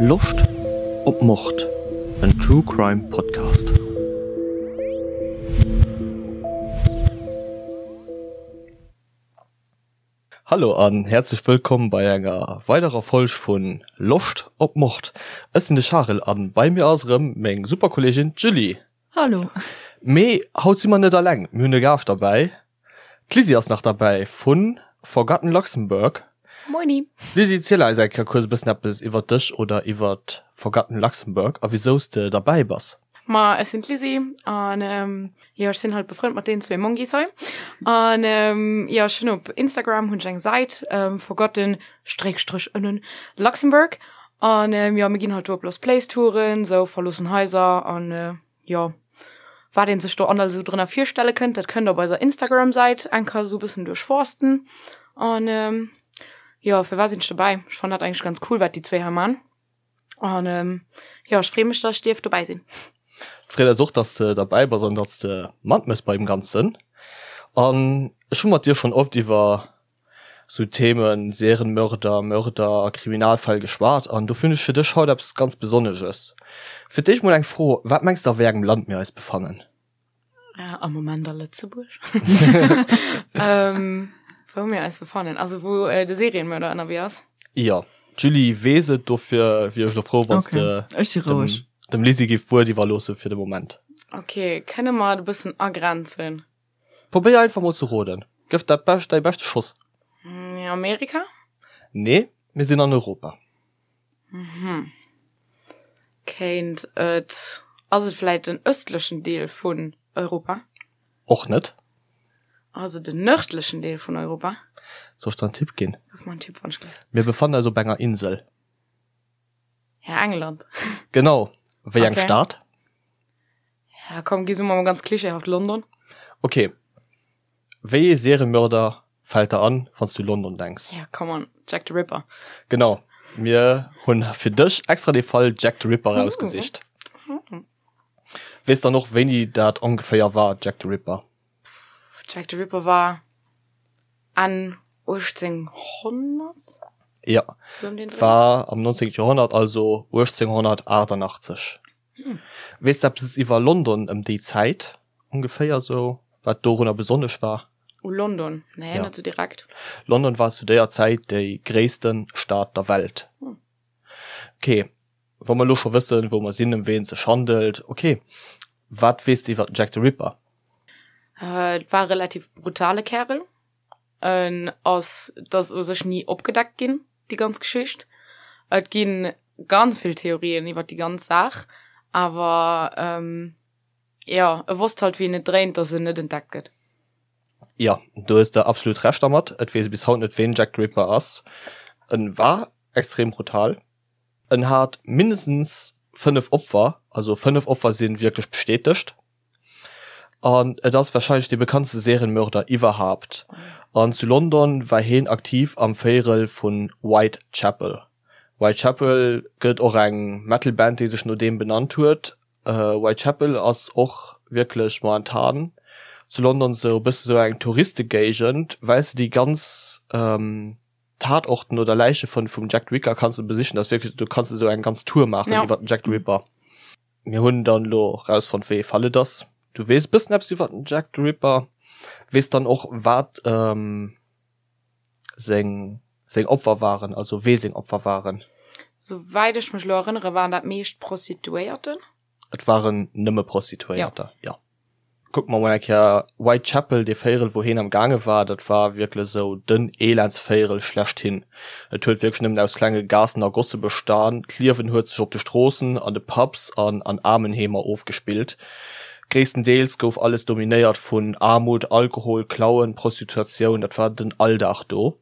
Loscht op Mord? En True Crime Podcast. Hallo an häerzlech wëllkomm bei enger weiderer Folg vun Loscht op Mord. Ech sinn de Charel an bei mir ass erëm meng super Kolleegin d'Julie. Hallo. Mee haut si mer net alleng, mir hunn e Gaascht derbäi. D'Lizzy ass nach derbäi vu Forgotten Luxembourg. Moini. Lizzy, ziel eis eng Kéier kuerz e bëssen eppes iwwer dech oder iwwer Forgotten Luxembourg a wisou s de derbäi bass. Ma ech sinn d'Lizzy an jo ech sinn halt befrënnt mat deenen zwee Mongis hei an jo ech hunn op Instagram hunn ech eng Säit Forgotten Stréckstrich ënnen Luxembourg an jo mir ginn halt do op Lost Place Touren, sou verloossen Haiser an jo wat een sech do an alles esou drënner virstelle kënnt, dat kënnt op eiser Instagram Säit eng Kéier esou bëssen duerchforsten an jo firwat sinn ech dobäi? Ech fannen dat eigentlech ganz cool wat déi zwee hei man an jo ech free mech dass ech dierf dobäi sinn. Et freet eis och dass de derbäi bass an dass de matmëss beim Ganzen an ech hu mat dir schonn oft iwwer sou Themen Serienmörder, Mörder a Kriminalfäll geschwat an dofir hunn ech fir dech haut eppes ganz Besonnesches. Fir d'éischt mol eng Fro, Wat mengs de a wéi engem Land mir eis befannen? Am Moment a Lëtzebuerg. Wou mir eis befannen, also wou de Serienmörder ënnerwee ass? Jo, d'Julie weess et, dofir wier ech elo frou wann s de dem Lizzy giff d'Wuert iwwerloosse fir de Moment. Ok, kënne mer et e bëssen agrenzen? Probéier einfach mol ze roden. Gëff dat bescht, däi beschte Schoss. Amerika? Nee, mir sinn an Europa. Mhm. Kéint et, ass et vläit den ëstlechen Deel vun Europa? Och net. Ass et den nërdlechen Deel vun Europa? Soll ech der en Tipp ginn? Gëff mer en Tipp, wann ech gleef. Mir befannen eis op enger Insel. Ja, England. Genau. Wéi eng Stad? Ja, komm, gi so mal ganz klischeehaft London. Okay. Wéi ee Seriemörder fält der an, wann s du London denks? Ja, come on, Jack the Ripper. Genau. Mir hunn fir dech extra de Fall Jack the Ripper rausgesicht. Weess dann och, wéini dat ongeféier war, Jack the Ripper? Jack the Ripper war Enn 1800? Ja, war am 19. Joerhonnert, also 1888. Weess de eppes iwwer London ëm déi Zäit ongeféier sou, wat dorunner besonnesch war? U London? Nee, net sou direkt. London war zu déier Zäit déi gréisste Stad der Welt. Ok, wa mer elo scho wëssen, wou mer sinn, ëm ween et sech handelt, ok, wat weess de iwwer den Jack the Ripper? Et war e relativ brutale Kärel. En ass, et ass u sech ni opgedeckt ginn, déi ganz Geschicht. Et gi ganz vill Theorien iwwer déi ganz Saach, awer jo, e wosst halt wéi en et dréint, datt en net entdeckt gëtt. Jo, do hues de absolut Recht dermat. Et weess ee bis haut net, ween Jack the Ripper ass. En war extrem brutal. En hat mindestens 5 Opfer, also 5 Opfer si wierklech bestätegt. An et ass warscheinlech dee bekanntste Serienmörder iwwerhaapt. An zu London war heen aktiv am Véierel vu Whitechapel. Whitechapel gëtt och eng Metal-Band déi sech no deem benannt huet. Whitechapel ass och wierklech momentan zu London sou e bësse sou eng Touristegéigend, well s de déi ganz Tatorten oder Läiche vun vum Jack the Ricker kanns de besichen. Dat ass wierklech, do kanns de sou eng ganz Tour maachen iwwer den Jack the Ripper. Mir hunn dann elo rausfonnt wéi ee Fall et ass. Du weess e bëssen eppes iwwer den Jack the Ripper, weess dann och wat seng seng Opfer waren, also wee seng Opfer waren. Souwäit ech mech elo erënnere waren dat meescht Prostituéierten. Et waren nëmme Prostituéierter, jo. Kucke mer mol eng Kéier Whitechapel, dee Véierel wou heen am gaange war, dat war wierklech esou den Elendsvéierel schlechthin. Et huet wierklech nëmmen aus klenge Gaassen a Gosse bestan. D'Liewen huet sech op de Stroossen, an de Pubs an an Aarmenheemer ofgespillt. Gréisstendeels gouf alles dominéiert vun Aarmut, Alkohol, Klauen, Prostituatioun, dat war den Alldag do.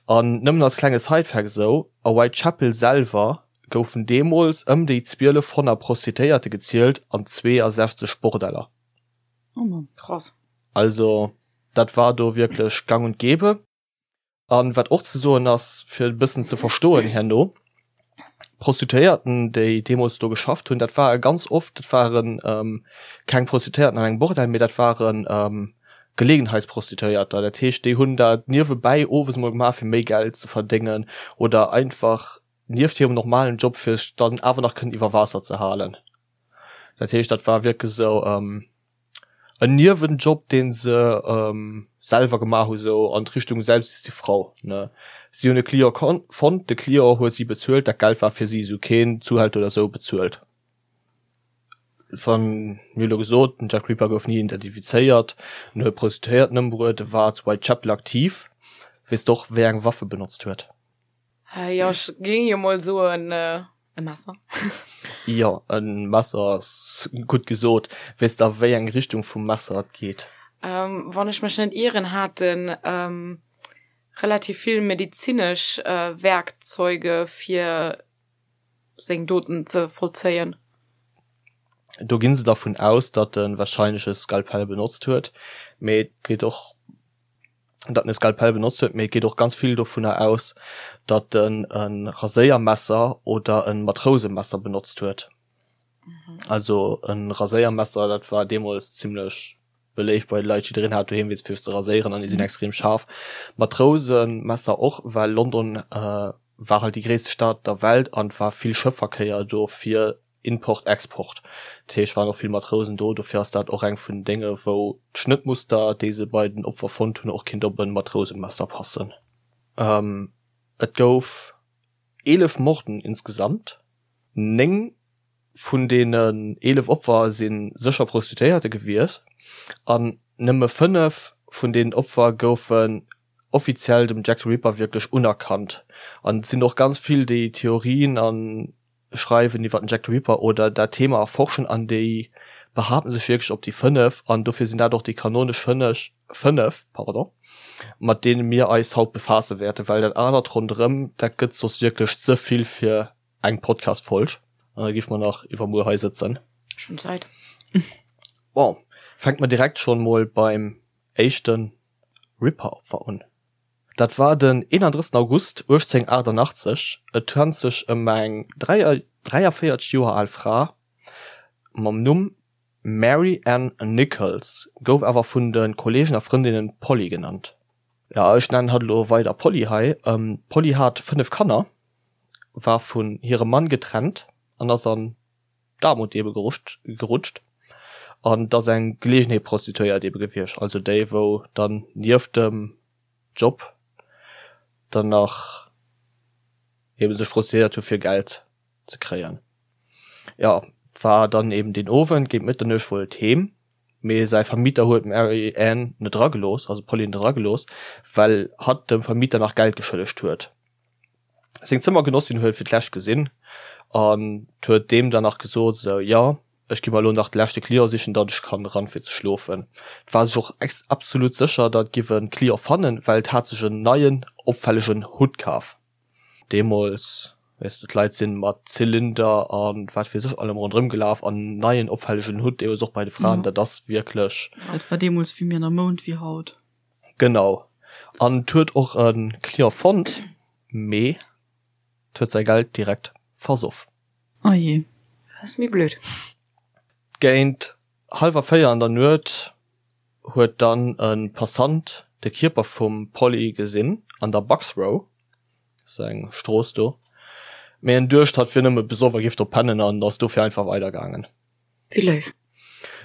An nëmmen als klenge Sidefact esou, a Whitechapel selwer goufen deemools ëm déi 1200 Prostituéierte gezielt an 62 Bordeller. Oh Mann, krass. Also dat war do wierklech gang und gäbe. An wat och ze soen ass, fir e bëssen ze verstoen herno, D'Prostituéierten, déi deemools do geschafft hunn, dat ware ganz oft, dat ware keng Prostituéierten an engem Bordell, mee dat ware Gelegenheitsprostituéierter. Dat heescht, déi hunn dat niewebäi owes mol gemaach, fir méi Geld ze verdéngen oder einfach. Nieft hirem normalen Job fir sech dann awer nach kënnen iwwer Waasser ze halen. Dat heescht, dat war wierklech esou en Niewenjob, dee se selwer gemaach hu sou an d'Richtung Selbst ist die Frau, ne. Si hunn e Client fonnt, de Client huet si bezuelt, dat Geld war fir si, si hu keen Zuhälter oder sou bezuelt. Wann, mir hu lo gesot, den Jack Ripper gouf ni identifizéiert, en huet Prostituéierten ëmbruet, e war zu Whitechapel aktiv. Weess de och, wéi eng Waff e benotzt huet? Jo, ech géing jo mol soen e Messer. Jo, e Messer ass gutt gesot. Weess de a wéi eng Richtung vum Messer et geet? Wann ech mech net ieren, hat en relativ vill medizinesch Werkzeuge fir seng Doten ze vollzéien. Do ginn se dervun aus, datt e warscheinlech e Skalpell benotzt huet, mee et geet och datt en e Skalpell benotzt huet, mee et geet och ganz vill dovunner aus, datt en e Raséiermesser oder e Matrousemesser benotzt huet. Also e Raséiermesser, dat war deemools zimmlech beléift bei de Leit, jiddereen hat doheem eent fir sech ze raséieren an déi sinn extrem schaarf. Matrousemesser och, well London war halt déi gréisste Stad der Welt an et war vill Schëffverkéier do fir Import, Export. Dat heescht, waren och vill Matrousen do. Dofir ass dat och eng vun den Dénge wou d'Schnëttmuster, déi se bei den Opfer fonnt hunn, och kinnt op e Matrousemesser passen. Et gouf 11 Morden insgesamt. 9 vun deenen 11 Opfer si sécher Prostituéierte gewiescht an nëmme 5 vun deenen Opfer goufen offiziell dem Jack the Ripper wierklech unerkannt. An et sinn och ganz vill, déi Theorien a schreiwen iwwer den Jack the Ripper oder dat Thema erforschen an déi behaapten sech wierklech op déi 5 an dofir sinn dat och déi kanonesch 5, 5, pardon, mat deene mir eis haut befaasse wäerten, well dat anert ronderëm, dat gëtt soss wierklech ze vill fir eng Podcast-Folg an da géife mer nach iwwermuer hei sëtzen. Ech hunn Zäit. Bon, fänke mer direkt schonn mol beim éischte Ripper-Opfer un. Dat war den 31 August 1888. Et handelt sech ëm eng 43 Joer al Fra mam Numm Mary Ann Nichols, gouf awer vun de Kolleegen a Frëndinnen Polly genannt. Jo, ech nennen hatt elo weider Polly hei. D'Polly hat 5 Kanner, war vun hirem Mann getrennt an ass an d'Aarmut ebe gerutscht. An et ass eng Geleegenheetprostituéiert ebe gewiescht, also déi wou dann nieft dem Job dann nach eben sech prostituéiert hu fir Geld ze kréien. Jo, et war dann eben deen Owend géint Mëtternuecht wollt heem, mee säi Vermieter huet d'Mary Ann net eragelooss, also d'Polly net eragelooss, well hatt dem Vermieter nach Geld geschëllegt huet. Seng Zëmmergenossin huet et fir d'lescht gesinn an huet deem dann nach gesot, esou, jo, ech gi mer elo nach de leschte Client sichen, datt ech kann eran fir ze schlofen. Et war sech och absolut sécher, datt et giff e Client fannen, well et hat sech en neien, opfällegen Hutt kaf. Deemools, weess de, d'Leit sinn mat Zylinder a wat weess ech allem ronderëm gelaf an en neien, opfällegen Hutt, deemools och bei de Fraen, dat ass wierklech. Dat war deemools vill méi an der Mound wéi haut. Genau. An et huet och e Client fonnt, mee et huet säi Geld direkt versoff. Oh jee. Dat ass méi blöd. Géint hallwer 4 an der Nuet huet dann e Passant de Kierper vum Polly gesinn an der Bucks Row, dat ass eng Strooss do, mee en duecht hatt wier nëmme besoff a géif do pennen an ass dofir einfach weidergaangen. Wéi léif.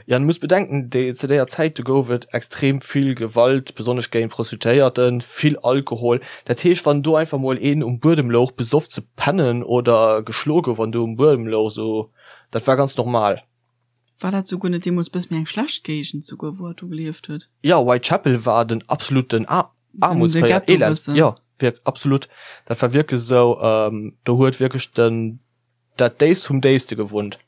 Jo, an du muss bedenken, déi, zu déier Zäit, do gouf et extrem vill Gewalt, besonnesch géint Prostituéierten, vill Alkohol. Dat heescht, wann do einfach mol een um Buedem louch, besoff ze pennen oder geschloe gouf an do um Buedem louch, sou, dat war ganz normal. War dat souguer net deemools bësse méi eng schlecht Géigend souguer, wou hatt do gelieft huet? Jo, Whitechapel war den absoluten Aarmutsféier, Elends, jo, wierk, absolut. Dat war wierklech esou, do huet wierklech den dat Déifst vum Déifste gewunnt,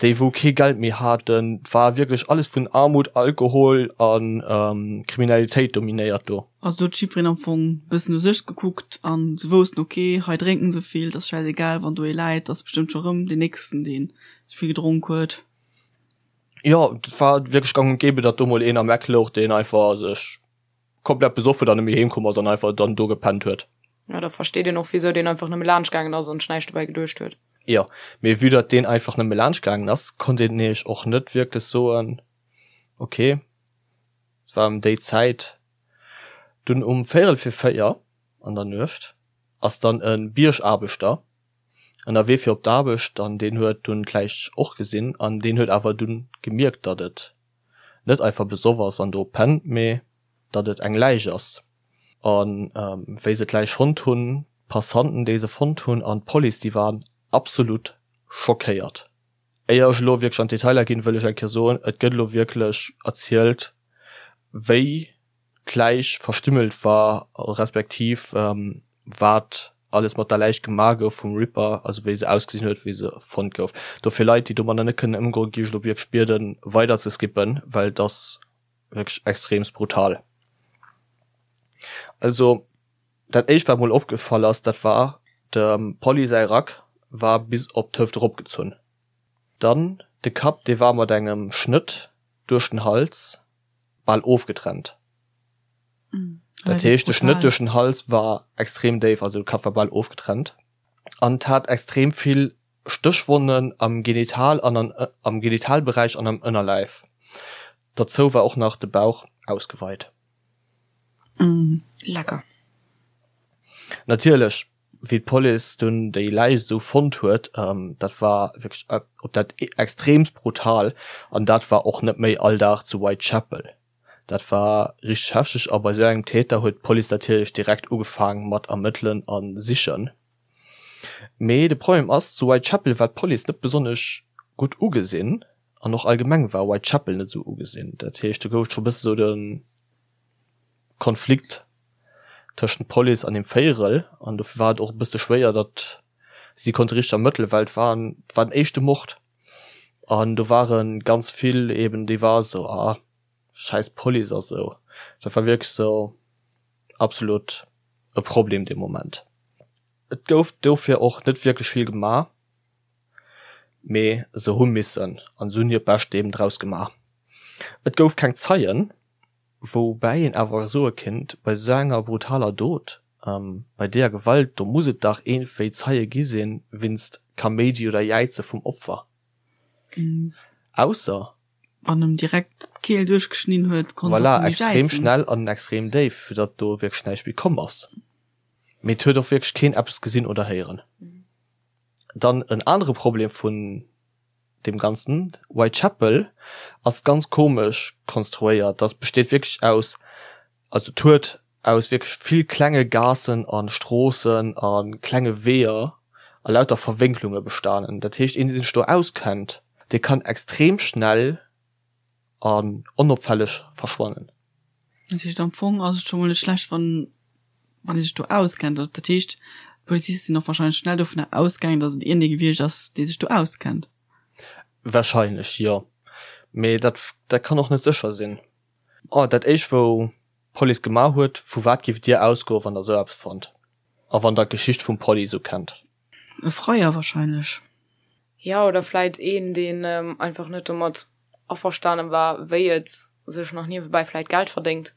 déi wou kee Geld méi haten, et war wierklech alles vun Armut, Alkohol a Kriminalitéit dominéiert do. Also do huet jiddwereen am Fong bëssen u sech gekuckt an se woussten, ok, hei drénken se vill, et ass schäisegal, wann do ee läit, ass bestëmmt scho rëm deen nächsten, deen ze vill gedronk huet. Jo, et war wierklech gang und gäbe, datt do mol een am Eck louch, deen einfach sech komplett besoff huet an net méi heem komm ass an einfach dann do gepennt huet. Ja, da versteet een och wisou deen einfach nëmme laanscht gaangen ass an sech näischt dobäi geduecht huet. Jo, mee vue datt deen einfach nëmme laanscht gaangen ass, konnt een nämlech och net wierklech soen, ok, et war ëm déi Zäit. Dunn um véierel fir 4 an der Nuecht ass dann e Biergaarbechter. Ënnerwee fir op d'Aarbecht an deen huet dunn d'Läich och gesinn an deen huet awer dunn gemierkt, datt et net einfach besoff ass an do pennt, mee datt et eng Läich ass. A wéi se d'Läich fonnt hunn, d'Passanten déi se fonnt hunn an d'Police, déi waren absolut schockéiert. Éier ech elo wierklech an d'Detailer ginn, wëll ech eng Kéier soen, et gëtt elo wierklech erzielt, wéi d'Läich verstümmelt war, respektiv wat alles mat der Läich gemaach gouf vum Ripper, also wéi se ausgesinn huet, wéi se fonnt gouf. Dofir Leit, déi domadder net kënnen ëmgoen, géif ech elo wierklech bieden, weider ze skippen, well et ass wierklech extreemst brutal. Also dat éischt, wat mol opgefall ass, dat war, dem Polly säi Rack war bis op d'Hëft eropgezunn. Dann de Kapp, dee war mat engem Schnëtt duerch den Hals bal ofgetrennt. Dat heescht, de Schnëtt duerch den Hals war extrem déif, also de Kapp war bal ofgetrennt. An et hat extrem vill Stéchwonnen am Genital an an am Genitalberäich an am Ënnerläif. Derzou war och nach de Bauch ausgeweit. Lecker. Natierlech, wéi d'Police dunn déi Läich esou fonnt huet, dat war wierklech op dat extreemst brutal an dat war och net méi Alldag zu Whitechapel. Dat war richteg hefteg a bei esou engem Täter huet d'Police natierlech direkt ugefaang mat ermëttelen a sichen. Mee de Problem ass, zu Whitechapel war d'Police net besonnesch gutt ugesinn an och allgemeng war Whitechapel net esou ugesinn. Dat heescht, do gouf et scho bësse sou de Konflikt tëschent Police an dem Véierel an dofir war et och e bësse schwéier, datt si konnte richteg ermëttelen, well et war et war den éischte Mord an do ware ganz vill eben déi war esou, ah schäiss Police a sou. Dat war wierklech sou absolut e Problem dee Moment. Et gouf dofir och net wierklech vill gemaach, mee se hu missen an se hunn hiert Bescht eben draus gemaach. Et gouf keng Zeien. Woubäi een awer soe kinnt, bei esou enger brutaler Dot, bei deeër Gewalt, do muss et dach iergendwéi Zeie gi sinn, winst Kaméidi oder Jäize vum Opfer. Ausser. Wann em direkt d'Keel duerchgeschnidden huet, konnt och Voilà, méi extrem jäizen. schnell an extrem déif, fir datt do wierklech näischt méi komm ass. Mee et huet och wierklech keen eppes gesinn oder héieren. Dann en anere Problem vun deem ganzen Whitechapel ass ganz komesch konstruéiert. Das besteet wierklech aus, also et huet aus wierklech vill klenge Gaassen a Stroossen a klenge Weeër a lauter Verwénklunge bestanen. Dat heescht, een dee sech do auskennt, dee kann extrem schnell an onopfälleg verschwannen. Dat heescht am Fong ass et scho mol net schlecht wann wann ee sech do auskennt. Dat heescht d'Poliziste sinn och wahrscheinlech schnell dovunner ausgaangen, datt et iergendee gewiescht ass, dee sech do auskennt. Wahrscheinlech jo, mee dat dat kann och net sécher sinn. Oh dat éischt wou d'Police gemaach huet, vu wat giff dir ausgoen wann der esou eppes fannt a wann der d'Geschicht vum Polly esou kennt? E Freier wahrscheinlech. Jo, oder vläit een, deen einfach net domat averstanen war, wéi et sech nach niewebäi vläit Geld verdéngt,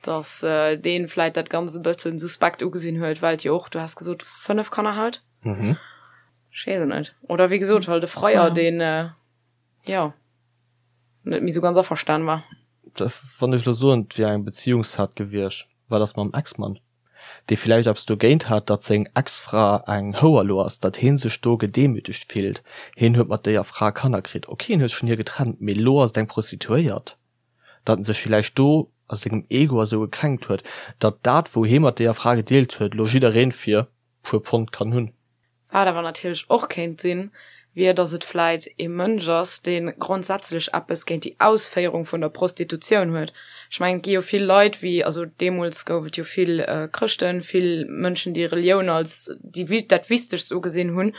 dass deen vläit dat Ganzt e bëssen suspekt ugesinn huet, well et jo och, du has gesot, 5 Kanner hat? Ech weess et net. Oder wéi gesot, halt e Freier, deen, jo, net méi sou ganz averstanen war. Wann ech elo soen, et wier eng Beziehungstat gewiescht, wat ass mam Ex-Mann? dee villäicht eppes dogéint hat, datt seng Ex-Fra eng Houer lo ass, datt hee sech do gedemütegt fillt, heen huet mat déier Fra Kanner kritt, ok, hien huet sech vun hir getrennt, mee lo ass et eng Prostituéiert, datt en sech villäicht do a sengem Ego a sou gekränkt huet, datt dat wou hee mat déier Fra gedeelt huet, lo jiddereen fir puer Pond kann hunn. Wat awer natierlech och kéint sinn, wier, datt et vläit ee Mënsch ass, dee grondsätzlech eppes géint déi Ausféierung vun der Prostitutioun huet. Ech mengen, et gi jo vill Leit, wéi, also deemools gouf et jo vill Chrëschten, vill Mënschen, déi Relioun als déi, dat Wichtegst ugesinn hunn.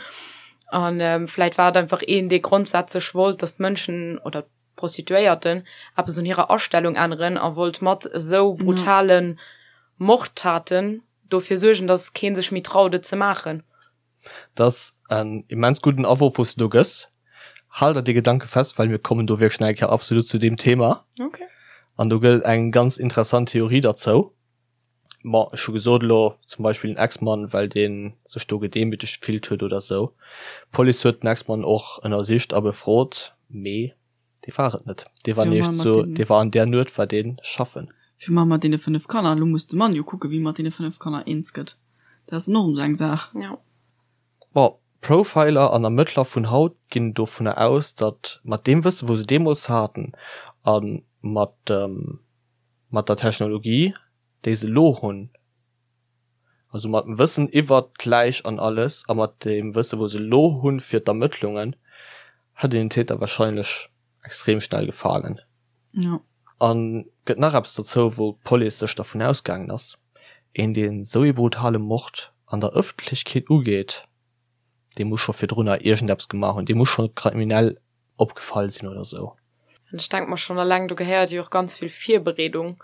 A vläit war et einfach een, dee grondsätzlech wollt, datt d'Mënschen oder d'Prostituéierten eppes un hirer Astellung änneren a wollt mat esou brutale Mordtaten dofir suergen, dass keen sech méi traut et ze maachen. Dat ass en immens gudden Awurf wous de do gëss. Hal der dee Gedanke fest, well mir kommen do wierklech nach eng Kéier absolut zu deem Thema. Okay. An do gëtt et eng ganz interessant Theorie derzou. Bon, ech hu gesot elo zum Beispill den Ex-Mann, well dee sech do gedemütegt gefillt huet oder sou. D'Police huet den Ex-Mann och ënnersicht a befrot, mee Dee war et net. Dee war nämlech zu, dee war an där Nuet war dee schaffen. Fir mar mat deene 5 Kanner, elo muss de Mann jo kucken, wéi e mat deene 5 Kanner eens gëtt. Dat ass dann och esou eng Saach. Jo. Bon, Profiler an Ermëttler vun haut ginn dovunner aus, datt mat deem Wësse wou se deemools haten a mat dem mat der Technologie déi se elo hunn, also mat dem Wëssen iwwert d'Läich an alles a mat deem Wësse wou se elo hunn fir d'Ermëttlungen, hätt een den Täter wahrscheinlech extrem schnell gefaangen. Jo. An gëtt nach eppes dozou wou d'Police sech dervun ausgaangen ass, een deen esou ee brutale Mord an der Ëffentlechkeet ugeet, dee muss scho virdrunner iergendeppes gemaach hunn, dee muss scho kriminell opgefall sinn oder sou. An ech denke mer schonn eleng, do gehéiert jo och ganz vill Virbereedung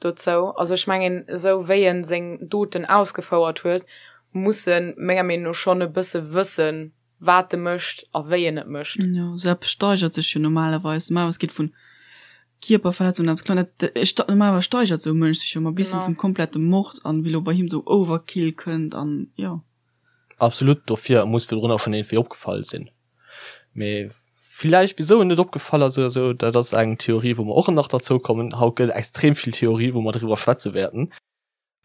dozou. Also ech mengen, esou wéi en seng Doten ausgefouert huet, muss en menger Meenung no schonn e bësse wëssen, wat e mécht a wéi en et mécht. Jo, esou eppes steigert sech jo normalerweis. Normalerweis geet vun Kierperverletzung an eppes klengt, dat, normalerweis steigert esou e Mënsch sech jo ëmmer bis hin zum komplette Mord an wéi elo bei him esou Overkill kënnt an jo. Absolut, dofir, e muss virdrunner schonn iergendwéi opgefall sinn. Mee villäicht wisou en net opgefall ass oder sou, dat ass eng Theorie wou mer och nach derzou kommen. Haut gëtt et extrem vill Theorie wou mer driwwer schwätze wäerten.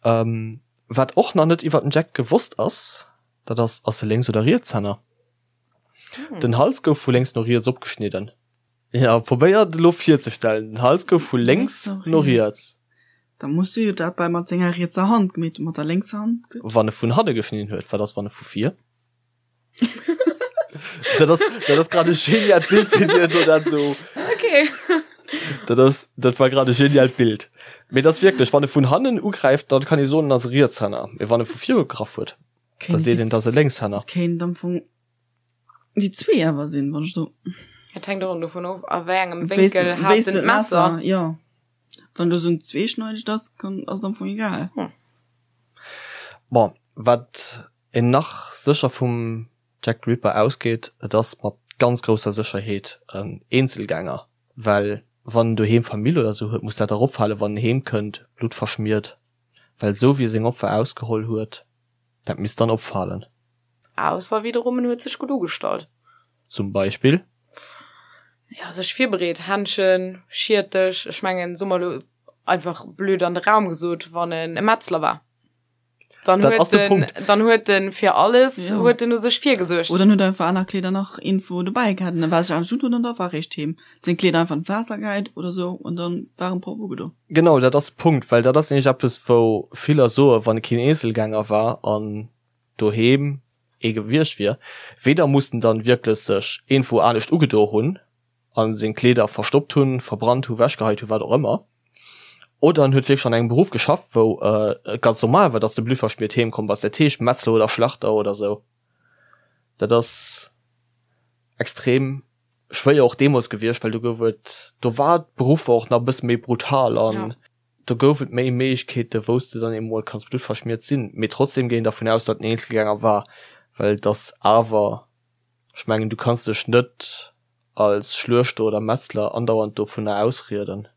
Wat och nach net iwwer den Jack gewosst ass, dat ass, ass e Lénks oder Rietshänner? Den Hals gouf vu lénks no riets opgeschnidden. Jo, probéier et elo virzestellen, den Hals gouf vu lénks no riets. Da muss e jo dat bei mat senger rietser Hand gemeet hunn, mat der lénkser Hand gëtt. Wann e vun hanne geschnidden huet, wat ass wann e vu vir? Dat ass, dat ass grad e genialt Bild fir dir do dat so. Okay. Dat ass, dat war grad e genialt Bild. Mee dat ass wierklech, wann e vun hannen ugräift, dann kann ee soen, en ass e Rietshänner. Mee wann e vu vir ugegraff huet, da seet een, dat ass e Lénkshänner. Kéint am Fong déi zwee awer sinn, wann ech so. Et hänkt och dovun of, a wéi engem Wéinkel hat en d'Messer. Jo. Wann do sou en zweeschneidegt ass, kann, ass et am Fong egal. Bon, wat een nach sécher vum Jack the Ripper ausgeet, et ass mat ganz grousser Sécherheet en Eenzelgänger, well wann en doheem Famill oder sou huet, muss dat dach opfalen, wann en heem kënnt, bluttverschmiert, well sou wéi e seng Opfer ausgeholl huet, dat misst dann opfalen. Ausser wiederum en huet sech gutt ugestallt. Zum Beispill? Ja, sech virbereet, Händschen, Schiertech, ech mengen, soe mer elo einfach blöd an de Raum gesot, wann en e Metzler war. Dann Dat huet ass de den, Punkt. dann huet den fir alles Ja. huet den u sech virgesuergt. Oder en huet einfach aner Kleeder nach irgendwo dobäi gehat an da war sech anescht undoen an da war eréischt heem. Seng Kleeder einfach an d'Waasser gehäit oder sou an dann war en propper ugedo. Genau, dat ass de Punkt, well dat ass nämlech eppes, wou viller soen, wann e keen Eenzelgänger war an doheem ee gewiescht wier, weder muss en dann wierklech sech iergendwou anescht ugedo hunn, a seng Kleeder verstoppt hunn, verbrannt hunn, wechgeheit hunn, wat och ëmmer, oder en huet wierklech an engem Beruff geschafft, wou et ganz normal war, dass de bluttverschmiert heem komm bass, dat heescht Metzler oder Schlachter oder sou. Dat ass extrem schwéier och deemools gewiescht, well do gouf et, do war d'Beruffer och nach e bësse méi brutal an do gouf et méi Méiglechkeete wou s de dann emol kanns bluttverschmiert sinn. Mee trotzdem géing een dervun aus, datt en Eenzelgänger war, well et ass awer, ech mengen du kanns dech net als Schluechter oder Metzler andauernd dovunner ausrieden,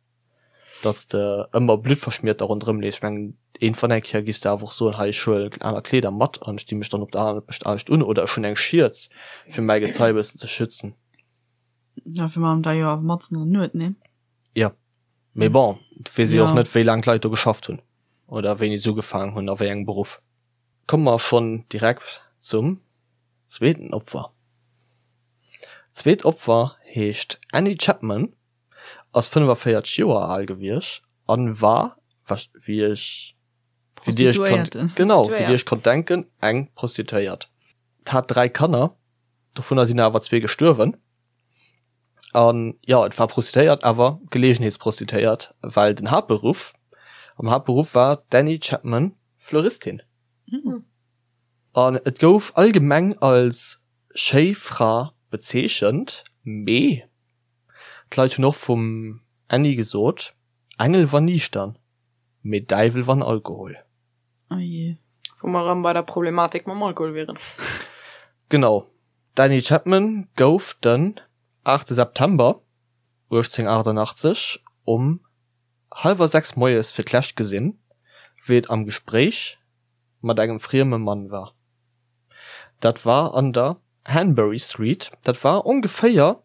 dass de ëmmer bluttverschmiert da ronderëm leefs. Ech mengen, iergendwann eng Kéier giffs de awer och soen, hei ech huelen aner Kleeder mat an ech di mech dann op der aner anescht un oder ech hunn eng Schierz fir mäi Gezei e bëssen ze schützen. Ja, fir mam da jo awer matzen an der Nuet, nee? Jo, mee bon, et weess ee jo och Ja. net, wéi laang d'Leit do geschafft hunn oder wéini se ugefaangen hunn a wéi engem Beruff. Komme mer schonn direkt zum zweeten Opfer. D'zweet Opfer heescht Annie Chapman, ass 45 Joer al gewiescht an war, wéi ech, wéi dir iech konnt, genau, wéi dir iech konnt denken, eng Prostituéiert. Hat 3 Kanner, dovunner sinn awer zwee gestuerwen. An jo, et war Prostituéiert, awer Geleegenheetsprostituéiert, well den Haaptberuff, am Haaptberuff war d'Annie Chapman Fleuristin. An et gouf allgemeng als schéi Fra bezeechent, mee d'Leit hunn och vum Annie gesot, Engel wann niichtern, mee Däiwel wann Alkohol. Oh jee. Wou mer erëm bei der Problematik mam Alkohol wieren. Genau. D'Annie Chapman gouf den 8 September 1888 um hallwer 6 moies fir d'lescht gesinn, wéi et am Gespréich mat engem frieme Mann war. Dat war an der Hanbury Street, dat war ongeféier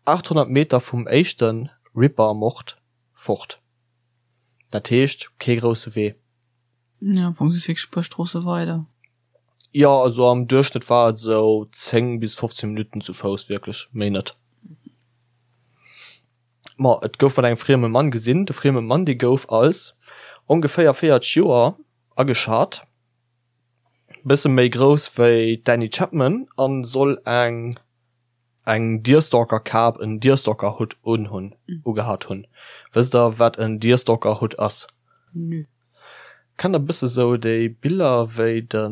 800 Meter vum éischte Ripper-Mord fort. Dat heescht, kee grousse Wee. Jo, am Fong just wierklech e puer Stroosse weider. Jo, also am Duerchschnëtt war et esou 10 bis 15 Minutten zu Fouss, wierklech, méi net. Ma et gouf mat engem frieme Mann gesinn. De frieme Mann, dee gouf als ongeféier 40 Joer ageschat, bësse méi grouss wéi d'Annie Chapman a soll eng eng Deerstalker-Kap, en Deerstalker-Hutt unhunn, ugehat hunn. Wësst der, wat en Deerstalker-Hutt ass? Nö. Kennt der bësse sou déi Biller wéi de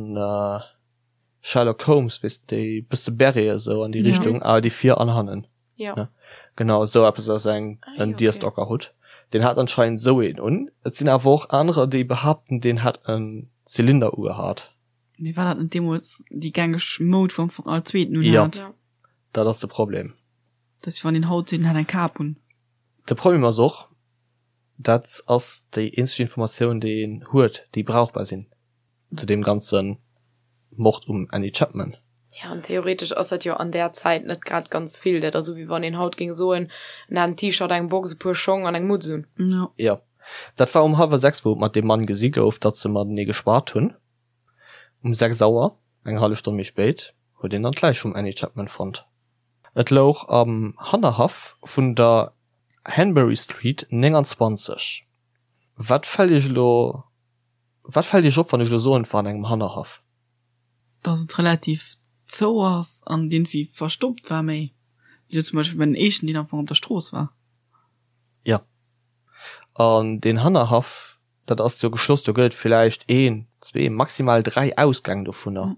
Sherlock Holmes, weess de, déi bësse Beret esou an déi Richtung, awer déi vir an hannen. Jo. Genau esou eppes ass eng en Deerstalker Hutt. Deen hat anscheinend esou een un. Et sinn awer och anerer déi behaapten deen hätt en Zylinder ugehat. Mee war dat net deemools déi gängeg Moud wou am Fong all zweeten un hat? Jo, dat ass de Problem. Dat ass wéi wann een haut seet en hätt eng Kap un. De Problem ass och, Dat ass déi eenzeg Informatioun, déi een huet, déi brauchbar sinn zu deem ganze Mord um Annie Chapman. Jo, an theoretesch ass dat jo an där Zäit net grad ganz vill. Dat ass esou, wéi wann een haut géing soen, en hat en T-Shirt, eng Box, e puer Schong an eng Mutz un. Jo, dat war um hallwer 6, wou et mat deem Mann gesi gouf, datt se matenee geschwat hunn. Um 6 Auer, eng hallef Stonn méi spéit, huet een dann d'Läich vum Annie Chapman fonnt. Et louch am Hannerhaff vun der Hanbury Street 29. Wat fält iech elo, wat fält iech op, wann ech elo soen, et war an engem Hannerhaff? Dass et relativ zou ass an iergendwéi verstoppt war, méi wéi elo zum Beispill bei den éischten, deen am Fong op der Strooss war. Jo, an deen Hannerhaff, dat ass jo geschloss, do gëtt et villäicht een, zwee, maximal 3 Ausgäng dovunner,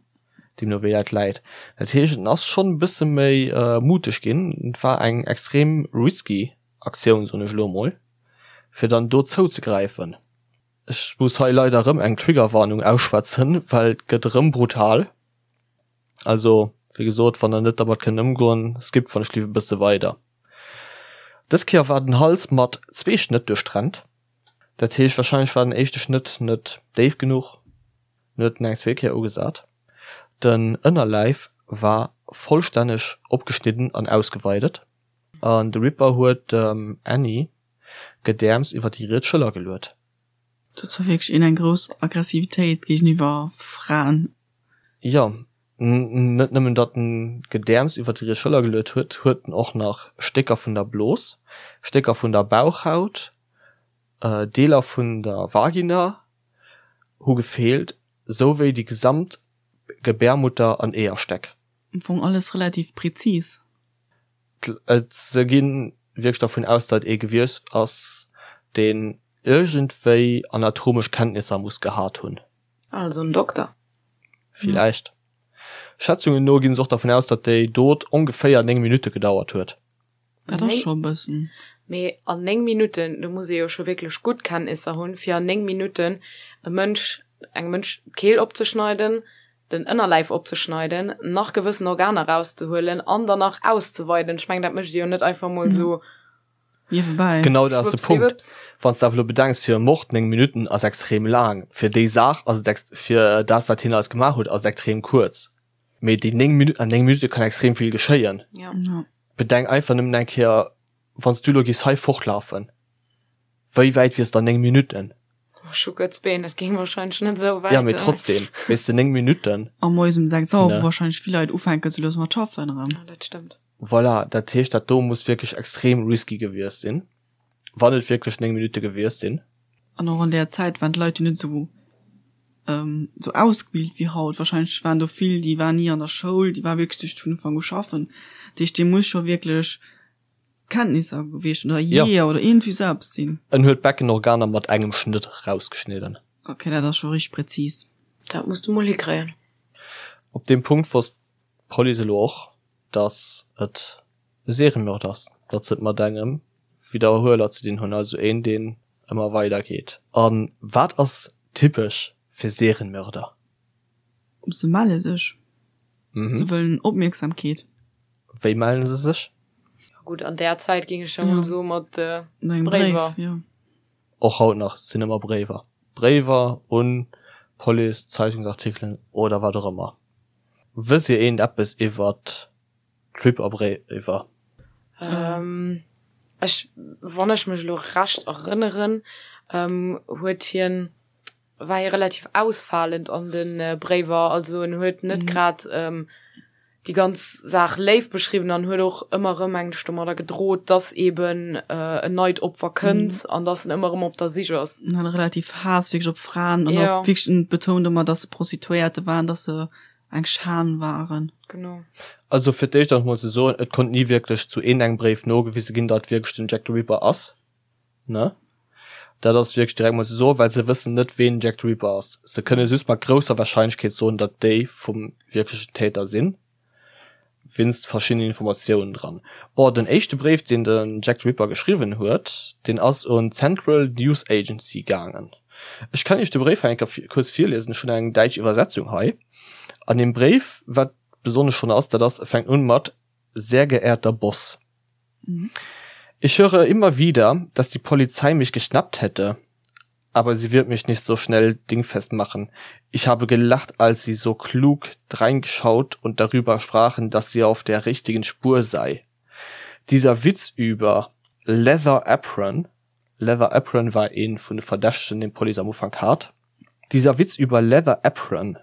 deemno wéi dat läit. Dat heescht, en ass schonn e bësse méi muteg ginn. Et war eng extrem risky Aktioun, soen ech elo emol, fir dann do zouzegräifen. Ech muss hei leider erëm eng Triggerwarnung ausschwätzen, well et gëtt erëm brutal. Also, wéi gesot, wann der net dermat kënnt ëmgoen, skippt wann ech liwwer e bësse weider. Dës Kéier war den Hals mat zwee Schnëtt duerchtrennt. Dat heescht, warscheinlech war den éischte Schnëtt net déif genuch, en huet en eng zweet Kéier ugesat. Den Ënnerläif war vollstänneg opgeschnidden an ausgeweidet an de Ripper huet dem Annie d'Gedäerms iwwer déi riets Schëller geluet. Dat war wierklech een eng grouss Aggressivitéit géigeniwwer Fraen. Jo, net nëmmen datt en d'Gedäerms iwwer déi riets Schëller geluet huet, huet en och nach Stécker vun der Blos, Stécker vun der Bauchhaut, Deeler vun der Vagina hu gefeelt, sou wéi déi gesamt Gebärmutter an Eeërstäck. Am Fong alles relativ präzis. Se gi wierklech dervun aus, datt ee gewiescht ass, deen iergendwéi anatomesch Kenntnisser muss gehat hunn. Also en Dokter. Villäicht. Schätzungen no ginn se och dervun aus, datt déi Dot ongeféier 9 Minutte gedauert huet. Dat ass scho e bëssen. Mee an 9 Minutten, do muss ee jo scho wierklech gutt Kenntnisser hunn, fir an 9 Minutten e Mënsch, engem Mënsch d'Keel opzeschneiden, den Ënnerläif opzeschneiden, nach gewëssen Organer rauszehuelen an dann nach auszeweiden. Ech mengen, dat mécht ee jo net einfach mol esou niewebäi. Genau dat ass de Punkt. Wann s de awer elo bedenks, fir e Mord 9 Minutten ass extrem laang, fir déi Saach ass et, fir dat wat hien alles gemaach huet, ass et extrem kuerz. Mee déi 9 Minutten, an 9 Minutte kann extrem vill geschéien. Ja. Bedenk einfach nëmmen eng Kéier, wann s du elo géifs hei fortlafen, wéi wäit wiers de an 9 Minutten? Ech hu kuerz Been, dat géing wahrscheinlech net esou wäit. Ja, mee trotzdem, weess de, 9 Minutten. A moies um 6 Auer, wou wahrscheinlech vill Leit ufänken sou lues mat schaffen erëm. Ja, dat stëmmt. Voilà, dat heescht, dat do muss wierklech extrem risky gewiescht sinn, wann et wierklech 9 Minutte gewiescht sinn. An och an där Zäit waren d'Leit jo net esou esou ausgebilt wéi haut. Wahrscheinlech waren do vill, déi waren ni an der Schoul, déi ware wierklech duerch vun Ufank u schaffen. Dat heescht, dee muss scho wierklech Kenntnisser gewiescht oder Jeeër oder iergendwéi esou eppes sinn. En huet d'Beckenorganer mat engem Schnëtt rausgeschnidden. Ok, dat ass scho richteg präzis. Dat muss du mol hikréien. Op deem Punkt wosst d'Police elo och, datt et e Seriemörder ass, datt se et mat engem Widderhueler ze dinn hunn, also een, deen ëmmer weider geet. A wat ass typesch fir Serienmörder? Se melle sech. Se wëllen Opmierksamkeet. Wéi mellen se sech? Gutt, an där Zäit géing ech jo mol soe mat Bréiwer. Och haut nach sinn ëmmer Bréiwer. Bréiwer un d'Police, Zeitungsartikelen oder wat och ëmmer. Wësst Dir eent eppes iwwert d'Ripper-Bréiwer? Ech, wann ech mech elo recht erënneren, huet hien. war hie relativ ausfalend an de Bréiwer, also en huet net grad déi ganz Saach léif beschriwwen an huet och ëmmer erëm mengen ech domadder gedroht, dass eben en neit Opfer kënnt an dass en ëmmer erëm op der Sich ass. En hat relativ Haass wierklech op Fraen an och wierklech en betount ëmmer, dass se Prostituéierte waren, dass se eng Schan waren. Genau. Also fir d'éischt ass mol ze soen, et konnt ni wierklech zu een engem Bréif nogewise ginn, datt wierklech den Jack the Ripper ass. Ne? Dat ass wierklech direkt mol ze soen, well se wëssen net, ween Jack the Ripper ass. Se kënne just mat grousser Warscheinlechkeet soen, datt déi vum wierklechen Täter sinn, winst verschiddenen Informatiounen dran. Bon, den éischte Bréif, deen den Jack the Ripper geschriwwen huet, deen ass un d'Central News Agency gaangen. Ech kann iech de Bréif hei eng Kéier kuerz virliesen, ech hunn eng däitsch Iwwersetzung hei. An deem Bréif, wat besonnesch schonn ass, dat ass, e fänkt un mat, Sehr geehrter Boss. Ich höre immer wieder, dass die Polizei mich geschnappt hätte, aber sie wird mich nicht so schnell dingfest machen. Ich habe gelacht, als sie so klug dreingeschaut und darüber sprachen, dass sie auf der richtigen Spur sei. Dieser Witz über Leather Apron, Leather Apron war een vun de Verdächtegen, deen d'Police am Ufank hat, dieser Witz über Leather Apron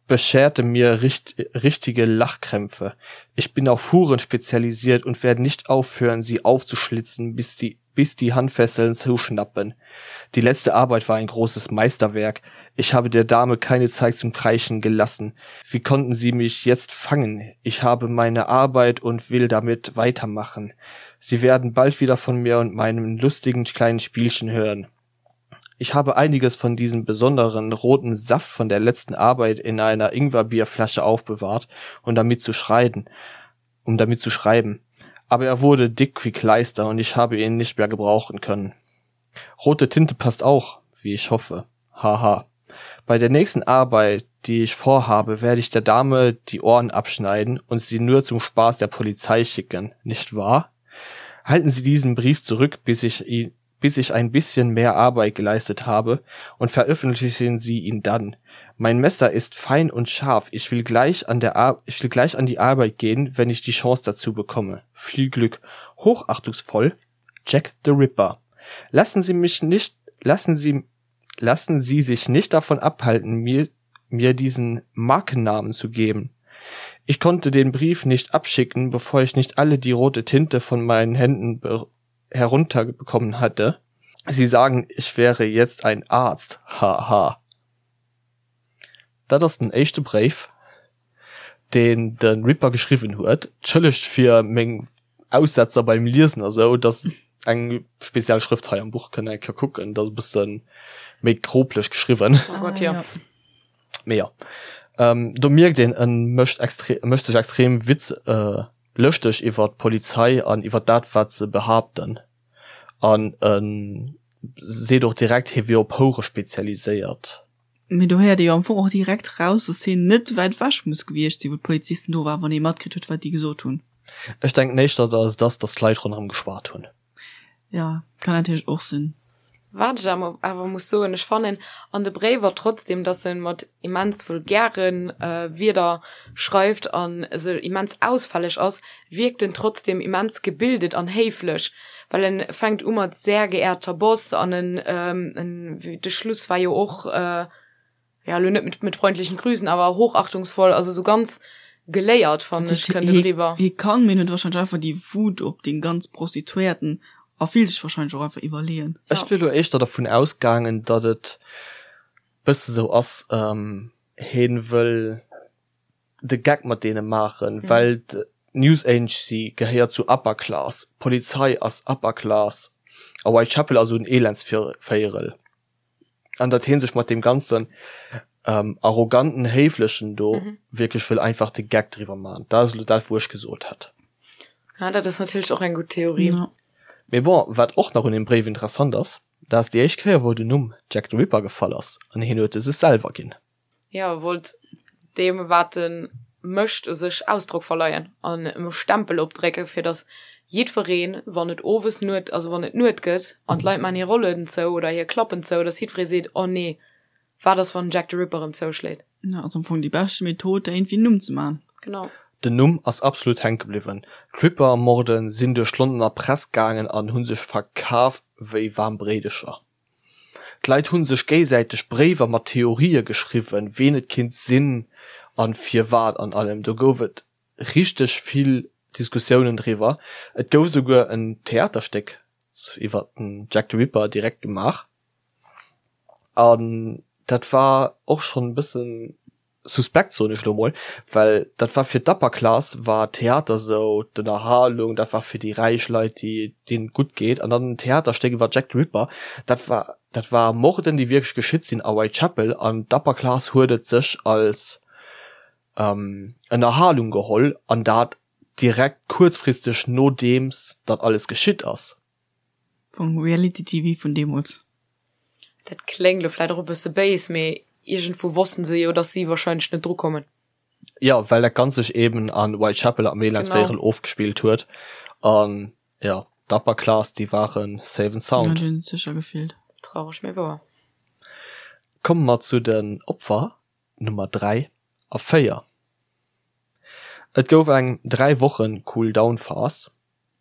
bescherte mir richtige Lachkrämpfe. Ich bin auf Huren spezialisiert und werde nicht aufhören, sie aufzuschlitzen, bis die bis die Handfesseln zuschnappen. Die letzte Arbeit war ein großes Meisterwerk. Ich habe der Dame keine Zeit zum Kreischen gelassen. Wie konnten sie mich jetzt fangen? Ich habe meine Arbeit und will damit weitermachen. Sie werden bald wieder von mir und meinem lustigen kleinen Spielchen hören. Ich habe einiges von diesem besonderen roten Saft von der letzten Arbeit in einer Ingwerbierflasche aufbewahrt, um damit zu schreiden, um damit zu schreiben. Aber er wurde dick wie Kleister und ich habe ihn nicht mehr gebrauchen können. Rote Tinte passt auch, wie ich hoffe. Haha. Bei der nächsten Arbeit, die ich vorhabe, werde ich der Dame die Ohren abschneiden und sie nur zum Spaß der Polizei schicken, nicht wahr? Halten Sie diesen Brief zurück, bis ich ihn bis ich ein bisschen mehr Arbeit geleistet habe und veröffentlichen Sie ihn dann. Mein Messer ist fein und scharf. Ich will gleich an der Ar ich will gleich an die Arbeit gehen, wenn ich die Chance dazu bekomme. Viel Glück. Hochachtungsvoll Jack the Ripper. Lassen Sie mich nicht lassen Sie lassen Sie sich nicht davon abhalten, mir mir diesen Markennamen zu geben. Ich konnte den Brief nicht abschicken, bevor ich nicht alle die rote Tinte von meinen Händen herunterbekommen hatte. Sie sagen, ich wäre jetzt ein Arzt. Haha. Dat ass den éischte Bréif, deen de Ripper geschriwwen huet. Entschëllegt fir meng Aussetzer beim Liesen a sou, dat ass eng speziell Schrëft hei am Buch, kënnt eng Kéier kucken, dat ass e bësse méi grobleg geschriwwen. Oh Gott, jo. Mee jo, do mierkt een, e mécht extre mécht sech extrem Witz, lëschteg iwwer d'Polizei an iwwer dat, wat se behaapten. An e seet och direkt, hie wier op Houre spezialiséiert. Mee do héiert ee jo am Fong och direkt raus, dass hien net wäit ewech muss gewiescht sinn, wou d'Polizisten do waren, wann ee matkritt huet, wat déi gesot hunn. Ech denken éischter, dass et ass, dass d'Leit ronderëm geschwat hunn. Jo, kann natierlech och sinn. Wat ech awer muss soen, ech fannen an de Bréiwer trotzdem, dass en mat immens vulgäre Wierder schreift an se immens ausfälleg ass, wierkt en trotzdem immens gebildet an héiflech, well en fänkt u mat sehr geehrter Boss an en en de Schluss war jo och ja elo net mit mit freundlichen Grüßen, awer hochachtungsvoll, also sou ganz geléiert fannen ech kënnt et eriwwer. Hie kann, mee en huet wahrscheinlech einfach déi Wut op déi ganz Prostituéierten a fillt sech wahrscheinlech och einfach iwwerleeën. Ech wier elo éischter dervun ausgaangen, datt et bësse sou ass, hien wëll de Geck mat deene maachen, well d'News Agency gehéiert zu Upper Class, d'Polizei ass Upper Class a Whitechapel ass esou en Elendsvéierel an datt hie sech mat deem ganzen arroganten, héiflechen do wierklech wëll einfach de Geck driwwer maachen. Dat ass elo dat, wou ech gesot hätt. Ja, dat ass natierlech och eng gutt Theorie. Mee bon, wat och nach un deem Bréif interessant ass, dat ass déi éischt Kéier, wou den Numm Jack the Ripper gefall ass an hien huet e sech selwer ginn. Jo, e wollt deem, wat e mécht, u sech Ausdrock verleien an em e Stempel opdrécken, fir datt jiddwereen, wann et owes Nuet, also wann et Nuet gëtt an d'Leit maachen hir Rollueden zou oder hir Klappen zou, datt jiddweree seet, Oh nee, wat ass, wann den Jack the Ripper erëm zouschléit? Ja, ass am Fong déi beschte Method, der iergendwéi en Numm ze maachen. Genau. Den Numm ass absolut hänke bliwwen. D'Ripper-Morden sinn duerch d'Londoner Press gaangen an hu sech verkaf wéi waarm Bréidecher. D'Leit hu sech géisäiteg Bréiwer mat Theorië geschriwwen, ween et kinnt sinn an firwat an allem. Do gouf et richteg vill Diskussiounen driwwer. Et gouf esouguer en Theaterstéck iwwer den Jack the Ripper direkt gemaach an dat war och schonn e bëssen suspekt, soen ech elo mol, well dat war fir d'Upper Class war Theater sou d'Ënnerhalung, dat war fir déi räich Leit, déi deenen et gutt geet an dann en Theaterstéck iwwer Jack the Ripper, dat war dat war Morden, déi wierklech geschitt sinn a Whitechapel an d'Upper Class huet et sech als Ënnerhalung geholl an dat direkt kuerzfristeg nodeems dat alles geschitt ass. Vum Reality TV vun deemools. Dat kléngt lo vläit och e bësse béis, mee iergendwou wossten se jo, dass si wahrscheinlech net dru kommen. Jo, well dat Ganzt sech eben a Whitechapel am Elendsvéierel ofgespillt huet an jo, d'Upper Class, déi ware safe and sound. Jo, déi hunn sech sécher gefillt. Traureg, mee wouer. Komme mer zu den Opfer Nummer 3 a 4. Et gouf eng 3 Wochen Cool-Down-Phas,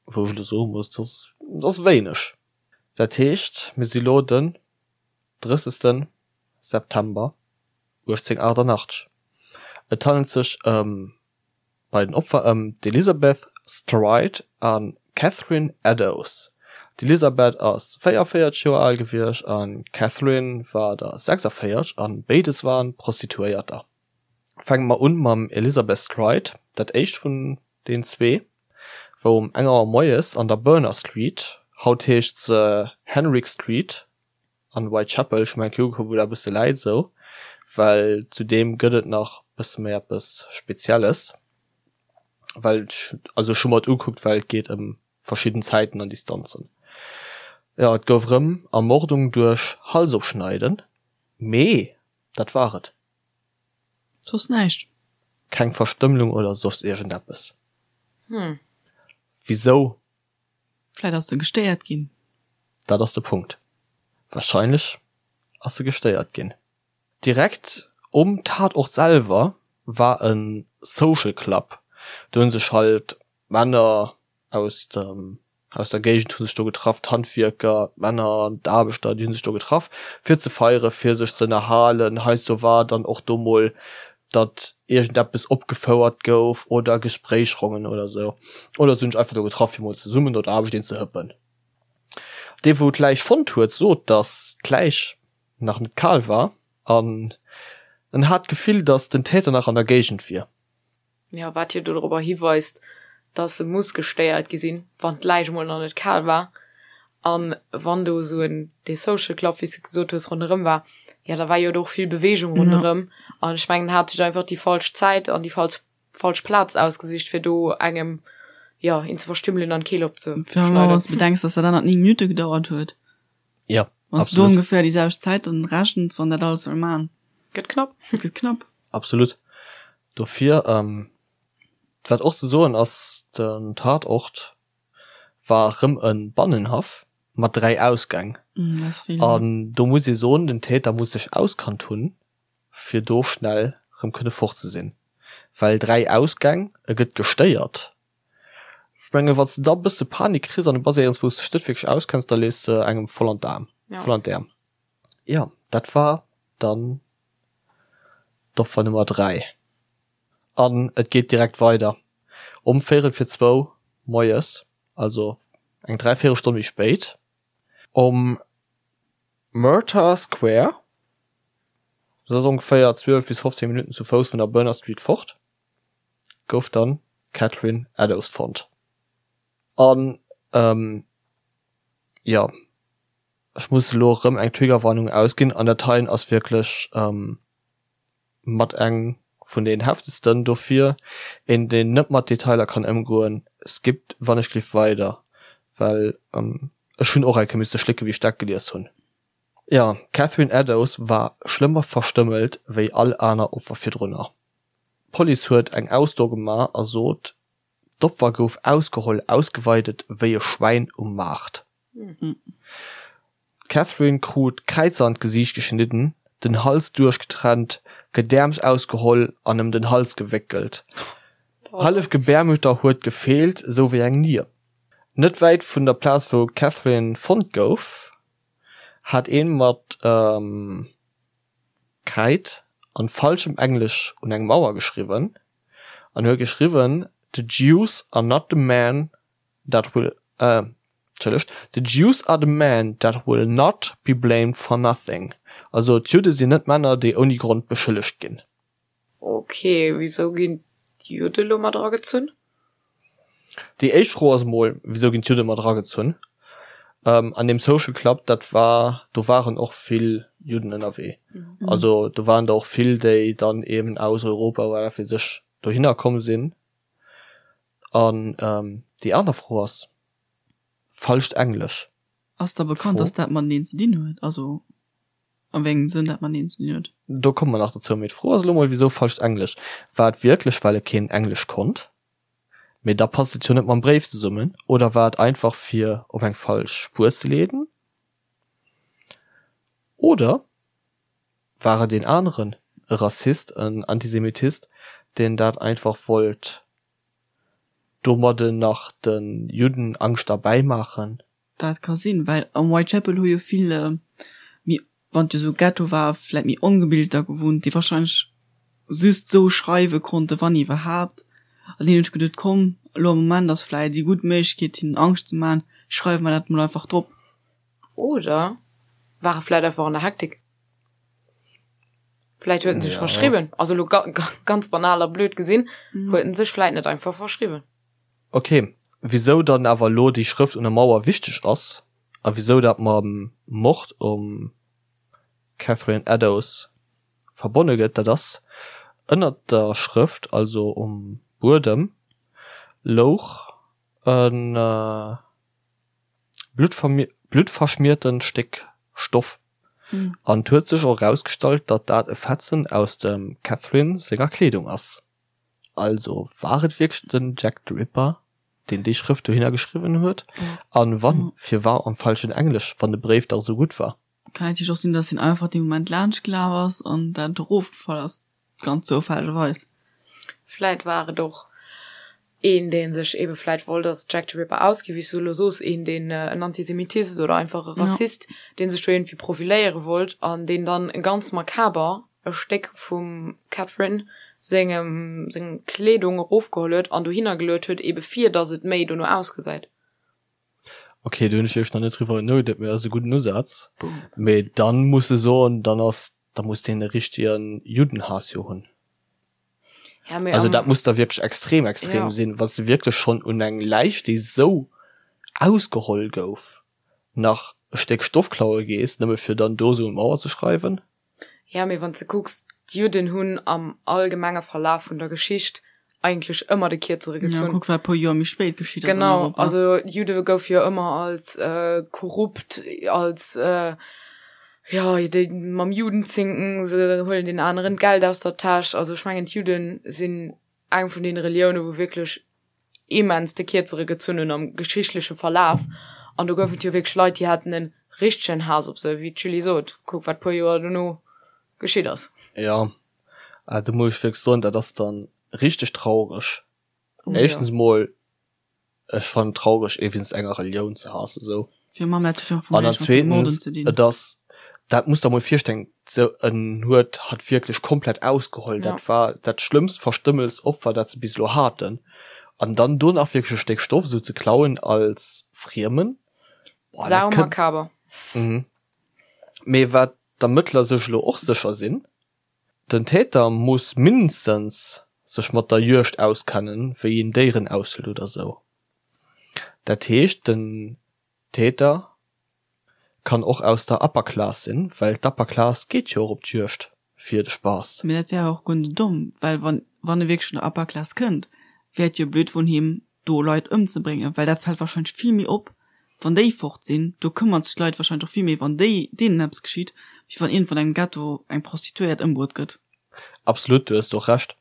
wou ech elo soe muss, dat ass wéineg. Dat heescht, mir si lo den 30. September 1888. Et handelt sech ëm bei den Opfer ëm d'Elizabeth Stride a Catherine Eddowes. D'Elizabeth ass 44 Joer al gewiescht an d'Catherine war der 46 an béides waren Prostituéierter. Fänke mer un mam Elizabeth Stride, dat éischt vun den zwee, wou um eng Auer moies an der Berner Street, haut heescht se Henrick Street, an Whitechapel, ech hu mer eng Kéier ugekuckt wou dat e bësse läit esou, well zu deem gëtt et nach bësse méi eppes Spezielles, well ech, also ech hu mer et ugekuckt well et geet ëm verschidden Zäiten an Distanzen. Jo, et gouf erëm Ermordung duerch Halsofschneiden, mee dat war et. Soss näischt? Keng Verstëmmlung oder soss iergendeppes. Hm. Wisou Vläit ass se gestéiert ginn. Dat ass de Punkt. Wahrscheinlech ass se gestéiert ginn. Direkt um Tatort selwer war e Social Club. Do hunn sech halt Männer aus dem aus der Géigend hu sech do getraff, d'Handwierker, d'Männer, d'Aarbechter, déi hu sech do getraff fir ze feieren, fir sech ze ënnerhalen. Heiansdo war dann och do mol datt iergendeppes opgefouert gouf oder Gespréichsrongen oder sou. Oder se hunn sech einfach do getraff fir mol zesummen no der Aarbecht een ze hëppen. Dee wou d'Läich fonnt huet sot, datt d'Läich nach net kal war an en hat d'Gefill, datt den Täter nach an der Géigend wier. Jo, wat jo dorobber hiweist, dass se muss gestéiert gi sinn, wann d'Läich emol nach net kal war. An wann do esou en, dee Social Club, wéi s de gesot hues, ronderëm war, jo, da war jo do och vill Beweegung ronderëm. An ech mengen, en hat sech einfach déi falsch Zäit an déi falsch, falsch Plaz ausgesicht, fir do engem, jo, een ze verstümmelen an d'Keel opzeschneiden. Wann s de bedenks, dass dat anert 9 Minutte gedauert huet. Jo, Wann s de do ongeféier déi selwecht Zäit dann rechens, wann dat alles soll man. Gëtt knapp. Gëtt knapp. Absolut. Dofir, wat och ze soen ass, den Tatort war rëm e Bannenhaff mat 3 Ausgäng. An do muss ee soen, den Täter muss sech auskannt hunn, fir do schnell rëm kënne fort ze sinn. Well 3 Ausgäng, e gëtt gestéiert. Ech mengen, wann s de da e bësse Panik kriss an du bass éierens, wou s de dech net wierklech auskenns, da lees de engem voll an d'Aarm, voll an d'Äerm. Jo, dat war dann d'Opfer Nummer 3. An et geet direkt weider. Um véierel fir zwou moies, also eng dräivéierel Stonn méi spéit, um Murtagh Square, dat ass ongeféier 12 bis 15 Minutten zu Fouss vun der Berner Street fort, gouf dann d'Catherine Eddowes fonnt. An jo, ech muss elo erëm eng Triggerwarnung ausginn, an dat heien ass wierklech mat eng vun den heftegsten, dofir een deen net mat Detailer kann ëmgoen, skippt wann ech gliff weider, well ech hunn och eng Kéier misste schlécke wéi ech dat gelies hunn. Jo, d'Catherine Eddowes war schlëmmer verstëmmelt wéi all aner Opfer virdrunner. D'Police huet eng Ausso gemaach a sot, d'Opfer gouf ausgeholl, ausgeweidet wéi e Schwäin um Maart. D'Catherine krut Kräizer an d'Gesiicht geschnidden, den Hals duerchgetrennt, Gedäerms ausgeholl an ëm den Hals gewéckelt. Hallef Gebärmutter huet gefeelt, sou wéi eng Nier. Net wäit vun der Plaz wou d'Catherine fonnt gouf. Hat een mat Kräid an falschem Englesch un eng Mauer geschriwwen an huet geschriwwen, The Jews are not the men that will, entschëllegt, The Jews are the men that will not be blamed for nothing. Also d'Judde sinn net Männer, déi ouni Grond beschëllegt ginn. Ok, wisou ginn d'Judde lo mat eragezunn? Déi éischt Fro ass emol, wisou ginn d'Judde mat eragezunn? An deem Social Club, dat war, do waren och vill Judden ënnerwee. Also do waren der och vill, déi dann eben aus Europa oder wat weess ech dohinner komm sinn. An déi aner Fro ass, falscht Englesch. Ass da bekannt, dass dat mateneen ze dinn huet? Also A wéi engem Sënn dat mateneen ze dinn huet? Do komme mer nach dozou. Mee d'Fro ass elo mol, wisou falscht Englesch? War et wierklech, well e keen Englesch konnt? Mee da passt et jo net mam Bréif zesummen. Oder war et einfach, fir op eng falsch Spuer ze leeden? Oder war et een aneren, e Rassist, en Antisemitist, deen dat einfach wollt domadden nach de Judden Angscht erbäimaachen? Dat ka sinn, well am Whitechapel hu jo vill méi, wann et jo sou Ghetto war, vläit méi Ongebilter gewunnt, déi wahrscheinlech just sou schreiwe konnten, wann iwwerhaapt. An deenen hunn ech geduet, komm, elo am Moment ass vläit déi gutt Méiglechkeet hinnen Angscht ze man, schreiwe mer dat mol einfach drop. Oder ware vläit einfach an der Hektik. Vläit huet en sech verschriwwen, also elo ganz banal a blöd gesinn, huet en sech vläit net einfach verschriwwen. Ok, wisou dann awer elo déi Schrëft un der Mauer wichteg ass a wisou dat mam Mord um Catherine Eddowes verbonne gëtt, dat ass, Ënnert der Schrëft, also um Buedem, louch e bluttverschmiertent Stéck Stoff an et huet sech och erausgestallt, datt dat e Fetzen aus dem Catherine senger Kleedung ass. Also war et wierklech den Jack the Ripper, deen déi Schrëft dohinner geschriwwen huet? An wann, firwar am falschen Englesch, wann de Bréif dach esou gutt war? Kann natierlech och sinn, dass hien einfach dee Moment laanscht gelaf ass an dat erofgefall ass, ganz zoufällegerweis. Vläit war et och een, dee sech ebe vläit wollt als Jack the Ripper ausginn, wéi s du elo soos, een, deen en Antisemitist oder einfach e Rassist, dee sech do iergendwéi profiléiere wollt an deen dann ganz makaber e Stéck vum Catherine sengem seng Kleedung erofgeholl huet an dohinner geluet huet, ebe fir datt et méi dono ausgesäit. Ok, do hunn ech wierklech nach net driwwer nogeduet, mee ass e gudden Usaz. Mee dann muss e soen, dann ass, da muss deen e richtegen Juddenhaass jo hunn. Ja, mee Also dat muss da wierklech extrem extrem ja. sinn, wann s de wierklech schonn un eng Läich, déi sou ausgeholl gouf, nach e Stéck Stoff klaue gees, nëmme fir dann do sou un d'Mauer ze schreiwen. Ja, mee wann s de kucks, d'Judden hunn am allgemenge Verlaf vun der Geschicht eigentlech ëmmer de Kierzere gezunn. Ja, kuck wat e puer Joer méi spéit geschitt ass an Genau, Europa. also Judde goufe jo ëmmer als korrupt, als, jo, déi mam Judenzinken, se huelen den aneren d'Geld aus der Täsch. Also ech mengen, d'Judde sinn eng vun deene Relioune wou wierklech immens de Kierzere gezunn hunn am geschichtleche Verlaf. An do gouf et jo wierklech Leit, déi haten e richtegen Haass op se, wéi d'Julie sot, kuck wat puer Joer dono geschitt ass. Jo, do muss ech wierklech soen, dat ass dann richteg traureg. Éischtens emol, ech fannen et traureg ee wéinst enger Relioun ze haassen esou. An dann zweetens, et ass, dat muss der mol virstellen, sou en huet hatt wierklech komplett ausgeholl, dat war dat schlëmmst verstëmmelst Opfer dat se bis elo haten, an dann do nach wierklech e Stéck Stoff esou ze klauen als Friemen, boah, dat kënnt. Sau makaber. Mee wat d'Ermëttler sech elo och sécher sinn, Den Täter muss mindestens sech mat der Juegd auskennen, wéi een Déieren aushëlt oder sou. Dat heescht den Täter kann och aus der Upper Class sinn, well d'Upper Class geet jo och op d'Juegd fir de Spaass. Mee dat wär och guer net domm, well wann wann e wierklech vun der Upper Class kënnt, wär et jo blöd vun him do Leit ëmzebréngen, well dat fält wahrscheinlech vill méi op wann déi fort sinn. Do këmmert sech d'Leit wahrscheinlech och vill méi wann déi deenen eppes geschitt, wéi wann iergendwann engem Ghetto eng Prostituéiert ëmbruet gëtt. Absolut, du hues do Recht.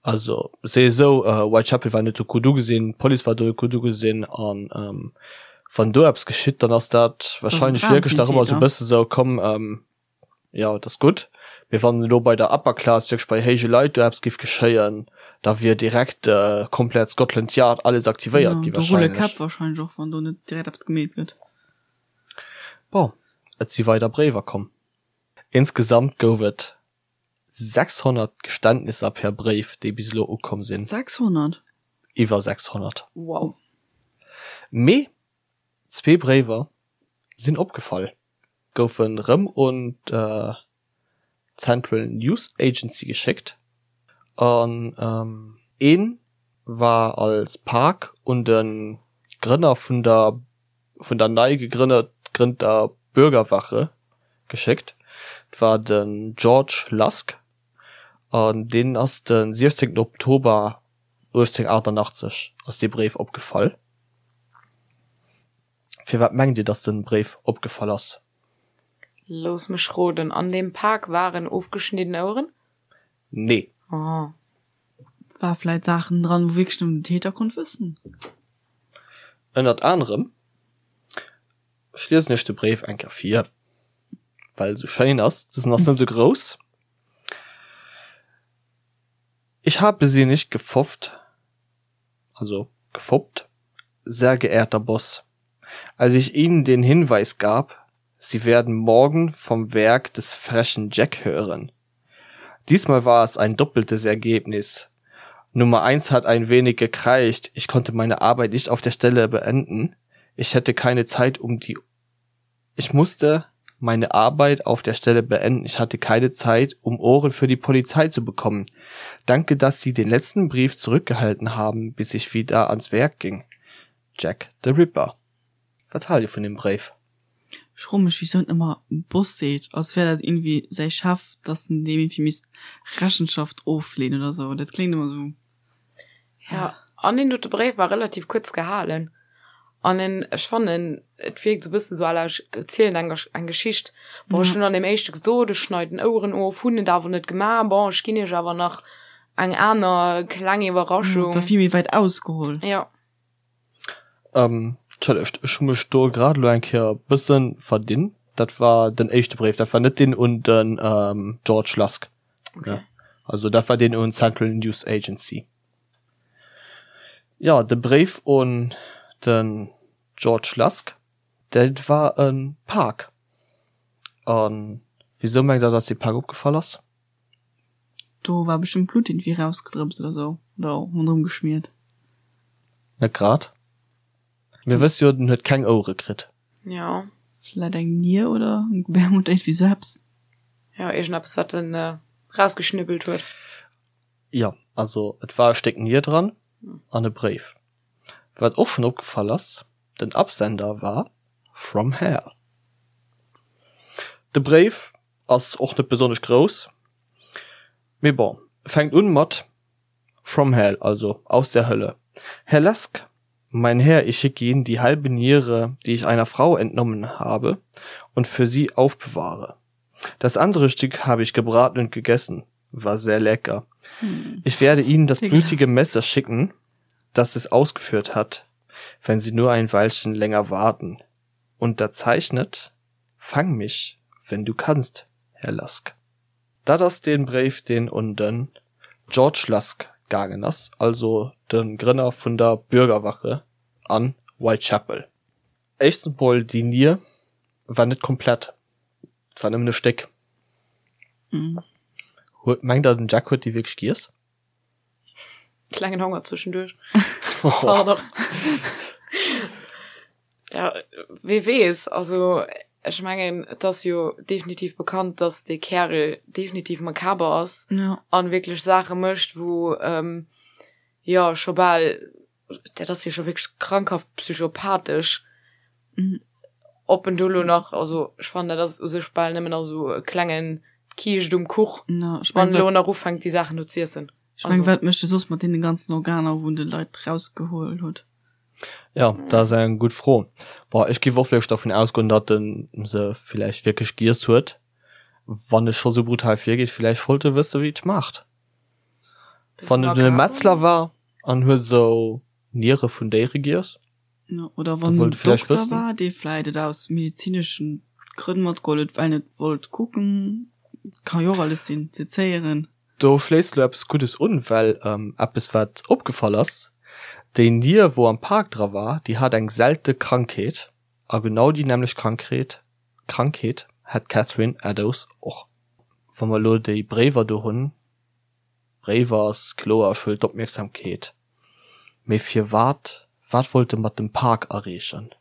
Also se esou, Whitechapel war net sou gutt ugesinn, d'Police war do net gutt ugesinn an wann do eppes geschitt, dann ass dat wahrscheinlech wierklech nach ëmmer sou e bësse sou, komm, jo et ass gutt. Mee wann elo bei der Upper Class, wierklech bei héije Leit do eppes géif geschéien, da wier direkt komplett Scotland Yard alles aktivéiert gi wahrscheinlech. Do rulle Käpp wahrscheinlech och, wann do net direkt eppes gemeet gëtt. Bon. Et si weider Bréiwer komm. Insgesamt gouf et 600 Geständnisser per Bréif, déi bis elo ukomm sinn. 600? Iwwer 600. Wow. Mee zwee Bréiwer sinn opgefall, goufen rëm un d'Central News Agency geschéckt an ee war als Pak un de Grënner vun der vun der nei gegrënnter Bürgerwache geschéckt. Et war den George Lusk an deen ass de 16 Oktober 1888 ass dee Bréif opgefall. Firwat mengt Dir, datt de Bréif opgefall ass? Looss mech roden, an deem Pak waren ofgeschnidden Oueren? Nee. Oh. War vläit Saachen dran, wou wierklech nëmmen den Täter konnt wëssen? Ënnert anerem. Ech liesen iech de Bréif eng Kéier vir, well e sou schéin ass. Dësen ass net sou grouss. Ich habe Sie nicht gefofft, also gefoppt, sehr geehrter Boss, als ich Ihnen den Hinweis gab, Sie werden morgen vom Werk des frechen Jack hören. Diesmal war es ein doppeltes Ergebnis. Nummer eins hat ein wenig gekreicht, ich konnte meine Arbeit nicht auf der Stelle beenden. Ich hätte keine Zeit um die Ich musste meine Arbeit auf der Stelle beenden, ich hatte keine Zeit, um Ohren für die Polizei zu bekommen. Danke, dass Sie den letzten Brief zurückgehalten haben, bis ich wieder ans Werk ging. Jack the Ripper. Wat haalt Dir vun deem Bréif? Ech froe mech wisou en ëmmer Boss seet, als wär dat iergendwéi säi Chef, dass en deem iergendwéi misst Rechenschaft ofleeën oder sou. Dat kléngt ëmmer sou. Ja, an deen dote Bréif war relativ kuerz gehalen an en, ech fannen, et wierkt sou bëssen sou à la ech erzielen eng eng Geschicht. Bon, ech hunn an deem éischte gesot, ech schneiden Oueren of, hunn et awer net gemaach. Bon, ech ginn iech awer nach eng aner kleng Iwwerraschung. War vill méi wäit ausgeholl. Ja. Entschëllegt, ech hu mech do grad elo eng Kéier e bësse verdinn. Dat war den éischte Bréif, dat war net deen un den George Lusk. Okay. Also dat war deen un d'Central News Agency. Jo, de Bréif un den George Lusk, dat war e Pak. A wisou mengt Der, datt dee Pak opgefall ass? Do war bestëmmt Blutt iergendwéi rausgedrëpst oder sou, oder ronderëm geschmiert. Net grad. Mir wësse jo, den huet keng Ouere kritt. Jo. Vläit eng Nier oder eng Gebärmutter, iergendwéi sou eppes. Jo, iergendeppes, wat en rausgeschnibbelt huet. Jo, also et war e Stéck Nier dran an e Bréif. Wat och schonn opgefall ass, den Absender war From Hell. De Bréif Ass och net besonnesch grouss, mee bon. Fänkt un mat From Hell, also aus der Hölle. Herr Lesk, mein Herr, ich schicke Ihnen die halbe Niere, die ich einer Frau entnommen habe und für Sie aufbewahre. Das andere Stück habe ich gebraten und gegessen, war sehr lecker. Ich werde Ihnen das blutige Messer schicken, das es ausgeführt hat, wenn Sie nur ein Weilchen länger warten. Unterzeichnet Fang mich, wenn du kannst, Herr Lusk. Dat ass dee Bréif, deen un den George Lusk gaangen ass, also de Grënner vun der Bürgerwache an Whitechapel. Éischtens mol, déi Nier war net komplett, et war nëmmen e Stéck. Huet, mengt der, den Jack huet déi wierklech giess? Klengen Honger zwischendurch. Pardon. Ja, wie weess, also ech mengen, et ass jo definitiv bekannt, dass dee Kärel definitiv makaber ass Ja. an wierklech Saache mécht, wou ähm, jo scho bal, dat ass jo scho wierklech krankhaft psychopathesch. Mhm. Ob en do lo nach, also ech fannen, dat ass u sech bal nëmmen nach esou e klengen Kiischt um Kuch, Ja, ech wann meng, en lo wat, nach ufänkt déi Saachen do z'iessen. ech meng, wat mécht e soss mat deene ganzen Organer, wou en de Leit rausgeholl huet? Ja, dat ass eng gutt Fro. Bon, ech géif och wierklech dervun ausgoen, datt en se villäicht wierklech giess huet. Wann e scho sou brutal virgeet, villäicht wollt e wësse wéi et schmaacht. Wann et e Metzler war an huet esou Niere vun Déiere giess. Ja, oder wann en Dokter war, dee vläit et aus medezineschen Grënn matgeholl huet, well en et wollt kucken. Ka jo och alles sinn, sezéieren. Do schléisst elo eppes Guddes un, well eppes wat opgefall ass, déi Nier wou am Park dra war, déi hat eng selte Krankheet a genau déi nämmlecht Krankheet. Krankheet hat d'Catherine Eddowes och. Wa mer elo déi Bréiwer do hunn, Bréiwer ass kloer, ech wëll d'Opmierksamkeet, mee firwat, wat wollt e mat dem Pak erreechen,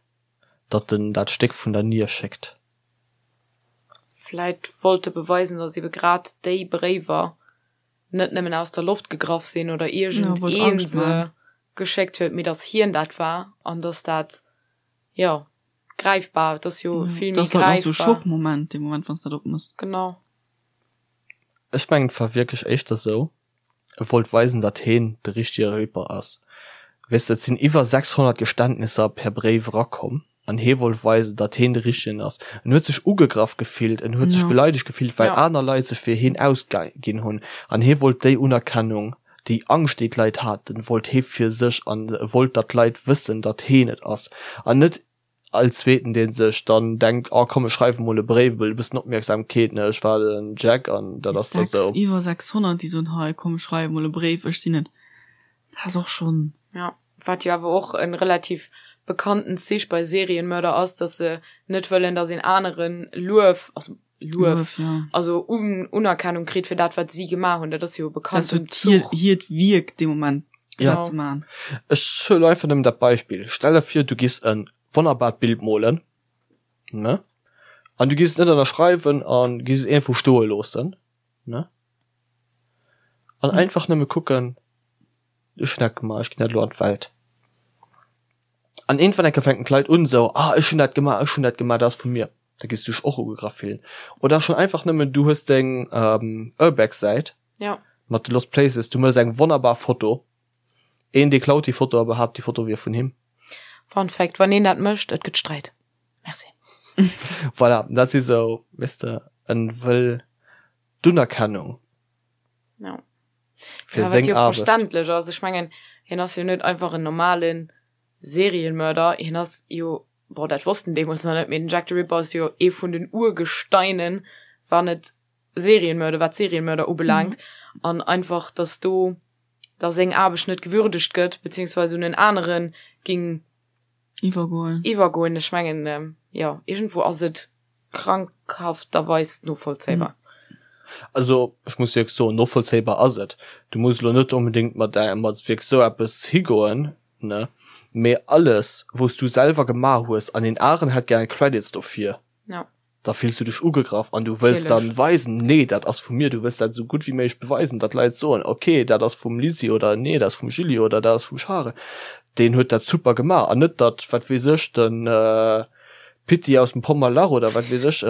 datt en dat Stéck vun der Nier schéckt? Vläit wollt e beweisen, datt ebe grad déi Bréiwer net nëmmen aus der Loft gegraff sinn oder iergend een se geschéckt huet, mee datt hien dat war an datt dat, jo, gräifbar, et ass jo vill méi gräifbar. Dat ass halt och sou e Schockmoment, dee Moment, wann s de dat opmëss. Genau. Ech mengen et war wierklech éischter sou, e wollt weisen datt heen de richtege Ripper ass. Weess de, et sinn iwwer 600 Geständnisser per Bréif erakomm an hee wollt weisen datt heen de richtegen ass. En huet sech ugegraff gefillt, en huet sech beleidegt gefillt well aner Leit sech fir heen ausginn hunn an hee wollt déi Unerkennung, déi Angscht déi d'Leit haten, wollt hee fir sech an e wollt datt d'Leit wëssen datt heen et ass an net All zweeten deen sech dann denkt, oh komm ech schreiwen mol e Bréif, e bëssen Opmierksamkeet, ne, ech war den Jack an dat ass da sou. Iwwer 600 déi soen, hei komm ech schreiwe mol e Bréif, ech sinn et. Dat ass och schonn. Jo, wat jo awer och e relativ bekannten Zich bei Serienmörder ass, dass se net wëllen, dass een anere Luef, also Luef, also Unerkennung kritt fir dat wat si gemaach hunn. Dat ass jo e bekannten Zuch. Dat ass hiert Wierk dee Moment, dat ze maachen. Ech huelen einfach nëmmen dat Beispill, Stell der vir, du giss e wonnerbart Bild molen, ne, an du giss et net ënnerschreiwen a giss et iergendwou stoe loossen, ne, an einfach nëmme kucken, ech hunn dat gemaach, ech ginn dat elo an d'Welt. An iergendwann eng Kéier fänken d'Leit un esou, ah ech hunn dat gemaach, ech hunn dat gemaach, dat ass vu mir. Da giss du dech och ugegraff fillen. Oder schon einfach nëmmen, du hues deng Urbex-Säit ja. mat de Lost Places, du mëss eng wonnerbar Foto, een dee klaut déi Foto a behaapt déi Foto wier vun him. Fun Fact, Wann een dat mécht, et gëtt Sträit. Merci. Voilà, dat si sou, weess de, en wëll d'Unerkennung. Ja. Fir ja, seng Aarbecht. Verständlech ass. Ech mengen, hien ass jo net einfach en normalen Serienmörder, hien ass jo bon dat wosst en deemools nach net, mee den Jack the Ripper ass jo ee vun den Urgesteinen, wann et Serienmörder, wat Serienmörder ubelaangt, an einfach dass do da seng Aarbecht net gewürdegt gëtt, beziehungsweise un en anere ging Iwwergoen. iwwergoen. Ech mengen, jo, iergendwou ass et krankhafterweis novollzéibar. Also ech muss wierklech soen, novollzéibar ass et. Du muss elo net onbedéngt mat mat wierklech esou eppes higoen, ne, mee alles wous du selwer gemaach hues an een aren hätt gären Credits dofir, Ja. da fills du dech ugegraff an du wëlls dann Natierlech. weisen, nee dat ass vu mir, du wëlls dat esou gutt wéi méiglech beweisen, datt Leit soen, ok dat ass vum Lisi oder nee dat ass vum Julie oder dat ass vum Charel, deen huet dat super gemaach an net datt wat weess ech den Pitti aus dem Pommerlach oder wat weess ech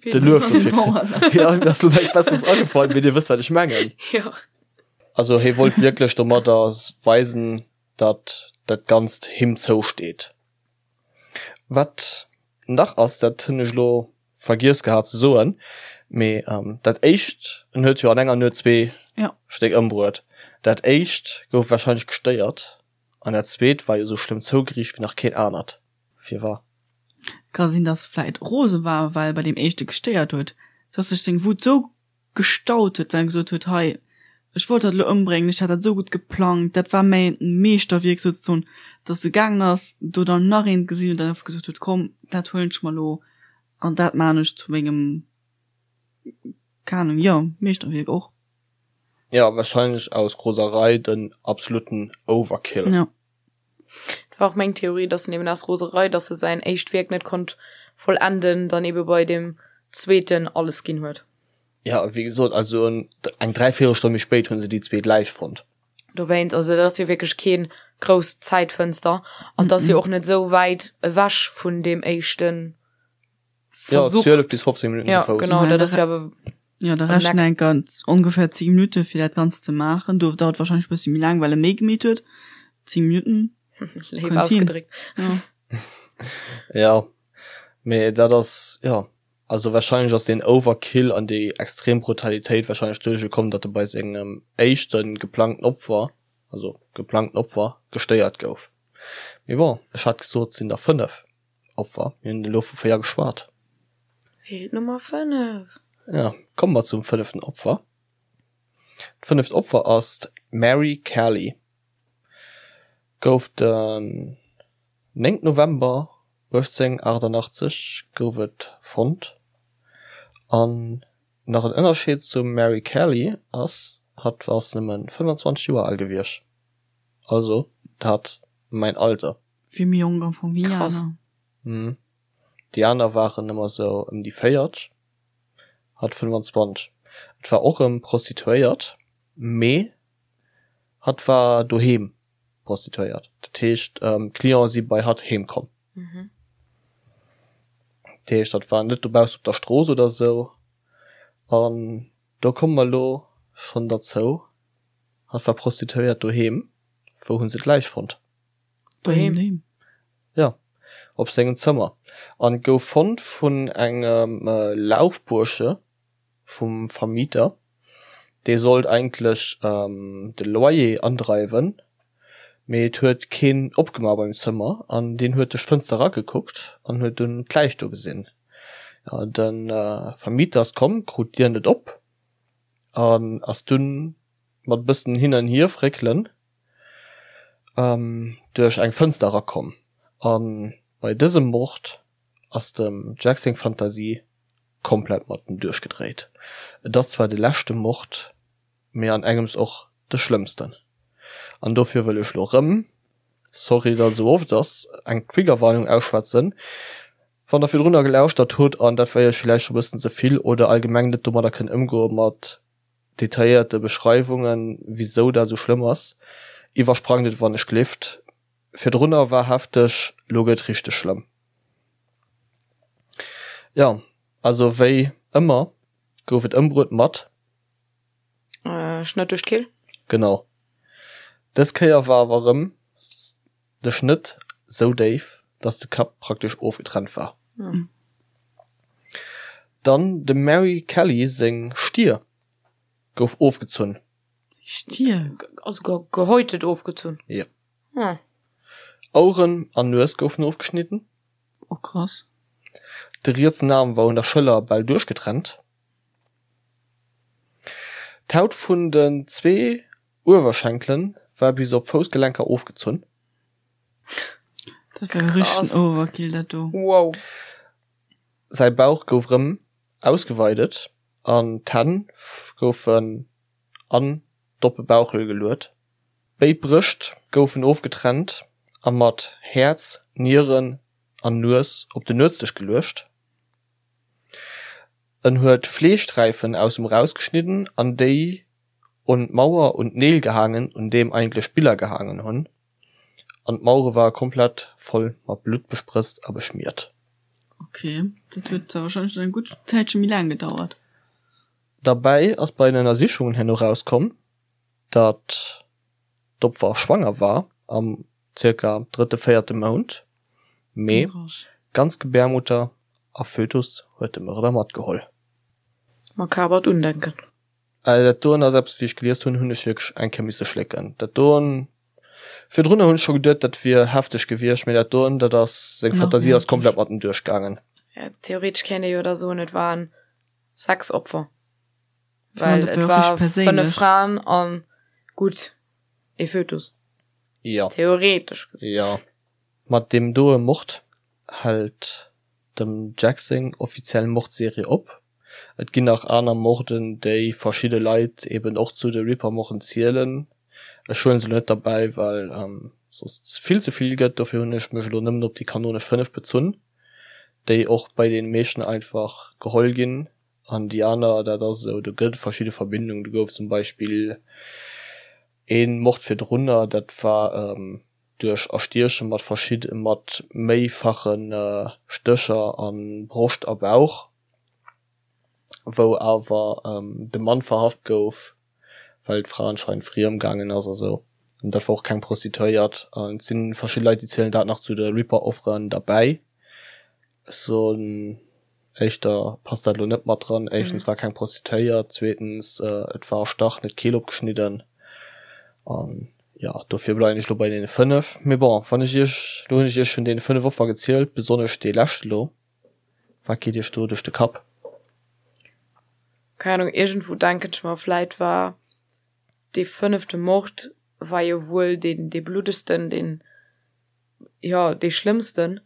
de Luef dofir kritt. Jo, mir ass lo näischt Besseres agefall, mee dir wësst wat ech mengen. Jo. Also hie wollt wierklech domadder weisen, datt dat Ganzt him zousteet. Wat nach ass, dat hunn ech elo vergiess gehat ze soen, mee dat éischt, en huet jo an enger Nuet zwee Stéck ëmbruet, dat éischt gouf warscheinlech gestéiert an dat zweet war jo esou schlëmm zougeriicht wéi nach keen anert vir war. Ka sinn, datt e vläit rose war, well e bei deem éischte gestéiert huet, datt sech seng Wut esou gestaut huet, well en gesot huet, hei, ech wollt dat elo ëmbréngen, ech hat dat esou gutt geplangt, dat war mäin Meeschterwierk souzesoen, dass e gaangen ass, do dann nach eent gesinn huet an einfach gesot huet, komm, dat huelen ech mer elo an dat maachen ech zu mengem, keng Ahnung, jo, Meeschterwierk och. Jo, wahrscheinlech aus Roserei den absoluten Overkill. Jo. Dat war och meng Theorie, dass en eben aus Roserei, dass e säin éischt Wierk net konnt vollenden, dann ebe bei deem zweeten alles ginn huet. Ja, wéi gesot, also eng Dräivéierelstonn méi spéit hu se déi zweet Läich fonnt. Dowéinst, also dat ass jo wierklech keen grousst Zäitfënster an et ass jo och net esou wäit ewech vun deem éischten. Ja, 12 bis 15 Minuten ja, zu Fouss. Genau, dat ass jo awer. Ja, da rechnen eng ganz ongefähr 10 Minuten fir dat Ganzt ze maachen. Do dauert wahrscheinlech e bëssi méi laang, well e méi gemeet huet. 10 Minuten. Léif ausgedréckt. Ja. Ja, mee dat ass, ja, also wahrscheinlech ass deen Overkill an déi extrem Brutalitéit wahrscheinlech doduerch gekomm, datt e bei sengem éischte geplangten Opfer, also geplangten Opfer, gestéiert gouf. Mee bon, ech hat gesot, et sinn der 5. Opfer, mir hunn elo vu 4 geschwat. Feelt d'Nummer 5. Ja, komme mer zum fënneften Opfer. D'fënneft Opfer ass d'Mary Kelly. Gouf den 9 November. 1888 gouf et fonnt. An nach en Ënnerscheed zum Mary Kelly ass, hatt ass nëmme 25 Joer al gewiescht, also dat mäin Alter. Vill méi jonk am Fong wéi Krass. aner. Déi aner waren ëmmer sou ëm déi 40, hatt 25. Et war och rëm Prostituéiert, mee hatt war doheem Prostituéiert. Dat heescht, d'Clienten si bei hatt heem komm. Dat heescht, hatt war net dobaussen op der Strooss oder sou. An do komme mer elo schonn derzou, hatt war Prostituéiert doheem. Wou hu se d'Läich fonnt? Doheem. Jo, op sengem Zëmmer. An gouf fonnt vun engem Laufbursche vum Vermieter. Dee sollt eigentlech de Loyer andreiwen, mee et huet keen opgemaach beim Zëmmer an deen huet duerch d'Fënster eragekuckt an huet dunn d'Läich do gesinn. Jo, de Vermieter ass komm, krut d'Dier net op an ass dunn mat e bëssen hin an hier fréckelen duerch eng Fënster erakomm. A bei dësem Mord ass dem Jack seng Fantasie komplett mat em duerchgedréit. Et ass zwar de leschte Mord, mee an engems och de schlëmmsten. An dofir wëll ech lo rëm, sorry datt et esou oft ass, eng Triggerwarnung ausschwätzen, Wann der virdrunner gelauschtert hutt an dat war iech villäicht scho bëssen ze vill oder allgemeng net domadder kënnt ëmgoe mat detailléierte Beschreiwungen, wisou dat esou schlëmm ass, iwwersprangt et wann ech glift. Virdrunner war hefteg, lo gëtt richteg schlëmm. Jo, also wéi ëmmer gouf et ëmbruet mat. Schnëtt duerch d'Kehl. Genau. Dës Kéier war awer erëm de Schnëtt sou déif, dass de Kapp praktesch ofgetrennt war. Dann dem Mary Kelly seng Stier gouf ofgezunn. Stier? Also gehäutet ofgezunn? Jo. Oueren an Nues goufen ofgeschnidden. Oh krass. De rietsen Aarm war un der Schëller bal duerchgetrennt. D'Haut vun den zwee Uewerschenkelen war bis op d'Foussgelenker ofgezunn. Dat war jo richtegen Overkill dat do. Wow. Säi Bauch gouf rëm ausgeweidet an d'Hänn goufen an d'oppe Bauchhöhl geluet. Béid Brëscht goufen ofgetrennt a mat Häerz, Nieren an Nues op den Nuetsdësch geluecht. En huet Fleeschsträifen aus em erausgeschnidden an déi un d'Mauer un d'Neel gehaangen, un deem eigentlech Biller gehaangen hunn, an d'Mauere ware komplett voll mat Blutt besprëtzt a beschmiert. Ok, dat huet da wahrscheinlech eng gutt Zäitche méi laang gedauert. Derbäi ass bei den Ënnersichungen herno rauskomm, datt d'Opfer schwanger war, am zirka drëtte, véierte Mount, mee ganz Gebärmutter a Fötus huet de Mörder matgeholl. Makabert Undenken. Also dat doen ass eppes, wéi ech gelies hunn, hunn ech wierklech eng Kéier misse schlécken. Dat doen, virdrunner hunn ech scho geduet, dat wier hefteg gewiescht, mee dat doen, dat ass, seng Fantasie ass komplett mat em duerchgaangen. Ja, theoretesch kéint ee jo da soen, et waren 6 Opfer, well et war 5 Fraen an, gutt, ee Fötus. Jo. Theoretesch gesinn. Jo. Mat deem doe Mord hält dem Jack seng offiziell Mordserie op. Et ginn nach aner Morden, déi verschidde Leit eben och zu de Ripper-Morden zielen. Ech huelen se elo net derbäi, well soss vill ze vill gëtt. Dofir hunn ech mech elo nëmmen op déi kanonesch 5 bezunn, déi och bei deene meeschten einfach geholl ginn. An déi aner, dat ass esou, do gëtt et verschidde Verbindungen. Do gouf zum Beispill ee Mord virdrunner, dat war duerch Erstieche mat verschidde mat méifache Stécher a Broscht a Bauch, wou awer de Mann verhaft gouf, well d'Fra anscheinend friem gaangen ass a sou. An dat war och keng Prostituéiert. An et si verschidde Leit, déi zielen dat nach zu de Ripper-Offeren derbäi. Ech soen éischter passt dat elo net mat dran. Éischtens war keng Prostituéiert, zweetens et war erstach, net d'Keel opgeschnidden. An jo, dofir bleiwen ech elo bei deene 5. Mee bon, wann ech iech, elo hunn ech iech vun deene 5 Offer gezielt, besonnesch dee leschte elo, wat geet iech do duerch de Kapp? Keng Ahnung, iergendwou denken ech mer, vläit war dee fënnefte Mord war jo wuel deen, dee bluddegsten, deen, jo, dee schlëmmsten.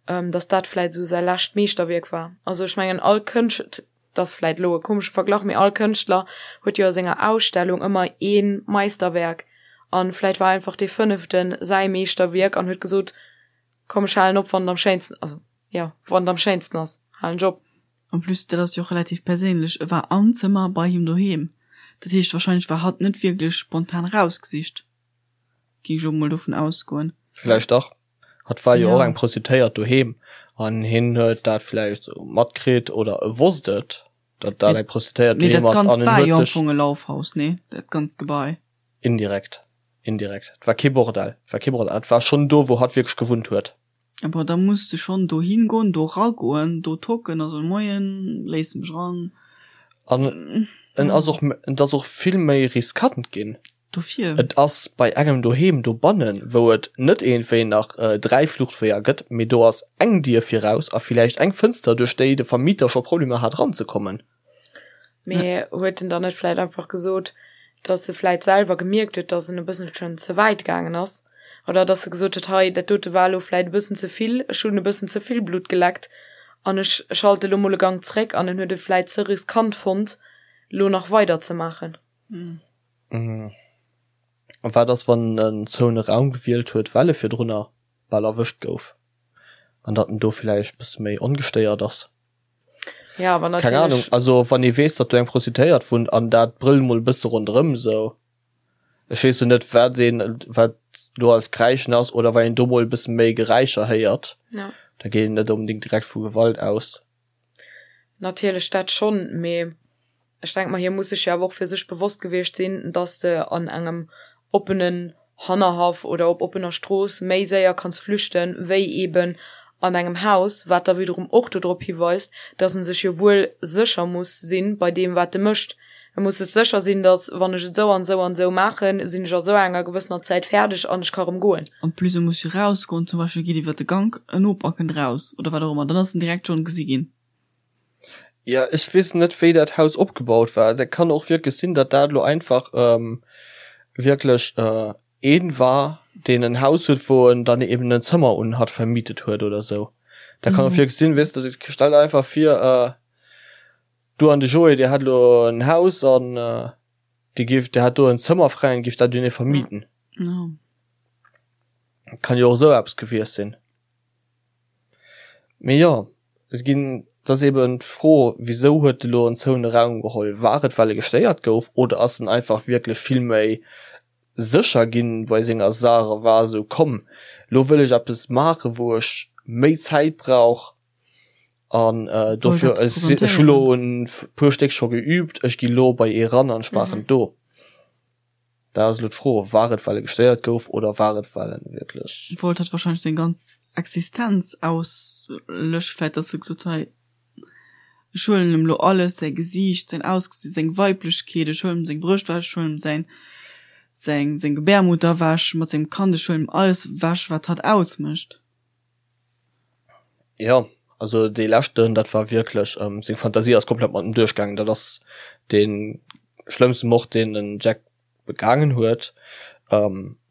Dass dat vläit esou säi lescht Meeschterwierk war. Also ech mengen all Kënscht, dat ass vläit elo e komesche Verglach, mee all Kënschtler huet jo a senger Ausstellung ëmmer ee Meisterwerk an vläit war einfach dee fënneften säi Meeschterwierk an huet gesot, komm ech halen op wann et am schéinsten, also jo wann et am schéinsten ass halen ech op. En plus, dat ass jo och relativ perséinlech, e war am Zëmmer bei him doheem, dat heescht wahrscheinlech war hatt net wierklech spontan rausgesicht, géing ech elo mol dovun ausgoen. Vläicht dach. Hatt war jo och eng Prostituéiert doheem an hien huet dat vläicht esou matkritt oder e wosst et, datt dat eng Prostituéiert Mee dat doheem ass an Ganzt en war huet jo am sech. Fong e Laufhaus, nee? Dat ganzt Gebai. Indirekt, indirekt. Et war kee Bordell, et war kee Bordell. Et war schonn do, wou hatt wierklech gewunnt huet. Bon, da muss de schonn dohin goen, do ragoen, do tocken a soen, Moien, léiss mech ran. An en ass och, et ass och vill méi riskant ginn. Dofir. Et ass bei engem doheem dobannen, wou et net iergendwéi nach 3 Fluchtweeër gëtt, mee do ass eng Dier viraus a villäicht eng Fënster, duerch déi de Vermieter scho Problemer hat eranzekommen. Mee huet en dann net vläit einfach gesot, dass e vläit selwer gemierkt huet, dass en e bësselchen ze wäit gaangen ass? Oder dass e gesot huet, hei, dat dote war elo vläit e bëssen ze vill, ech hunn e bëssen ze vill Blutt geleckt an ech schalte elo mol e Gank zréck an en huet et vläit ze riskant fonnt, elo nach weider ze maachen? A wat ass, wann en zoune Raum gewielt huet, well e virdrunner bal erwëscht gouf an datt en do villäicht bësse méi ongestéiert ass? Ja, awer Keng Ahnung, natierlech. also wann ee weess, datt do eng Prostituéiert wunnt an dat brëllt mol e bësse ronderëm esou, ech weess jo net wat een, wat do als Kräischen ass oder wann een do mol e bësse méi Geräischer héiert, Ja. da geet een net onbedéngt direkt vu Gewalt aus. Natierlech dat schonn, mee Ech denke mer, hie muss sech jo awer och fir sech bewosst gewiescht sinn, dass de an engem oppenen Hannerhaff oder op oppener Strooss méi séier kanns flüchten, wéi eeben an engem Haus, wat da wiederum och dodrop hiweist, dass en sech jo wuel sécher muss sinn bei deem, wat e mécht. E muss sech sécher sinn, dass, wann ech et esou an esou an esou maachen, sinn ech a sou enger gewëssener Zäit fäerdeg an ech ka rëm goen. En plus, e muss jo rausgoen, zum Beispill geet iwwer de Gank, en Noper kënnt raus oder wat och ëmmer, dann ass en direkt schonn gesi ginn. Ja, ech weess net wéi dat Haus opgebaut war. Dat kann och wierklech sinn, datt dat elo einfach wierklech een war, deen en Haus huet, wou en dann eben en Zëmmer un hatt vermietet huet oder sou. Dat kann och wierklech sinn, weess de, stell der einfach vir, du an de Joé, dir hätt elo en Haus an dir giff, dir hätt do en Zëmmer fräi an giff dat un ee vermieten. Kann jo och esou eppes gewiescht sinn. Mee jo, et ginn, et ass eben d'Fro, wisou huet e lo en zoune Raum geholl? War et well e gestéiert gouf oder ass en einfach wierklech vill méi sécher ginn bei senger Saach a war esou, komm lo wëll ech eppes maachen, wou ech méi Zäit brauch an dofir, ech hu lo e puer Stéck scho geübt, ech gi lo bei ee ran an ech maachen et do. Da ass elo d'Fro, war et well e gestéiert gouf oder war et well en wierklech. Wollt hatt wahrscheinlech seng ganz Existenz auslöschen, vläit dass e gesot hei ech huelen em lo alles, säi Gesiicht, säin Ausgesinn, seng Weiblechkeet, ech huelen em seng Brëscht ewech, ech huelen em säin seng seng Gebärmutter ewech mat sengem Kand, ech huelen em alles ewech wat hatt ausmécht. Jo, also dee leschten, dat war wierklech, seng Fantasie ass komplett mat em duerchgaangen. Dat ass dee schlëmmste Mord, deen den Jack begaangen huet.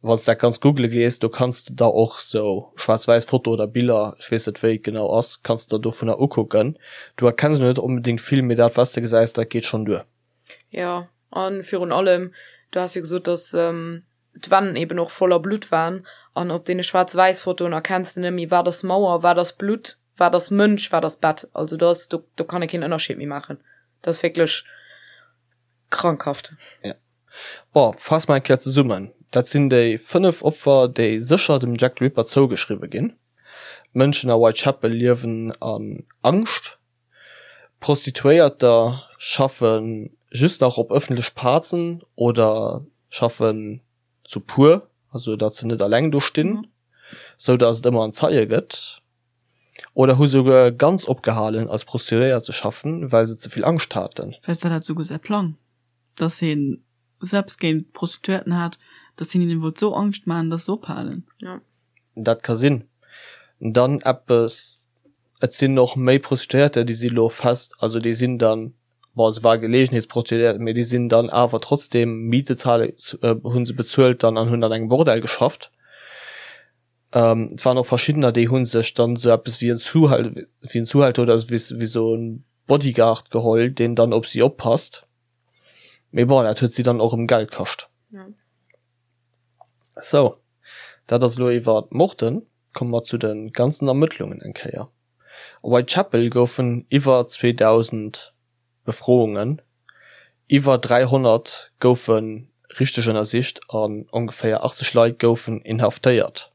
Wann s de dat Ganzt googele gees, do kanns de der och sou schwaarz-wäiss Foto oder Biller, ech weess net wéi et genau ass, kanns de der dovunner ukucken. Du erkenns elo net onbedéngt vill, mee dat wat s de gesäis, dat geet schonn duer. Jo, a virun allem, du has jo gesot, dass d'Wänn eben och voller Blutt waren an op deene Schwaarz-Wäiss-Fotoen erkenns de net méi, wat ass Mauer, wat ass Blutt, wat ass Mënsch, wat ass Bett. Also do ass, do, do kann ee keen Ënnerscheed méi maachen. Dat ass wierklech krankhaft. Ja. Bon, faasse mer eng Kéier zesummen, Dat sinn déi 5 Opfer, déi sécher dem Jack the Ripper zougeschriwwe ginn. D'Mënschen a Whitechapel liewen an Angscht. Prostituéierter schaffe just nach op ëffentlech Plazen oder schaffen zu puer, also datt se net alleng do stinn, sou datt et ëmmer en Zeie gëtt, oder hu souguer ganz opgehalen als Prostituéiert ze schaffen, well se ze vill Angscht haten. Vläicht war dat souguer säi Plang, datt hien sou eppes géint d'Prostituéierten hat, datt hien hinnen wollt sou Angscht maachen, datt se ophalen. Dat ka sinn. Dann eppes, et sinn och méi Prostituéierter, déi si lo fest, also déi sinn dann, bon se war Gelegenheetsprostituéiert, mee déi sinn dann awer trotzdem Miete zahlen, hunn se bezuelt dann an hunn an engem Bordell geschafft. Et waren och verschiddener, déi hu sech dann esou eppes wéi en Zuhäl wéi en Zuhälter oder wéi wéi esou en Bodyguard geholl, deen dann op si oppasst. Mee bon, dat huet si dann och erëm Geld kascht. Sou, dat ass elo iwwer d'Morden. Komme mer zu de ganzen Ermëttlungen eng Kéier. A Whitechapel goufen iwwer 2.000 Befroungen, iwwer 300 goufe richteg ënnersicht an ongeféier 80 Leit goufen inhaftéiert.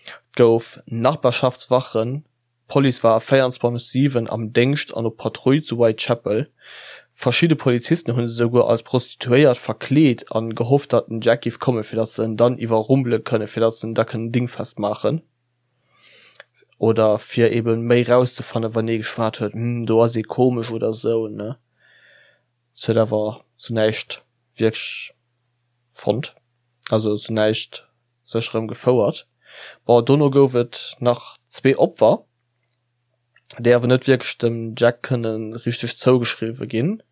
Et gouf Nachbarschaftswachen, d'Police war 24, 7 am Déngscht an op Patrull zu Whitechapel. Verschidde Polizisten hu sech esouguer als Prostituéiert verkleet a gehofft, datt den Jack giff kommen, fir datt se en dann iwwerrumpele kënnen, fir datt se en da kënnen dingfest maachen. Oder fir eben méi rauszefannen, wann ee geschwat huet, hm, do ass ee komesch oder sou, ne. Et huet awer zu näischt wierklech fonnt, also zu näischt sécherem gefouert. Bon, dono gouf et nach zwee Opfer, déi awer net wierklech dem Jack kënne richteg zougeschriwwe ginn.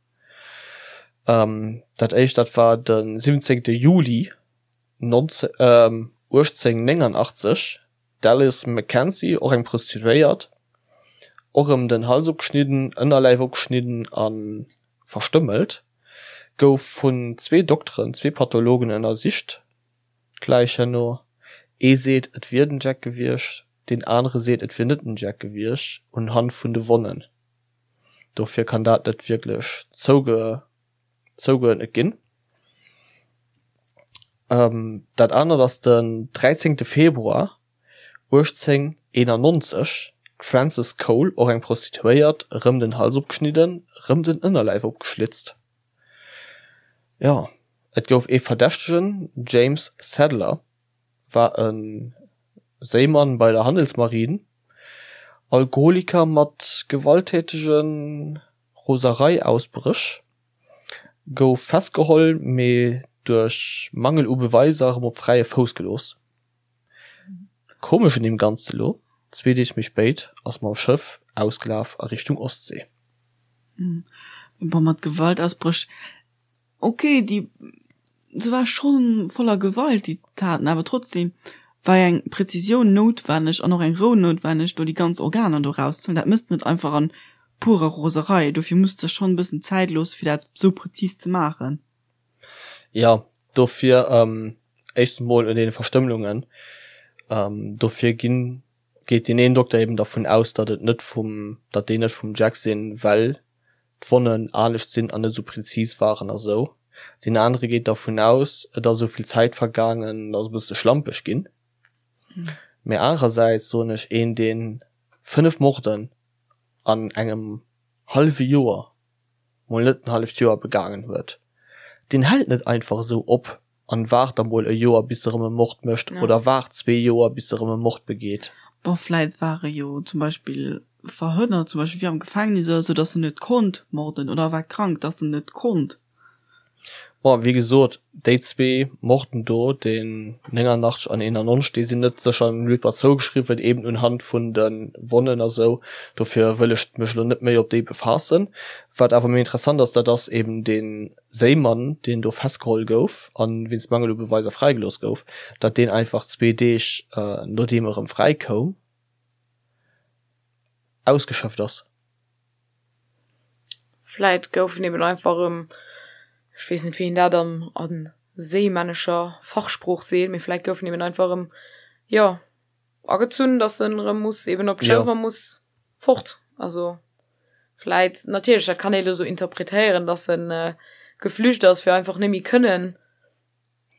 Dat éischt, dat war de 17 Juli 1889, d'Alice Mackenzie, och eng Prostituéiert, och erëm den Hals opgeschnidden, Ënnerläif opgeschnidden a verstëmmelt, gouf vun zwee Dokteren, zwee Pathologen ënnersicht. D'Läich herno, ee seet et wier den Jack gewiescht, deen anere seet et wier net den Jack gewiescht, unhand vun de Wonnen. Dofir kann dat net wierklech zouge. Zougeuerdnet ginn. Dat anert ass den 13 Februar 1891, d'Frances Cole, och eng Prostituéiert, erëm den Hals opgeschnidden, erëm den Ënnerläif opgeschlitzt. Jo, et gouf ee Verdächtegen, James Sadler war e Séimann bei der Handelsmarine, Alkoholiker mat gewalttätege Roserei-Ausbréch, gouf festgeholl, mee duerch Mangel u Beweiser erëm op fräie Fouss gelooss. Komesch un deem Ganze lo, zwee Deeg méi spéit ass mam Schëff ausgelaf a Richtung Ostsee. Bon, mat Gewaltausbréch, Ok, déi se war schonn voller Gewalt déi Taten, awer trotzdem war eng Präzisioun noutwenneg an och eng Rou noutwenneg do déi ganz Organer do rauszehuelen. Dat mësst net einfach an purer Roserei, dofir muss de schonn e bëssen Zäit loosse fir dat sou präzis ze maachen. Jo, dofir éischtens mol un deene Verstëmmelungen, dofir ginn, geet deen een Dokter eben dervun aus, datt et net vum, datt déi net vum Jack sinn, well d'Wonnen anescht sinn an net esou präzis waren a sou. Deen anere geet dervun aus, et ass esou vill Zäit vergaangen, et ass e bësse schlampeg ginn. Mee anerersäits soen ech, een deen 5 Morden an engem hallwe Joer, mol net en halleft Joer, begaangen huet, deen hält net einfach esou op an waart da mol e Joer bis e rëm e Mord mécht oder waart zwee Joer bis e rëm e Mord begeet. Bon, vläit war e jo zum Beispill verhënnert, zum Beispill wéi am Gefängnis oder sou, dass en net konnt morden oder war krank, dass en net konnt. Bon, wéi gesot, déi zwee Morden do, deen 89 an 91, déi sinn net sécher dem Ripper zougeschriwwen, eben unhand vun de Wonnen a sou. Dofir wëll ech mech elo net méi op déi befaassen. Wat awer méi interessant ass, dat ass eben dee Séimann, deen do festgeholl gouf a wéinst Mangel u Beweiser fräigelooss gouf, datt deen einfach zwee Deeg nodeem e rëm fräi koum, ausgeschëfft ass. Vläit gouf en eben einfach erëm, ech weess net wéi een dat an a séimännescher Fachsprooch seet, mee vläit gouf en eben einfach erëm, jo, agezunn, dass en erëm muss eben op d'Schëff a muss fort. Also vläit, natierlech, dat kann ee lo sou interpretéieren, dass en geflücht ass, fir einfach net méi kënnen,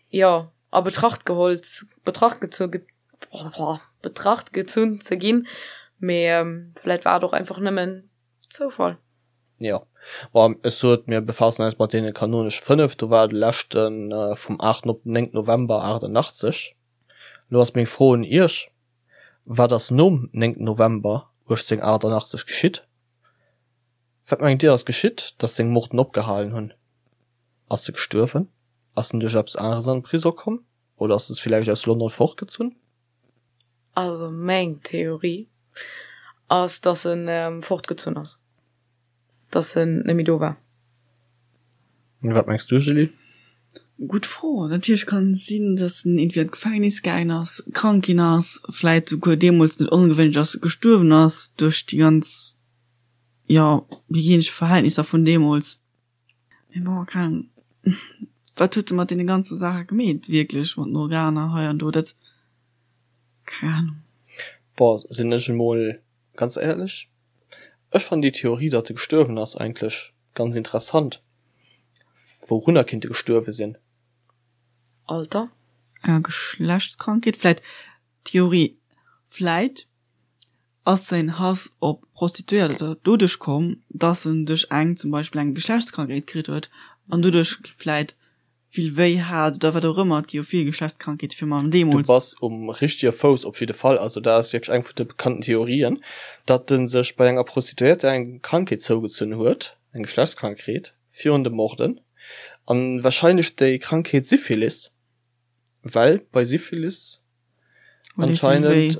jo, a Betracht geholl, Betracht gezu, Betracht gezunn ze ginn. Mee vläit war et och einfach nëmmen Zoufall. Jo, bon, ech sot, mir befaassen eis mat deene kanonesch 5, do war de leschte vum 8 op den 9 November 88. Lo ass meng Fro un Iech, Wat ass nom 9 November 1888 geschitt? Wat mengt Dir ass geschitt, datt seng Morden opgehalen hunn? Ass e gestuerwen? Ass en duerch eppes aneres an de Prisong komm? Oder ass e villäicht aus London fortgezunn? Also meng Theorie ass, datt en fortgezunn ass. Dass en net méi do war. Wat mengs du Julie? Gutt Fro. Natierlech kann et sinn, datt en iergendwéi an d'Gefängnis gaangen ass, krank ginn ass, vläit souguer deemools net ongewéinlech ass, gestuerwen ass duerch déi ganz, jo, hygienesch Verhältnisser vun deemools. Mee bon, keng Ahnung, wat huet e mat deene ganze Saache gemeet wierklech, mat den Organer hei an do, dat, keng Ahnung. Bon, sinn ech emol ganz éierlech, ech fannen déi Theorie, datt e gestuerwen ass, eigentlech ganz interessant. Wourunner kinnt e gestuerwe sinn? Alter? Enger Geschlechtskrankheet vläit? Theorie, Vläit ass säin Hass op Prostituéierter doduerch komm, dass en duerch eng zum Beispill eng Geschlechtskrankheet kritt huet an doduerch vläit vill wéi hat oder wat och ëmmer. Et gi jo vill Geschlechtskrankheete fir Mann Du deemools. bass um richtege Fouss op jidde Fall. Also dat ass wierklech eng vun de bekannten Theorien, datt en sech bei enger Prostituéierter eng Krankheet zougezunn huet, eng Geschlechtskrankheet, virun de Morden. An wahrscheinlech déi Krankheet Syphilis, well bei Syphilis anscheinend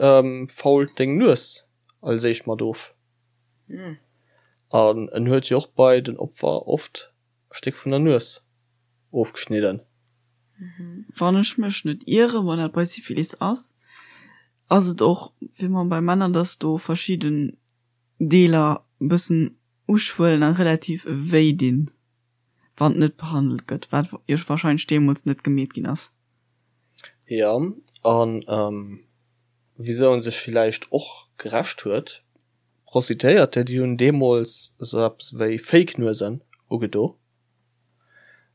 fault deng Nues als éischt mat of. An en huet jo och bei den Opfer oft e Stéck vun der Nues ofgeschnidden. Wann ech mech net ieren, wann dat bei Syphilis ass, ass et och wéi man bei Männer, dass do verschidden Deeler bëssen uschwëllen a relativ wéi dinn, wann et net behandelt gëtt, wat jo wahrscheinlech deemools net gemeet ginn ass. Jo, an wisou en sech villäicht och gerächt huet, Prostituéierter, déi hunn deemools esou eppes wéi Fake-Nuesen ugedo,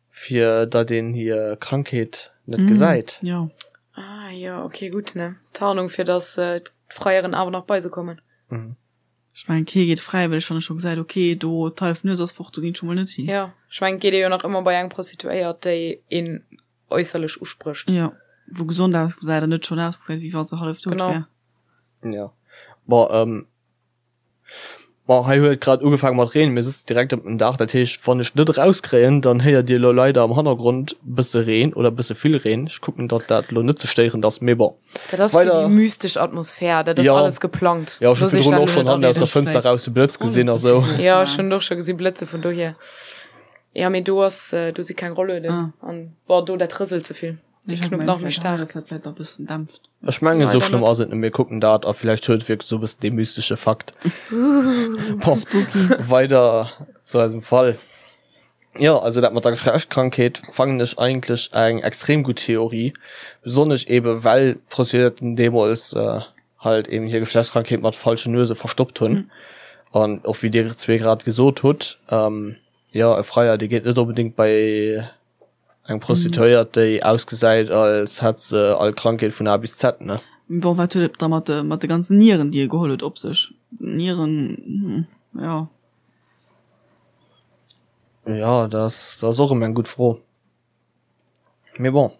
fir datt een hir Krankheet net gesäit. Jo. Ah jo, ok, gutt, ne? Tarnung, fir datt d'Freieren awer nach bei se kommen. Ech mengen, kee geet fräiwëlleg, wann e scho gesäit, ok, do d'hallef Nues ass fort, do ginn ech scho mol net hin. Jo, ech mengen, et geet ee jo nach ëmmer bei eng Prostituéiert, déi een äusserlech usprécht. Jo, wou gesond ausgesäit an net schonn ausgesäit, wéi wa se hallef dout wär. Genau. Jo, bon, bon, hei huet et grad ugefaange mat Reen, mir sëtzen direkt op dem Daach, dat heescht, wann ech net erauskréien, dann héiert Dir elo leider am Hannergrond bësse Reen oder bësse vill Reen. Ech kucken, datt dat elo net ze stéierend ass, mee bon. Dat ass fir déi mystesch Atmosphär, dat ass alles geplangt. Jo, ech hu virdrun och schonn hannen aus der Fënster raus de Blëtz gesinn a sou. Jo, ech hunn och scho gesi Blëtze vun dohier. Jo, mee do ass, do si keng Rollueden an bon, do dat rëselt ze vill. Déi knuppt nach méi staark. Ech mengen, esou schlëmm ass et net. Mir kucken dat a villäicht huet et wierklech esou e bëssen dee mystesche Fakt. Bon, weider zu eisem Fall. Jo, also dat mat der Geschlechtskrankheet fannen ech eigentlech eng extrem gutt Theorie, besonnesch ebe well d'Prostituéierten deemools halt eben hir Geschlechtskrankheet mat falschen Nuese verstoppt hunn. An och wéi dir zwee grad gesot hutt, jo e Freier dee geet net onbedéngt bei eng Prostituéiert déi ausgesäit als hätt se all Krankheet vun A bis Z, ne? Bon, wat huet et da mat de mat de ganzen Nieren déi e geholl huet op sech? Nieren, jo. Jo, dat ass, dat ass och erëm eng gutt Fro. Mee bon,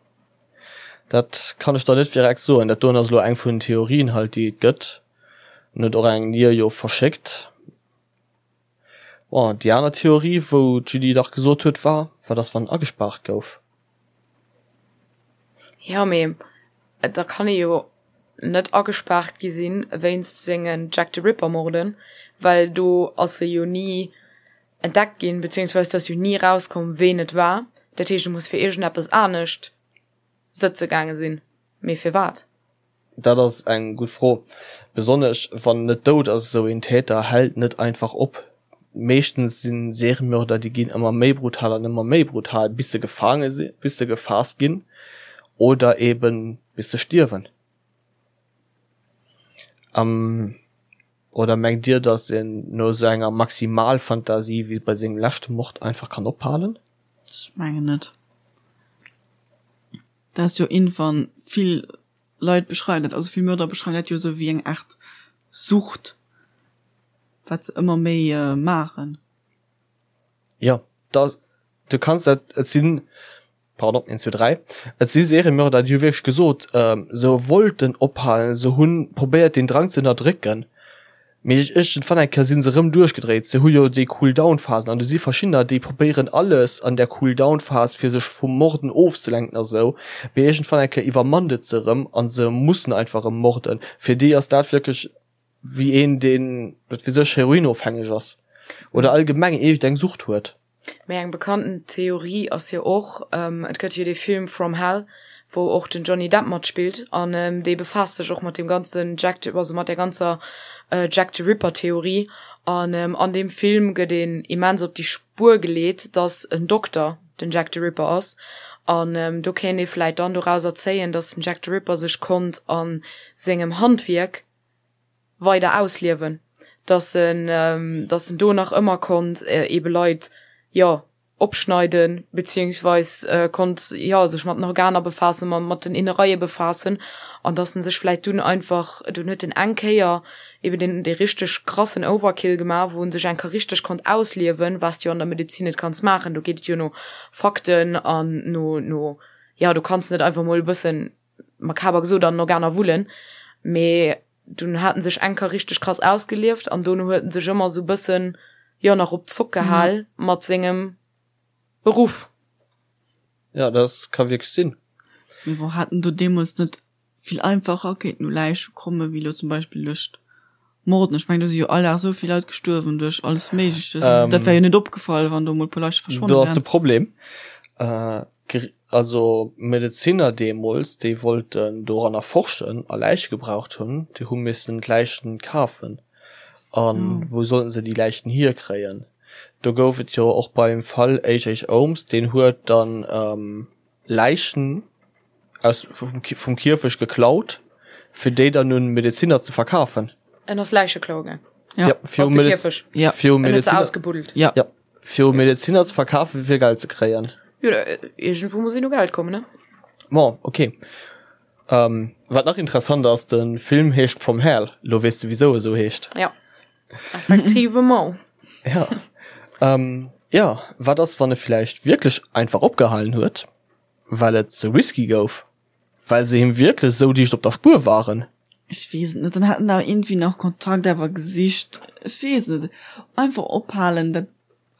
dat kann ech der net direkt soen. Dat doen ass elo eng vun den Theorien halt, déi et gëtt. En huet och eng Nier jo verschéckt. Bon, déi aner Theorie, wou d'Julie dach gesot huet, war, wat ass, wann en agespaart gouf? Jo, mee da kann ee jo net agespaart gi sinn wéinst sengen Jack the Ripper Morden, well do ass e jo ni entdeckt ginn, beziehungsweise et ass jo ni erauskomm ween et war. Dat heescht e muss fir iergendeppes anescht sëtze gaange sinn, mee firwat? Dat ass eng gutt Fro. Besonnesch wann en net dout ass. Esou een Täter hält net einfach op. Meeschtens si Seriemörder, déi ginn ëmmer méi brutal an ëmmer méi brutal, bis se gefaange sinn, bis se gefaasst ginn oder eben bis se stierwen. Oder mengt Dir, datt een no esou enger Maximalfantasie wéi bei sengem leschte Mord einfach kann ophalen? Ech mengen net. Dat ass jo iergendwann, vill Leit beschreiwen dat, also vill Mörder beschreiwen dat jo esou wéi eng Aart Sucht, wat se ëmmer méi maachen. Jo, da, du kanns dat, et sinn, pardon, een, zwee, dräi, et si Seriemörder, déi hu wierklech gesot, se wollten ophalen, se hu probéiert deen Drang ze ënnerdrécken, Mee iergendwann eng Kéier si se rëm duerchgedréit. Se hu jo déi Cool-Down-Phasen an do si verschiddener, déi probéieren alles an där Cool-Down-Phas fir sech vum Morden ofzelenken a sou. Mee iergendwann eng Kéier iwwermannt et se rëm a se mussen einfach rëm morden. Fir déi ass dat wierklech wéi een, deen, wat weess ech, heroinofhängeg ass oder allgemeng iergendeng Sucht huet. Mee eng bekannten Theorie ass jo och, et gëtt jo dee Film From Hell, wou och den Johnny Depp matspillt an dee befaasst sech och mat deem ganzen Jack the, also mat där ganzer Jack the Ripper Theorie an an deem Film gëtt een immens op déi Spuer geleet, dass en Dokter den Jack the Ripper ass an do kéint ee vläit dann dorauser zéien, dass den Jack the Ripper sech konnt a sengem Handwierk weider ausliewen, dass en, dass en do nach ëmmer konnt eebe Leit, jo, opschneiden, beziehungsweis konnt, jo, sech mat den Organer befaassen, mat den Innereie befaassen an dass en sech vläit dunn einfach, dunn huet en eng Kéier eben deen, dee richteg krassen Overkill gemaach, wou en sech eng Kéier richteg konnt ausliewen, wat s de jo an der Medezin net kanns maachen, do geet et jo no Fakten an no, no, jo, du kanns net einfach mol e bëssen makaber gesot an den Organer wullen, mee dunn hat en sech eng Kéier richteg krass ausgelieft an dono huet en sech ëmmer sou bëssen, jo, nach op d'Zock gehal mat sengem Beruff. Jo, dat ka wierklech sinn. Mee bon, hat en do deemools net vill einfacher kéinten u Läiche komme wéi lo zum Beispill duerch d'Morden? Ech mengen, do si jo all Dag esou vill Leit gestuerwen duerch alles Méigleches. Dat wär jo net opgefall, wann do mol e puer Läiche verschwonnen wären. Do ass de Problem. Also Medezinner deemools, déi wollten doranner forschen a Läiche gebraucht hunn, déi hu missen d'Läichen kafen. A wou sollten se déi Läichen hierkréien? Do gouf et jo och beim Fall H.H. Holmes, deen huet dann Läichen aus vum Kierfecht geklaut, fir déi dann un Medezinner ze verkafen. En ass Läiche klaue gaang. Ja, fir um Kierfecht. Ja, fir um Medezinner. Ausgebuddelt. Ja. Ja, fir um Medezinner ze verkafen, fir Geld ze kréien. Jo, iergendwou muss een u Geld kommen, ne? Bon, okay. Ähm, wat nach interessant ass, de Film heescht From Hell. Lo weess de, wisou e sou heescht. Ja. Effectivement. Ja. Ähm, ja, wat ass, wann e villäicht wierklech einfach opgehalen huet, well et ze risky gouf? Well se him wierklech esou dicht op der Spuer waren? Ech weess et net. Dann hätt en awer iergendwéi nach Kontakt awer gesicht. Ech weess et net. Einfach ophalen, dat,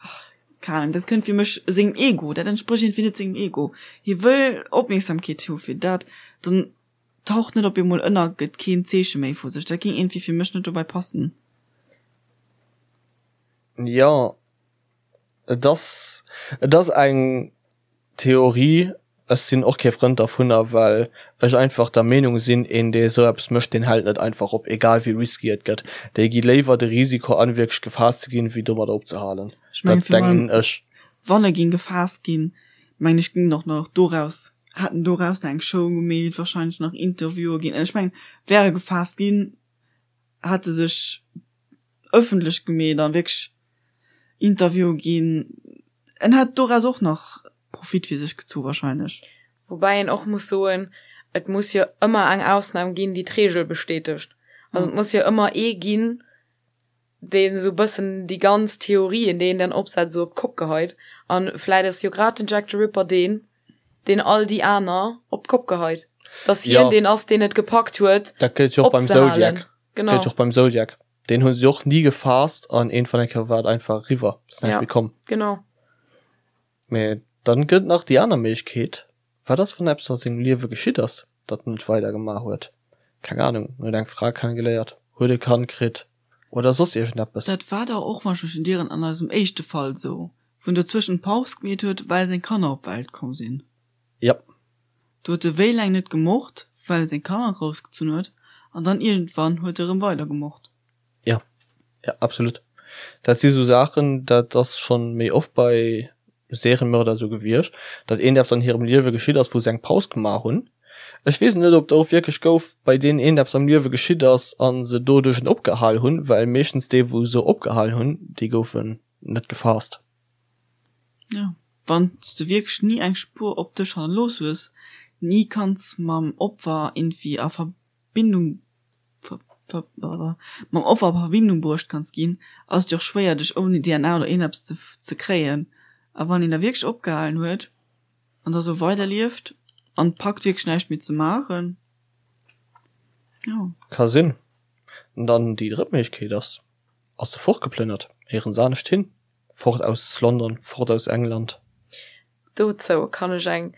ach, keng Ahnung, dat kënnt fir mech sengem Ego, dat entsprécht iergendwéi net sengem Ego. Hie wëll Opmierksamkeet hu fir dat, dann taucht net op eemol ënner, gëtt keen Zeeche méi vu sech. Dat géing iergendwéi fir mech net dobäi passen. Jo, et ass, et ass eng Theorie. Ech sinn och kee Frënd dervunner, well ech einfach der Meenung sinn, een dee esou eppes mécht, deen hält net einfach op, egal wéi risky et gëtt. Déi gi léiwer de Risiko an, wierklech gefaasst ze ginn, wéi domadder opzehalen. Ech mengen, Dat denken ech. Wann e géing gefaasst ginn, mengen ech, géing och nach doraus, hätt en doraus nach eng Show gemeet, wahrscheinlech nach Interviewen ginn. Ech mengen, wär e gefaasst ginn, hätt e sech ëffentlech gemeet an wierklech Interviewen ginn. En hätt doraus och nach Profit fir sech gezu wahrscheinlech. Woubäi een och muss soen, et muss jo ëmmer eng Ausnam ginn, déi d'Reegel bestätegt. Also et muss jo ëmmer ee ginn, deen esou bëssen déi ganz Theorien, déi een dann opsetzt, esou op d'Kopp geheit. An vläit ass jo grad den Jack the Ripper deen, deen all déi aner op d'Kopp geheit. Dass hien Ja. deen ass, deen et gepackt huet, Dat gëllt jo och beim opzehalen. Zodiac. Genau. Gëllt jo och beim Zodiac. Deen hu se och ni gefaasst an iergendwann eng Kéier war et einfach eriwwer. Ass näischt Ja. méi komm. Genau. Mee dann gëtt nach déi aner Méiglechkeet, Wat ass, wann eppes a sengem Liewe geschitt ass, datt en net weider gemaach huet? Keng Ahnung, en huet eng Fra kennegeléiert, huet e Kand kritt oder soss iergendeppes. Dat war dach och, wann ech mech net ieren, an eisem éischte Fall esou, wou en dozwëschen Paus gemeet huet, well seng Kanner op d'Welt komm sinn. Jep. Do huet e wéi laang net gemort, well e seng Kanner groussgezunn huet, an dann iergendwann huet e rëm weider gemort. Jo, jo, absolut. Dat si sou Saachen, dat ass schonn méi oft bei Seriemörder esou gewiescht, datt iergendeppes an hirem Liewe geschitt ass, wou se eng Paus gemaach hunn. Ech weess net, ob et och wierklech gouf, bei deenen iergendeppes am Liewe geschitt ass a se doduerch en opgehal hunn, well meeschtens déi, wou se opgehal hunn, déi goufen net gefaasst. Jo, wann s de wierklech ni eng Spuer op dech hannerlooss hues, ni kanns mam Opfer iergendwéi a Verbindung mam Opfer a Verbindung bruecht kanns ginn, ass et jo och schwéier dech ouni DNA oder iergendeppes ze ze kréien. A wann een da wierklech opgehalen huet an da sou weiderlieft an packt wierklech näischt méi ze maachen, jo. Ka sinn. An dann déi drëtt Méiglechkeet ass, ass se fortgeplënnert, éierens anescht hin, fort aus London, fort aus England. Dozou kann ech eng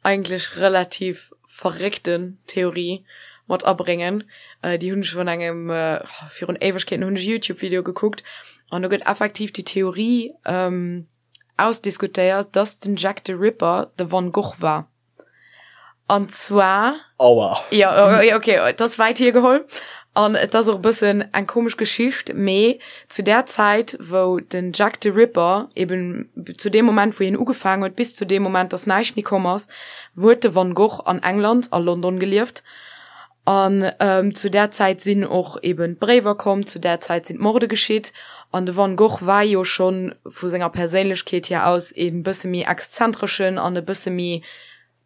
eigentlech relativ verréckten Theorie mat abréngen. Déi hunn ech vun engem, virun Éiwegkeeten hunn ech e Youtube-Video gekuckt an do gëtt effektiv déi Theorie. ausdiskutéiert, dass den Jack the Ripper de Van Gogh war. An zwar. Aua. Ja, ja, okay, et ass wäit hiergeholl an et ass och e bëssen eng komesch Geschicht, mee zu där Zäit, wou den Jack the Ripper eben, zu deem Moment, wou hien ugefaangen huet, bis zu deem Moment, dass näischt méi komm ass, huet de Van Gogh an England, a London gelieft. An zu där Zäit sinn och eben d'Bréiwer komm, zu där Zäit sinn d'Morde geschitt. An de Van Gogh war jo scho vu senger Perséinlechkeet hier aus e bësse méi exzentreschen an e bësse méi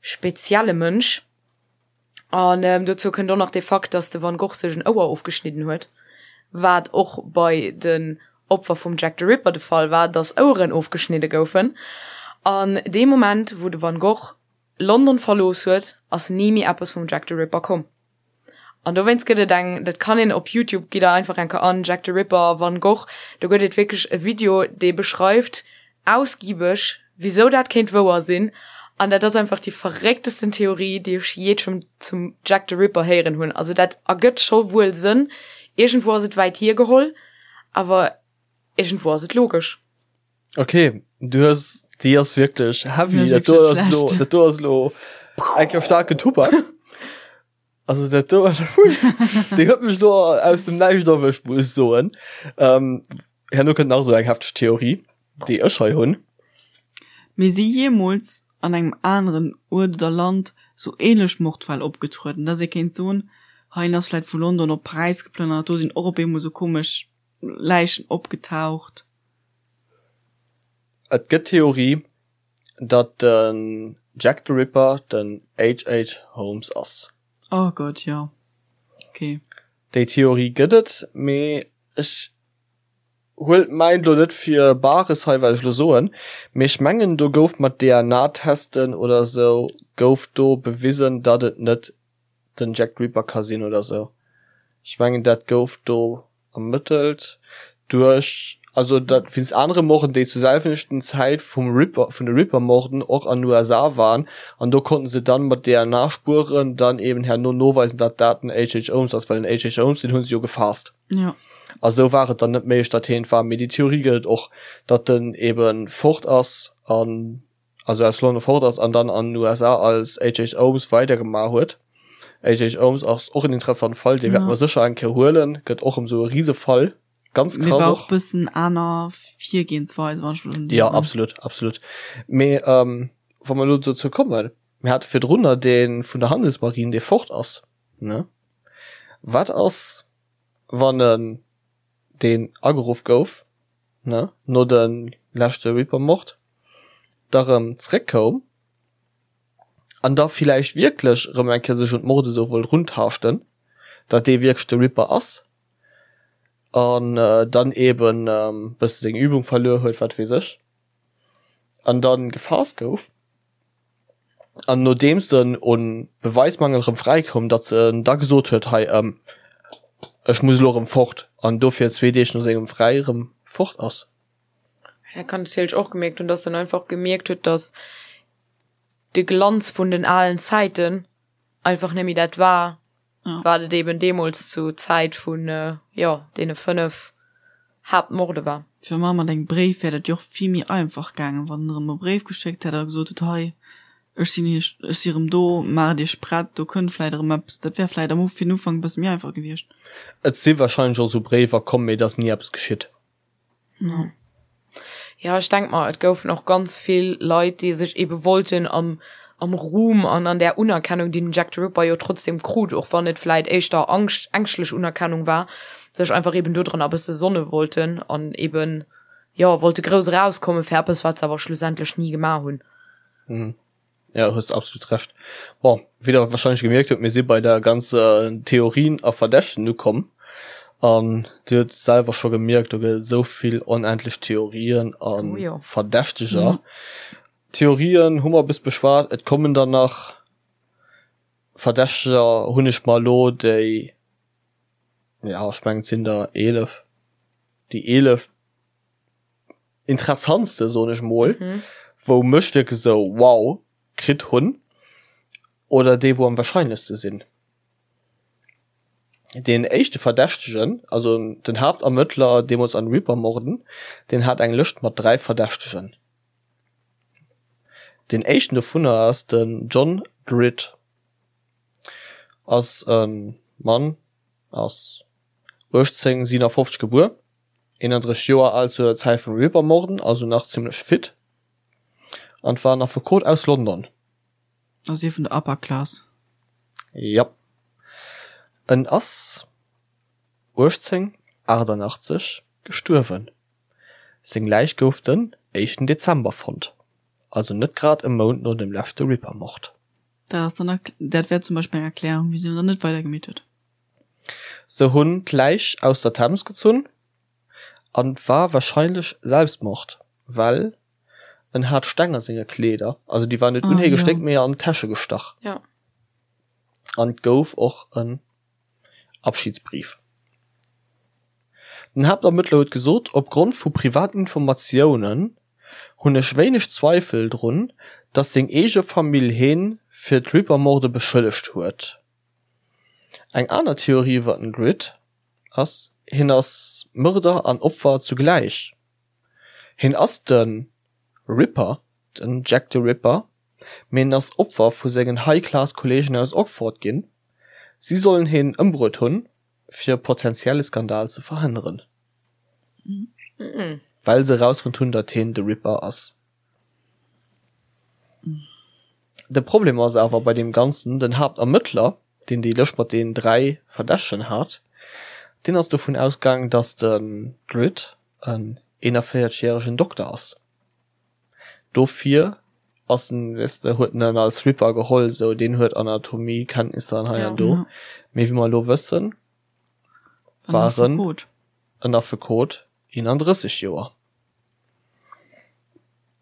spezielle Mënsch. An dozou kënnt och nach de Fakt, datt de Van Gogh sech en Ouer ofgeschnidden huet, wat och bei den Opfer vum Jack the Ripper de Fall war, datt Oueren ofgeschnidde goufen. An dee Moment, wou de Van Gogh London verlooss huet, ass ni méi eppes vum Jack the Ripper komm. An dowéinst gëtt et eng, dat kann een op Youtube, gitt der einfach eng Kéier an, Jack the Ripper, Van Gogh, do gëtt et wierklech e Video, dee beschreift ausgiebeg, wisou dat kéint wouer sinn. An dat ass einfach déi verrécktesten Theorie, déi ech jee zum zum Jack the Ripper héieren hunn. Also dat ergëtt scho wuel Sënn, iergendwou ass et wäit hiergeholl, awer iergendwou ass et logesch. Okay, du hues déi ass wierklech heavy. Dat do ass lo, dat do ass lo enker starken Tubak. Also dat do hui, déi huet mech lo aus dem Näischt erwëscht, muss ech soen. Ähm, herno kënnt nach esou eng hefteg Theorie, déi ech hei hunn. Mee si jeemools an engem aneren Uert oder Land sou ähnlech Mordfäll opgetrueden, dass ee kéint soen, hei en ass vläit vu London op Paräis geplënnert, do sinn och op eemol sou komesch Läichen opgetaucht? Et gëtt d'Theorie, datt den Jack the Ripper den HH. Holmes ass. Oh Gott, jo. Ok. Déi Theorie gëtt et, mee ech huelt mäin lo net fir Bares hei wat ech lo soen, mee ech mengen do gouf mat DNA-Testen oder sou gouf do bewisen, datt et net den Jack the Ripper ka sinn oder sou. Ech mengen dat gouf do ermëttelt duerch, also dat wéinst anere Morden déi zur selwechten Zäit vum Ripper, vun de Ripper-Morden och an den USA waren an do konnten se dann mat DNA-Spueren dann eben herno noweisen, datt dat den HH. Holmes ass, well den HH. Holmes deen hu se jo gefaasst. Ja. A sou war et dann net méiglech, datt heen et war. Mee déi Theorie gëtt et och, datt en eben fort ass an also aus London fort ass an dann an den USA als HH. Holmes weidergemaach huet. HH. Holmes ass och en interessante Fall, dee wäerte mer sécher eng Kéier huelen, gëtt och erëm esou e Risefall, ganz krass och. Mee war och bëssen aner Virgehensweis, wann ech mech net Jo, absolut, absolut. Mee wa mer elo dozou kommen, mir hate virdrunner dee vun der Handelsmarine, dee fort ass, ne? Wat ass, wann en deen ageruff gouf, ne, no de leschte Reaper-Mord, da rëm zréckkoum an da villäicht wierklech rëm eng Kéier sech un d'Morde sou wollt runtaaschten, datt dee wierklech de Reaper ass an dann eben bësse seng Übung verluer huet, wat weess ech, an dann gefaasst gouf. An nodeems en un Beweismangel erëm fräikoum, datt en da gesot huet, hei ech muss elo erëm fort, an dofir zwee Deeg no sengem Fräi erëm fort ass. Dat kann natierlech och gemierkt hunn, datt en einfach gemierkt huet, datt de Glanz vun den alen Zäiten einfach net méi dat war, wat et eben deemools zu Zäit vun, jo, deene 5 Haaptmorde war. Fir mar mat engem Bréif wär dat jo och vill méi einfach gaangen, wann en erëm e Bréif geschéckt hätt a gesot huet, hei, ech sinn iech, ech si erëm do, maacht iech prett, do kënnt vläit erëm eppes. Dat wär vläit am fir den Ufank e bësse méi einfach gewiescht. Et si wahrscheinlech och esou Bréiwer komm, mee et ass ni eppes geschitt. Ja. Ja, ech denk mer, et goufen och ganz vill Leit, déi sech ebe wollten am, am Ruhm an an där Unerkennung, déi den Jack the Ripper jo trotzdem krut, och wann et vläit éischter Angscht, ängschtlech Unerkennung war, sech einfach eben dodranner e bësse sonne wollten an eben, jo, wollte grouss erauskommen fir eppes, wat se awer schlussendlech ni gemaach hunn. Mhm. Ja, hues absolut Recht. Bon, wéi der wahrscheinlech gemierkt hutt, mir si bei der ganzer Theorien a Verdächten ukomm. An Dir hutt selwer scho gemierkt, do gëtt et esou vill onendlech Theorien a Oh jo. Verdächteger. Theorien hu mer bis beschwat, et kommen der nach. Verdächteger hunn ech mer elo déi, ja, ech mengen et sinn der 11, déi 11 interessantste soen ech mol, wou mech wierklech esou wow kritt hunn oder déi wou am wahrscheinlechste sinn. Deen éischte Verdächtegen, also den Haaptermëttler deemools an Reaper-Morden, deen hat eng Lëscht mat 3 Verdächtegen. Deen éischten dovunner ass den John Druitt. Ass e Mann, ass 1857 gebuer, 31 Joer al zu der Zäit vum Ripper-Morden, also nach zimmlech fit, an war en Affekot aus London. Also ee vun der Upper Class. Jap. En ass 1888 gestuerwen. Seng Läich gouf den éischten Dezember fonnt, also net grad e Mount no dem leschte Ripper-Mord. Dat ass dann, dat wär zum Beispill eng Erklärung, wisou en dann net weidergemeet huet. Se hunn d'Läich aus der Thames gezunn an war warscheinlech Selbstmord, well en hat Steng a senge Kleeder, also déi waren net un hie gestéckt, mee an d'Täsche gestach. An et gouf och en Abschiedsbrief. Den Haaptermëttler huet gesot, Opgrond vu privaten Informatiounen hunn ech wéineg Zweifel drun, datt seng eege Famill hien fir d'Ripper-Morde beschëllegt huet. Eng aner Theorie iwwer den Druitt ass, hien ass Mörder an Opfer zugläich. Hien ass de Ripper, den Jack the Ripper, mee en ass Opfer vu sengen High-Class-Kolleegen aus Oxford ginn. Si sollen hien ëmbruet hunn, fir e potentielle Skandal ze verhënneren, well se erausfonnt hunn, datt hien de Ripper ass. De Problem ass awer bei deem Ganzen, den Haaptermëttler, deen déi Lëscht mat den 3 Verdächtegen hat, deen ass dovun ausgaangen, datt den Druitt en 41 järegen Dokter ass. Dofir ass en, weess de, huet en en als Ripper geholl, sou deen huet Anatomiekenntnisser an hei an do. Mee wéi mer elo wëssen, war en en Affekot, 31 Joer.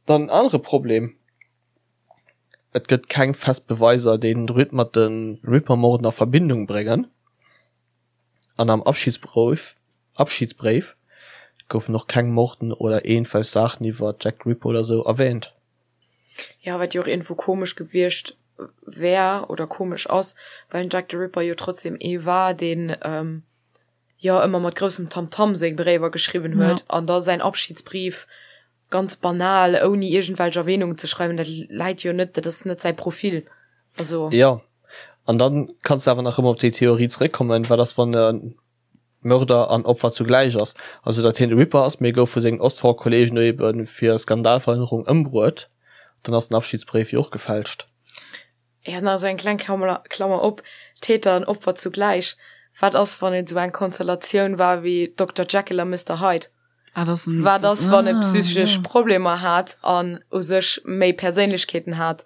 Dann en anere Problem, Et gëtt keng fest Beweiser, déi den Druitt mat de Ripper-Morden a Verbindung bréngen. An am Abschiedsbréif Abschiedsbréif goufen och keng Morden oder iergendwelch Saachen iwwer Jack the Ripper oder sou erwähnt. Jo, wat jo och iergendwou komesch gewiescht wär oder komesch ass, well den Jack the Ripper jo trotzdem ee war, deen jo ëmmer mat groussem Tamtam seng Bréiwer geschriwwen huet an da säin Abschiedsbrief ganz banal ouni iergendwelch Erwähnungen ze schreiwen, dat läit jo net, dat ass net säi Profil. Also. Jo, an dann kanns de awer nach ëmmer op déi Theorie zeréckkommen, wat ass wann e Mörder an Opfer zugläich ass, also datt hien de Ripper ass, mee gouf vu sengen Ostfront-Kollegen ebe fir Skandalverhënnerung ëmbruet, dann ass den Abschiedsbréif jo och gefälscht. Jo, nach esou eng kleng Klammer, Klammer op, Täter an Opfer zugläich, wat ass wann et esou eng Konstellatioun war wéi Dokter Jekyll a Mister Hyde? Ah, das sind, Wat ass wann e psychesch ja. Problemer hat an u sech méi Perséinlechkeeten hat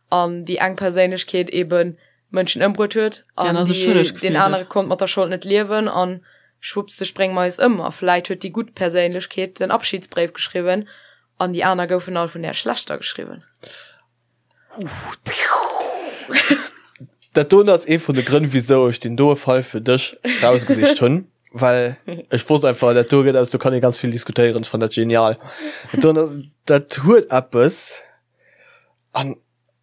an déi eng Perséinlechkeet eben Mënschen ëmbruet huet an ja, déi, den anere konnt mat der Schold net liewen an schwupps de spréng mer eis ëm a vläit huet déi gutt Perséinlechkeet den Abschiedsbréif geschriwwen an déi aner goufen all vun där schlechter geschriwwen. Dat doen ass ee vun de Grënn wisou ech deen doe Fall fir dech rausgesicht hunn, well ech wosst einfach dat do gëtt eppes, do kann ee ganz vill diskutéieren. Ech fannen dat genial. Dat doen ass, dat huet eppes an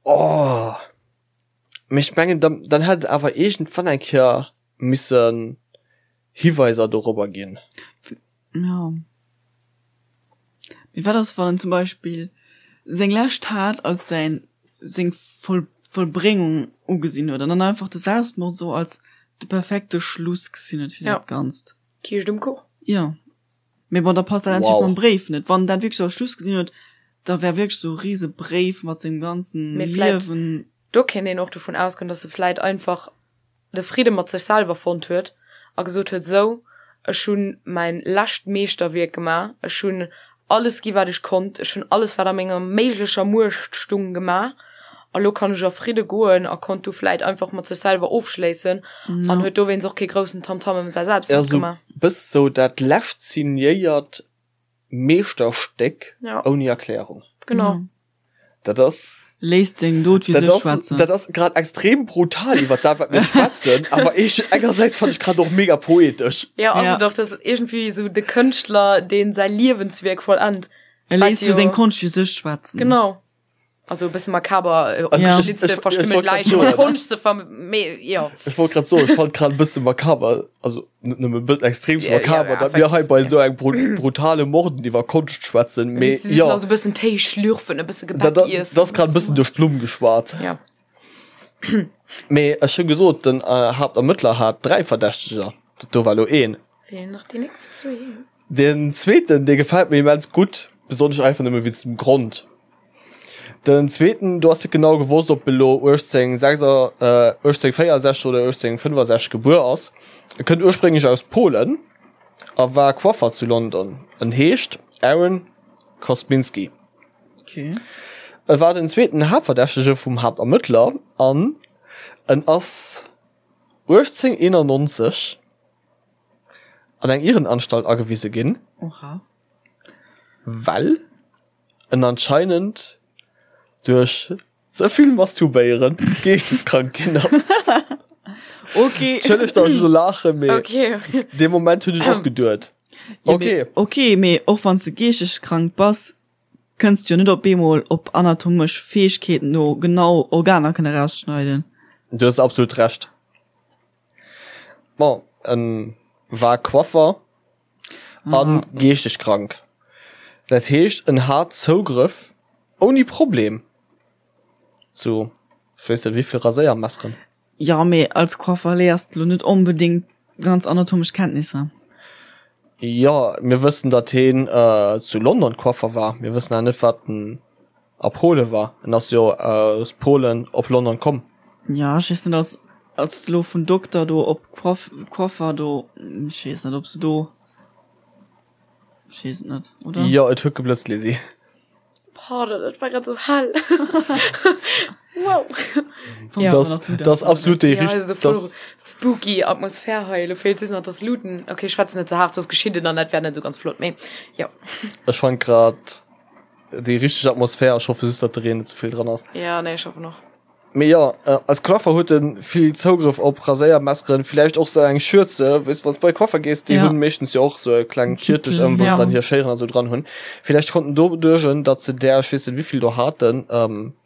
oh mee ech mengen dann, dann hätt et awer iergendwann eng Kéier missen Hiweiser dorobber ginn. Jo. Mee wat ass wann en zum Beispill seng lescht Tat als säin seng Voll Vollbréngung ugesinn huet an dann einfach de Selbstmord sou als de perfekte Schluss gesinn huet fir dat Ganzt? Kiischt um Kuch. Jo. Mee bon, da passt dat natierlech mam Bréif net. Wann en dat wierklech als Schluss gesinn huet, da wär wierklech sou e rise Bréif mat sengem ganzen Mee vläit, Liewen. do kéint een och dovun ausgoen, dass e vläit einfach de Fridde mat sech selwer fonnt huet a gesot huet, Sou, ech hu mäin lescht Meeschterwierk gemaach, ech hunn alles gi wat ech konnt, ech hunn alles wat a menger méiglecher Muecht stung gemaach a lo kann ech a Fridde goen a konnt du vläit einfach mat sech selwer ofschléissen an huet dowéinst och kee groussen Tamtam ëm säi Selbstwäert gemaach. Bëss sou dat lescht signéiert Meeschterstéck ouni Erklärung. Genau. Dat ass. Léisst seng Dot fir sech schwätzen. Dat ass grad extrem brutal iwwer dat wat mir schwätzen, awer ech engersäits fannen ech grad och mega poetesch. Ja ass et och, dat ass iergendwéi esou de Kënschtler deen säi Liewenswierk vollennt. E léisst jo seng Konscht fir sech schwätzen. Genau. Also e bësse makaber, äh, opgeschlitzte, Ja. Ech- ech- ech verstümmelt wollt grad Läichen, soen. Konscht ze verm-, mee jo. Ech wollt grad soen, ech fand grad e bësse makaber, also net nëmme e bëssen, extrem Ja, ja, makaber, ja, datt mir hei bei effektiv, esou eng bru brutale Morden iwwer Konscht schwätzen, mee Si jo, nach so e bëssen Téi schlürfen, e bësse dat, Gebäck dat, iessen. dat ass grad e bëssen duerch d'Blumm geschwat. Ja. Mee ech hu gesot, den äh, Haaptermëttler hat 3 Verdächteger, dat do war lo een. Feelen nach déi nächst zwee. Den zweeten, dee gefält mir immens gutt, besonnesch einfach nëmme wéinst dem Grond. Den zweeten, do ass net genau gewosst, ob e lo 1864 oder 1865 gebuer ass. E kënnt ursprénglech aus Polen a war Coiffer zu London. En heescht Aaron Kosminski. Okay. E war den zweeten Haaptverdächtege vum Haaptermëttler an en ass 1891 an eng Irrenanstalt agewise ginn, Oha. well en anscheinend duerch ze vill Masturbéieren geeschteskrank ginn ass. Okay. Entschëllegt, datt ech elo laachen, mee Okay. dee Moment hunn ech och geduet, Ja, okay. mee, okay, mee och wann s de geeschteskrank bass, kënns du jo net op eemol op anatomesch Fäegkeeten no genau Organer kënne rausschneiden. Du hues absolut Recht. Bon, en war Coiffer an geeschteg krank. Dat heescht en hat Zougrëff ouni Problem zu ech weess net wéivill Raséiermesseren. Jo, mee als Coiffer léiers de lo net onbedéngt ganz anatomesch Kenntnisser. Jo, mir wëssen datt heen zu London Coiffer war. Mir wëssen awer net wat en a Pole war. En ass jo aus Polen op London komm. Ja, ech weess net, als, als elo vun Dokter do op Coif, Coiffer do, ech weess net, ob se do, ech weess et net, oder? Jo, et huet geblëtzt, Lisi. Pardon, dat war grad sou hell. Wow. Ja. Das, das absolut déi Ja, also voll das, spooky Atmosphär hei. Lo feelt just nach das Looten. Okay, ich schwätze net ze hart, soss geschitt et an dat wär net sou ganz flott, mee jo. Ech fand grad déi richteg Atmosphär. Ech hoffe just, datt de Reen net ze vill dran ass. Ja, nee, ech hoffen och. Mee jo, als Coiffer huet en vill Zougrëff op Raséiermesseren, villäicht och sou eng Schürze, weess wanns bei Coiffer gees, déi Ja. hunn meeschtens jo och sou e klengt Schiertech ëm, wou se Ja. dann hir Schéieren a sou dran hunn. Villäicht konnten doduerch, datt se där, ech weess net wéivill do haten,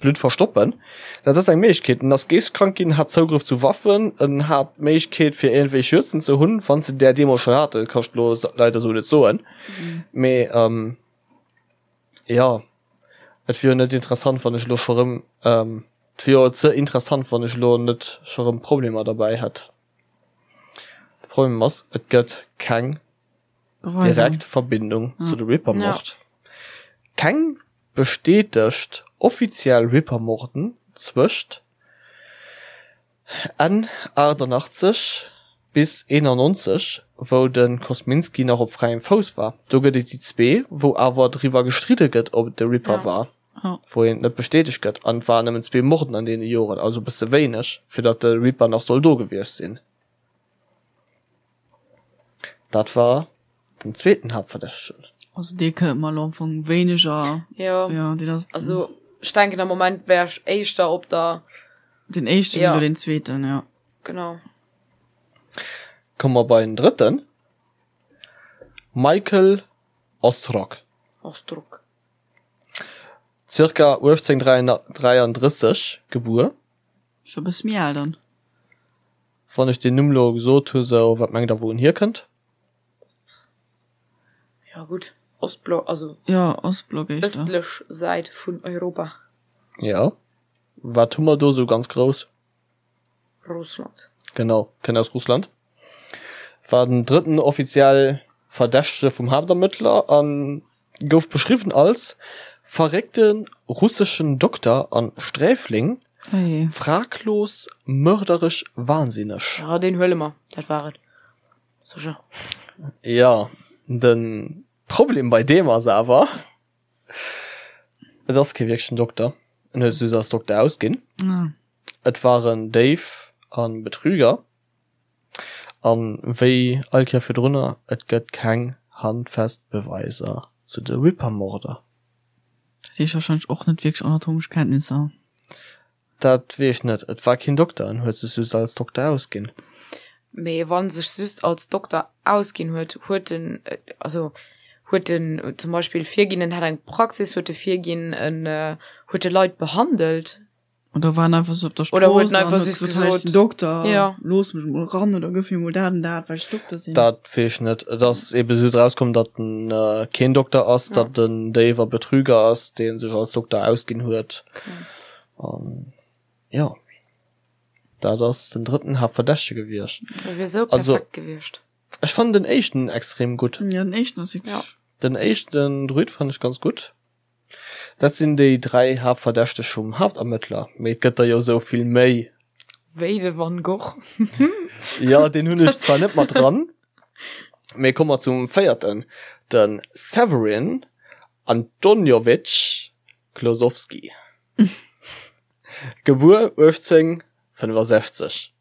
Blutt verstoppen. Dat ass eng Méiglechkeet. En ass geeschtkrank ginn, hat Zougrëff zu Waffen, en hat d'Méiglechkeet fir iergendwéi Schürzen ze hunn, wann se där deemools schonn haten, kann ech lo leider sou net soen. Mee jo. Et wier jo net interessant wann ech elo scho rëm, et wier jo ze interessant wann ech elo net scho rëm Problemer derbäi hätt. De Problem ass, et gëtt keng direkt Verbindung zu de Ripper-Mord. Keng bestätegt offiziell Ripper-Morden zwëscht Enn 88 bis 91, wou de Kosminski nach op fräiem Fouss war. Do gëtt et déi zwee, wou awer driwwer gestridde gëtt, ob et de Ripper war, wou een et net bestätegt gëtt. An et waren nëmmen zwee Morden an deene Joren, also e bësse wéineg, fir datt de Ripper nach soll do gewiescht sinn. Dat war den zweeten Haaptverdächtegen. Also dee kënnt mer elo am Fong wéineger. Jo. Ja, deen ass. Also ech denken am Moment wär ech éischter op der. Den éischten Ja. oder den zweeten, ja. Genau. Komme mer bei den drëtten, Michael Ostrog. Ostrog. Zirka 1833 gebuer. Scho bësse méi al dann. Wann ech deen Numm lo gesot hu sou, wat mengt der wou en hierkënnt? Ja gutt, Ostblock, also Ja, Ostblock éischter. ëstlech Säit vun Europa. Ja, wat hu mer do sou ganz grouss? Russland. Genau, kënnt aus Russland. War den drëtten offiziell Verdächtege vum Haaptermëttler an gouf beschriwwen als verréckte russeschen Dokter an Sträfling, Hey. fraglos mörderech wahnsinneg. Ja, deen huele mer, dat war et. Sécher. Jo, de Problem bei deem ass awer, et ass kee wierklechen Dokter, en huet sech just als Dokter ausginn. Ah. Et war en Déif a Betrüger. An wéi all Kéier virdrunner, et gëtt keng handfest Beweiser zu de Ripper-Morder. Dat heescht wahrscheinlech och net wierklech anatomesch Kenntnisser. Dat weess ech net. Et war keen Dokter, en huet sech just als Dokter ausginn. Mee wann sech just als Dokter ausginn huet, huet en, also huet en zum Beispill virginn, en hätt eng Praxis, huet e virginn, en. Huet e Leit behandelt? Oder war en einfach sou op der Oder huet Strooss en an einfach huet just gesot, hei ech sinn gesot, Dokter, ja. looss mech mol ran oder gëff mir mol dat an dat, well ech Dokter sinn. Dat weess ech net. Et ass ebe just erauskomm, datt en keen Dokter ass, Ja. datt en Déif a Betrüger ass, dee sech als Dokter ausginn huet. Okay. An jo, dat ass den drëtten Haaptverdächtege gewiescht. E wier sou Also, perfekt gewiescht. ech fannen den éischten extrem gutt. Ja, den éischten ass wierklech. Ja. Den éischten Druid fannen ech ganz gutt. Dat sinn déi 3 Haaptverdächteg vum Haaptermëttler, mee et gëtt der jo sou vill méi. Wéi de Van Gogh. Jo, deen hunn ech zwar net mat dran, mee komme mer zum véierten, de Severin Antonjowitsch Klosowski, gebuer 1865,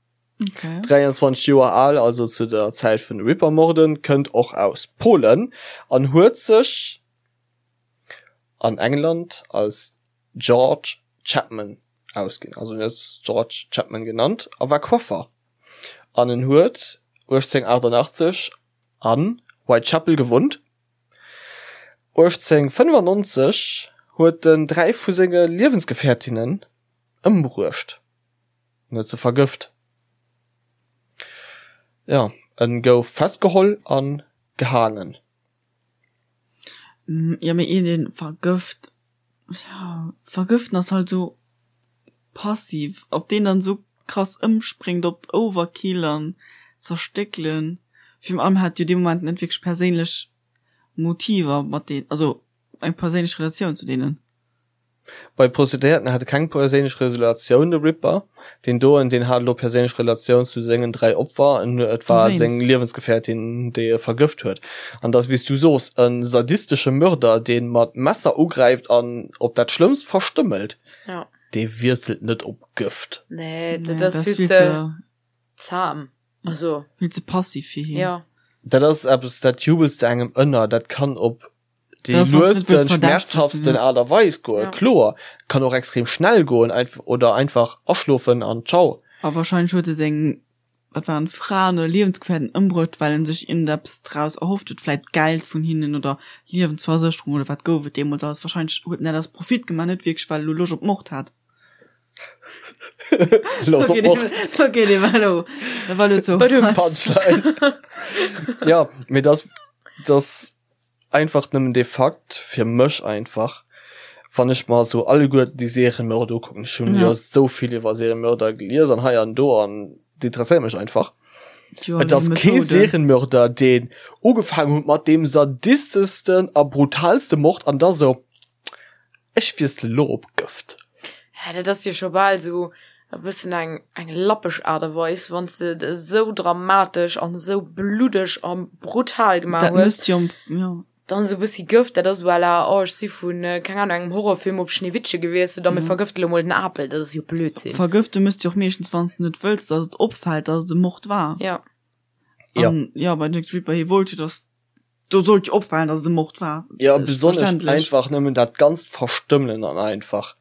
23 Joer al, also zu der Zäit vun de Ripper-Morden, kënnt och aus Polen an huet sech an England als George Chapman ausginn, also en huet sech George Chapman genannt a war Coiffer an en huet 1888 an Whitechapel gewunnt. 1895 huet en 3 vu senge Liewensgefährtinnen ëmbruecht, en huet se vergëft. Jo, en gouf festgeholl a gehaangen. Jo mee een deen vergëft, jo vergëften ass halt sou passiv, ob deen dann sou krass ëmspréngt op Overkill an zerstéckelen, virun allem hat jo dee Moment net wierklech perséinlech Motiver mat deen, also eng perséinlech Relatioun zu deenen. Bei Prostituéierten hat e keng perséinlech Relatioun, de Ripper. Deen doen, deen hat elo perséinlech Relatioun zu sengen 3 Opfer, et war seng Liewensgefährtin, déi e vergëft huet. An et ass, wéi s du soos, e sadistesche Mörder, dee mat Messer ugräift an op dat Schlëmmst verstëmmelt. Dee wiesselt net op Gëft. Nee, dat ass vill ze zahm. Also. Vill ze passiv fir hien. Jo. Dat ass eppes, dat jubels de engem ënner. Dat kann op déi luesten, schmerzhaftsten Aart a Weis goen, kloer. Kann och extrem schnell goen oder einfach aschlofen an ciao. A wahrscheinlech huet e seng, wat waren et, Fraen oder Liewensgefährten ëmbruecht, well en sech iergendeppes draus erhofft huet, vläit Geld vun hinnen oder Liewensversécherung oder wat gouf et deemools alles. Wahrscheinlech huet en dat aus Profit gemaach, net wierklech well e lo Loscht op Mord hat. Loscht op Mord. Okay, dee war elo, dat war elo ze Punchline. Jo, mee dass, dass Einfach nëmmen dee Fakt, fir mech einfach, wann ech mer esou alleguerten déi Seriemörder ukucken, ech hunn jo esou vill iwwer Seriemörder gelies an hei an do an déi interesséiere mech einfach. Et ass kee Serienmörder, deen ugefaangen huet mat deem sadisteschsten a brutalste Mord an da sou, ech wiessele lo op Gëft. Hä, dat ass jo scho bal esou e bëssen eng eng lappeg Aart a Weis, wann s de et esou dramatesch an esou bluddeg a brutal gemaach Dat hues, mësst jo, jo. dann esou e bëssi Gëft, dat ass esou à la, oh ech si vu keng Ahnung engem Horrorfilm op Schneewittche gewiesselt a mir vergëfte lo mol den Apel, dat ass jo Blödsinn. Vergëfte mësst jo och meeschtens, wann s de net wëlls, datt et opfält, datt et e Mord war. Ja. Ja. An jo, bei Jack the Ripper, hie wollt jo, datt Do sollt jo opfalen, dass et e Mord war. Ja, besonnesch einfach nëmmen dat ganzt Verstëmmelen an einfach.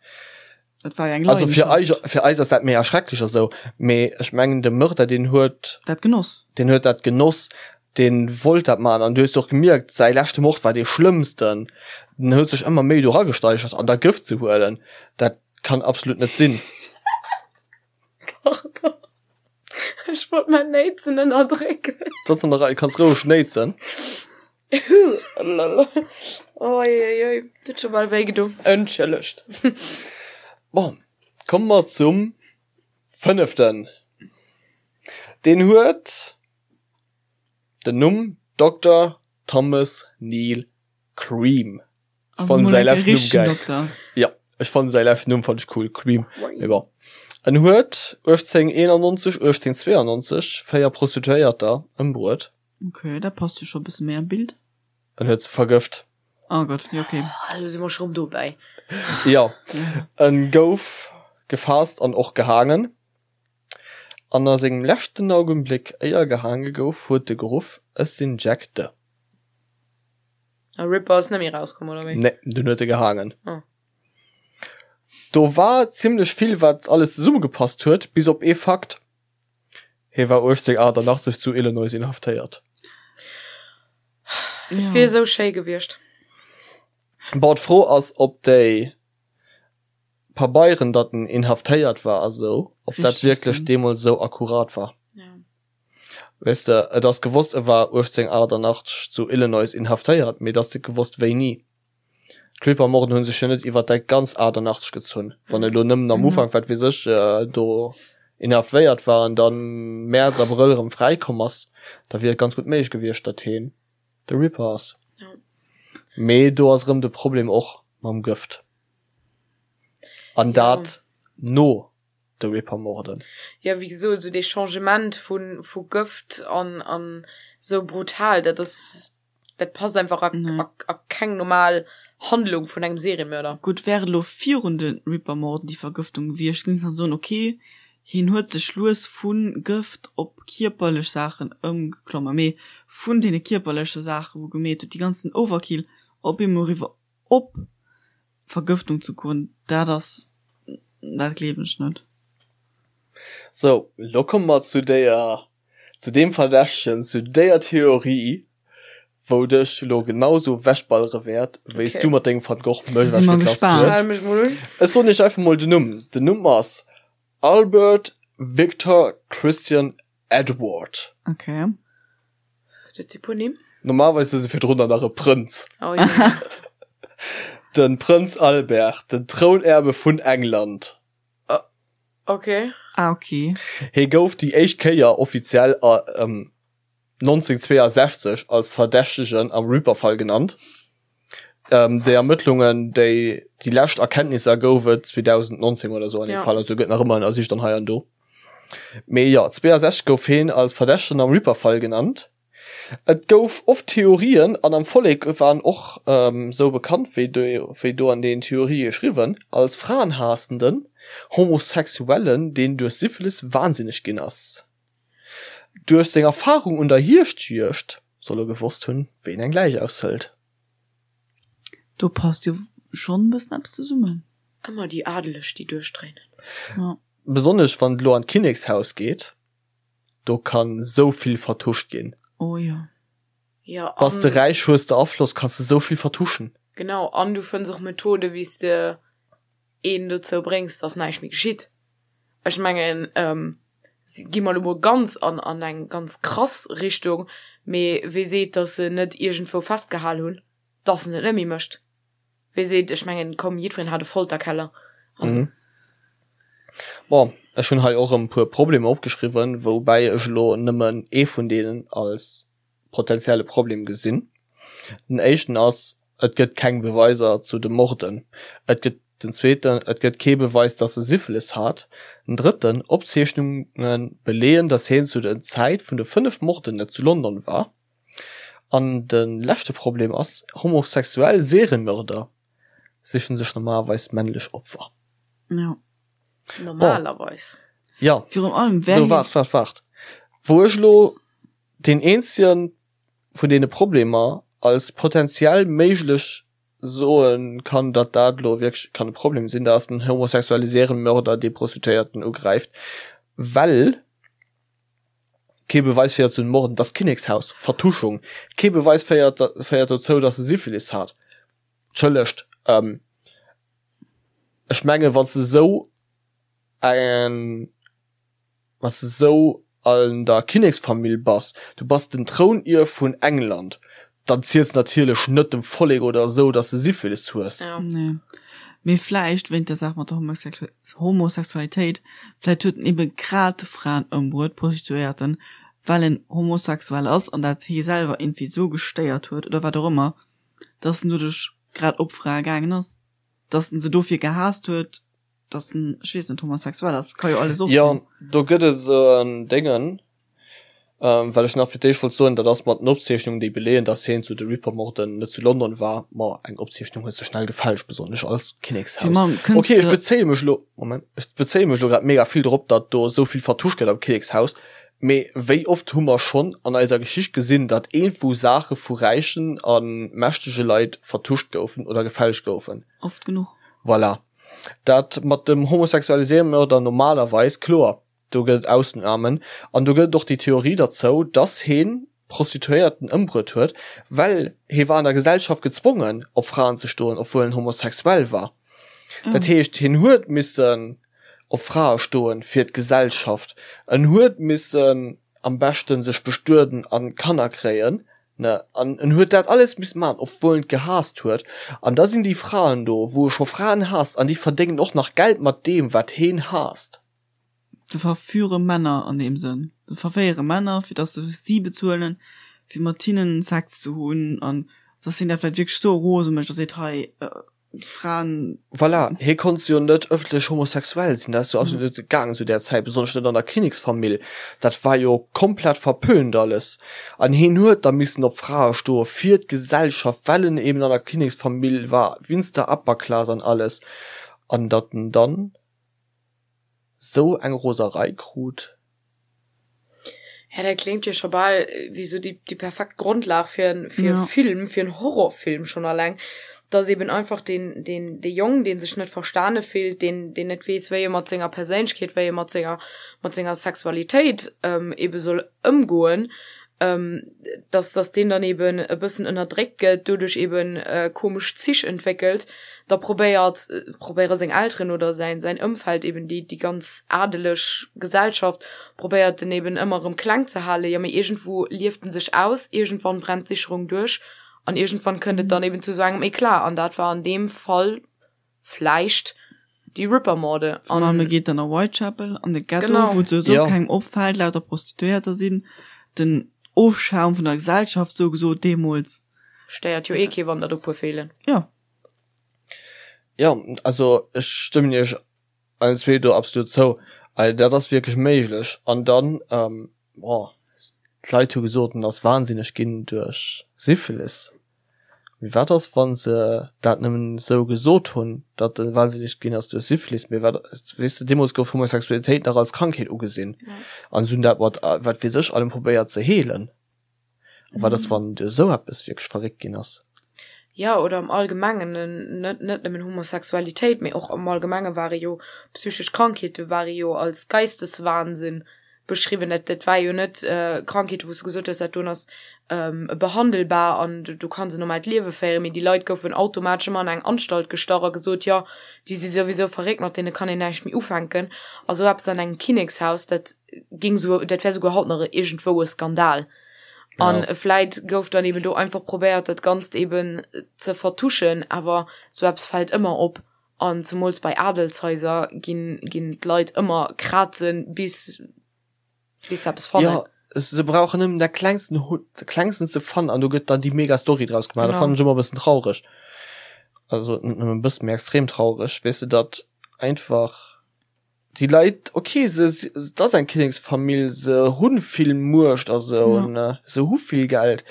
Dat war jo eng Also fir eis, Leidenschaft. fir eis ass dat méi erschrecklech a sou, mee ech mengen de Mörder deen huet. Dat genoss. Deen huet dat genoss, deen wollt dat maachen an du hues och gemierkt, säi leschte Mord war dee schlëmmsten. Den huet sech ëmmer méi do eragesteigert an da Gëft ze huelen, dat kann absolut net sinn. Pardon. Ech wollt mein Néitsen ënnerdrécken. Dat ass an der Rei, kanns roueg néitsen. Oi, oi, oi, dat huet scho bal wéi gedo. Entschëllegt. Bon, komme mer zum fënneften. Deen huet den Numm Dokter Thomas Neil Cream. Ech fannen säi leschten Numm geil. Ja, ech fannen säi leschten Numm fand ech cool, Cream. Mee bon. En huet 1891, 1892 véier Prostituéierter ëmbruet. Okay, dat passt jo scho e bësse méi an d'Bild. En huet se vergëft. Oh Gott, jo okay. Elo si mer scho rëm dobäi. Jo, en gouf gefaasst an och gehaangen. An a sengem leschten Augenbléck, éier gehaange gouf, huet e geruff, Ech sinn Jack the. A Ripper ass net méi rauskomm, oder wéi? Nee, dunn huet e gehaangen. Oh. Do war zimlech vill, wat alles zesummegepasst huet, bis op ee Fakt, Hie war 1888 zu Illinois inhaftéiert. Dat wier esou schéi gewiescht. Bon, d'Fro ass, ob déi. Pabeieren, datt en inhaftéiert war a sou, ob dat wierklech deemools sou akkurat war. Weess de, et ass gewosst, e war 1888 zu Illinois inhaftéiert, mee et ass net gewosst wéini. D'Ripper-Morden hu sech jo net iwwer dat ganz 88 gezunn. Wann e lo nëmmen am Ufank, wat weess ech, do inhaftéiert war an dann Mäerz, Abrëll erëm fräikomm ass, da wier et ganz gutt méiglech gewiescht, datt heen de Ripper ass. Mee do ass erëm de Problem och mam Gëft. An dat no de Ripper-Morden. Jo, wéi gesot, esou dee Changement vu vu Gëft an an esou brutal, dat ass, dat passt einfach a a a keng normal Handlung vun engem Seriemörder. Gutt, wär et elo virun de Ripper-Morden déi Vergëftung gewiescht, géing ech nach soen, ok, hien huet sech lues vu Gëft op kierperlech Saachen ëmgeklommen, mee vun deene kierperleche Saachen, wou gemeet huet, déi ganzen Overkill, op eemol eriwwer op Vergëftung ze goen, dat ass, dat gleewen ech net. Sou, lo komme mer zu déier, zu deem Verdächtegen, zu déier Theorie, wou dech lo genau sou wechballere wäert, wéi s du mat dengem Van Gogh mech Si mer ewechgeklappt gespaant. hues. Schal mech mol un. Ech soen iech einfach mol den Numm. Den Numm ass Albert Victor Christian Edward. Okay. Dat si puer Nimm. Normalerweis ass e virdrun nach e Prënz. Oh je. De Prënz Albert, den Trounerbe vun England. Okay. Ah, okay. Hie gouf déi éischt Kéier offiziell 1962 als Verdächtegen am Ripper-Fall genannt. Déi Ermëttlungen, déi déi lescht Erkenntnisser gouf et 2019 oder sou an deem Fall, also gëtt nach ëmmer ënnersicht an hei an do. Mee jo, 62 gouf heen als Verdächtegen am Ripper-Fall genannt. Et gouf oft Theorien an am Vollek war en och sou bekannt, wéi wéi do an den Theorië geschriwwen, als fraenhaassenden Homosexuellen, deen duerch Syphilis wahnsinneg ginn ass. Duerch seng Erfarung un der Hierschtjuegd soll e gewosst hunn, wéi een eng Läich aushëlt. Do passt jo schonn e bëssen eppes zesummen. Ëmmer déi Adeleg, déi duerchdréinen. Jo. Besonnesch wann et elo an d'Kinnekshaus geet, do kann sou vill vertuscht ginn. Oh jo. Jo, Bass de an. räich, hues de Afloss, kanns de sou vill vertuschen. Genau, an du fënns och Methode wéi s de een dozou bréngs, dass näischt méi geschitt. Ech mengen, gi mer elo mol ganz an an eng ganz krass Richtung, mee wee seet, dass se net iergendwou festgehal hunn, dass en et net méi mécht? Wee seet, ech mengen, komm, jiddwereen hat e Folterkeller, also. Bon, ech hunn hei och e puer Problemer opgeschriwwen, woubäi ech elo nëmmen ee vun deenen als potenzielle Problem gesinn. Den éischten ass, et gëtt keng Beweiser zu de Morden. Et gëtt den zweeten, et gëtt kee Beweis, datt e Syphilis hat. Den drëtten, Opzeechnunge beleeën, datt hien zu der Zäit vun de 5 Morden net zu London war. An de leschte Problem ass, homosexuell Seriemörder sichen sech normalerweis männlech Opfer. Jo. Normalerweis. Jo. Virun allem, wär Sou, hien. waart, waart, waart. Wou ech elo deen eenzege vun deene Problemer als potenziell méiglech soe kann, datt dat elo wierklech kann e Problem sinn, dat ass den homosexuelle Serienmörder, dee Prostituéierten ugräift, well kee Beweis féiert zu den Morden, dass d'Kinnekshaus, Vertuschung, kee Beweis féiert féiert dozou, dass e Syphilis hat. Entschëllegt, ech menge wann s de esou eng. Wann s de sou an der Kinneksfamill bass, du bass den Trounierf vun England, dann ziels de natierlech net dem Vollek oder esou, dass de Syphilis hues. Nee. Mee vläicht wéint der Saach mat der Homosexualitéit, vläicht huet en ebe grad Fraen ëmbruet, Prostituéierten, well en homosexuell ass an dat hie selwer iergendwéi sou gestéiert huet oder wat och ëmmer, dass en doduerch grad op Frae gaangen ass, dass en se dofir gehaasst huet. dass en, ech weess net, homosexuell ass, ka jo alles och Jo, sinn. do gëtt et esou en Déngen, wat ech nach fir d'éischt wollt soen, dat ass mat den Opzeechnungen, déi beleeën, dass hien zu de Ripper-Morden net zu London war. Ma eng Opzeechnung hues de schnell gefälscht, besonnesch als Fir Kinnekshaus. mam kënns Okay, ech de. bezéie mech elo, Moment, ech bezéie mech elo grad mega vill drop, datt do esou vill vertuscht gëtt am Kinnekshaus, mee wéi oft hu mer schonn an eiser Geschicht gesinn, datt iergendwou Saache vu räichen a mächtege Leit vertuscht goufen oder gefälscht goufen? Oft genuch. Voilà. Dat mat dem homosexuelle Seriemörder normalerweis, kloer, do gëtt et Ausnamen an do gëtt et och déi Theorie derzou, dass heen Prostituéierten ëmbruet huet, well hee war an der Gesellschaft gezwongen op Fraen ze stoen, obwuel en homosexuell war. Dat heescht, hien huet missen op Frae stoen fir d'Gesellschaft, en huet missen am beschten sech bestueden an Kanner kréien, ne, an en huet dat alles missen maachen, obwuel en et gehaasst huet. An da sinn déi Fraen do, wou e scho Fraen haasst, an déi verdéngen och nach Geld mat deem, wat heen haasst. Se verführe Männer an deem Sënn. Se verféiere Männer, fir dass se si bezuelen, fir mat hinnen Sex ze hunn, an dass hien dat vläicht wierklech sou rose mécht a seet, hei, Fraen. Voilà, hie konnt jo net ëffentlech homosexuell sinn, dat ass jo absolut net gaangen zu där Zäit, besonnesch net an der Kinneksfamill, dat war jo komplett verpönt alles. An hien huet da missen op Frae stoe fir d'Gesellschaft, well en eben an der Kinneksfamill war, winst der Upper Class an alles. An datt en dann sou eng Roserei krut. Ja, dat kléngt jo scho bal wéi sou déi, déi perfekt Grondlag fir en, fir e Film, fir en Horrorfilm schonn alleng, dass eben einfach deen, deen, dee Jong, dee sech net verstane fillt, deen, deen net weess, wéi e mat senger Perséinlechkeet, wéi e mat senger, mat senger Sexualitéit ebe soll ëmgoen, dass, dass deen dann eben e bëssen ënnerdréckt gëtt, doduerch eben komesch Zich entwéckelt, da probéiert, probéiere seng Elteren oder säin, säin Ëmfeld eben déi, déi ganz adeleg Gesellschaft probéiert en eben ëmmer erëm kleng ze halen, jo mee iergendwou lieft en sech aus, iergendwann brennt d'Sicherung duerch an iergendwann kënnt et dann eben zu esou engem Eclat an dat war an deem Fall vläicht déi Ripper-Morde. An e geet dann a Whitechapel an de Ghetto, wou et souwisou kengem opfält, lauter Prostituéierter sinn, den Ofschaum vun der Gesellschaft sou gesot deemools. Stéiert jo ee kee wann der do puer feelen. Jo. Jo, also ech stëmmen iech allen zwee do absolut zou. Also dat ass wierklech méiglech. An dann, bon, d'Leit hu gesot, en ass wahnsinneg ginn duerch Syphilis. Mee wat ass, wa se dat nëmmen esou gesot hunn, datt e wahnsinneg ginn ass duerch Syphilis? Mee wat, weess de, deemools gouf Homosexualitéit nach als Krankheet ugesinn an se hunn dat mat wat weess ech allem probéiert ze heelen. A wat ass, wann duerch esou eppes wierklech verréckt ginn ass? Jo, oder am Allgemengen, net net nëmmen Homosexualitéit, mee och am Allgemenge ware jo psychesch Krankheete ware jo als Geisteswahnsinn beschriwwen. Dat dat war jo net Krankheete wou s du gesot hues, dat doen ass behandelbar an du kanns en normaalt Liewe féieren, mee déi Leit goufen automatesch ëmmer an eng Anstalt gestach a gesot, jo déi si souwisou verréckt, mat deene kann een näischt méi ufänken. A sou eppes an engem Kinnekshaus, dat ging sou, dat wär souguer haut nach iergendwou e Skandal. An ja. vläit gouf dann eben do einfach probéiert, dat Ganzt eben ze vertuschen, awer sou eppes fält ëmmer op. An zemools bei Adelshaiser ginn, ginn d'Leit ëmmer krazen, bis, bis se eppes fannen. Ja, se brauchen nëmmen dat klengsten, dat klengsten ze fannen an do gëtt dann déi mega Story draus gemaach. Dat fannen ech ëmmer e bëssen traureg. Also net nëmmen e bëssen, mee extrem traureg, weess de, datt einfach. Déi Leit, ok, se, et ass eng Kinneksfamill, se hu vill Muecht a sou, ja. se hu vill Geld,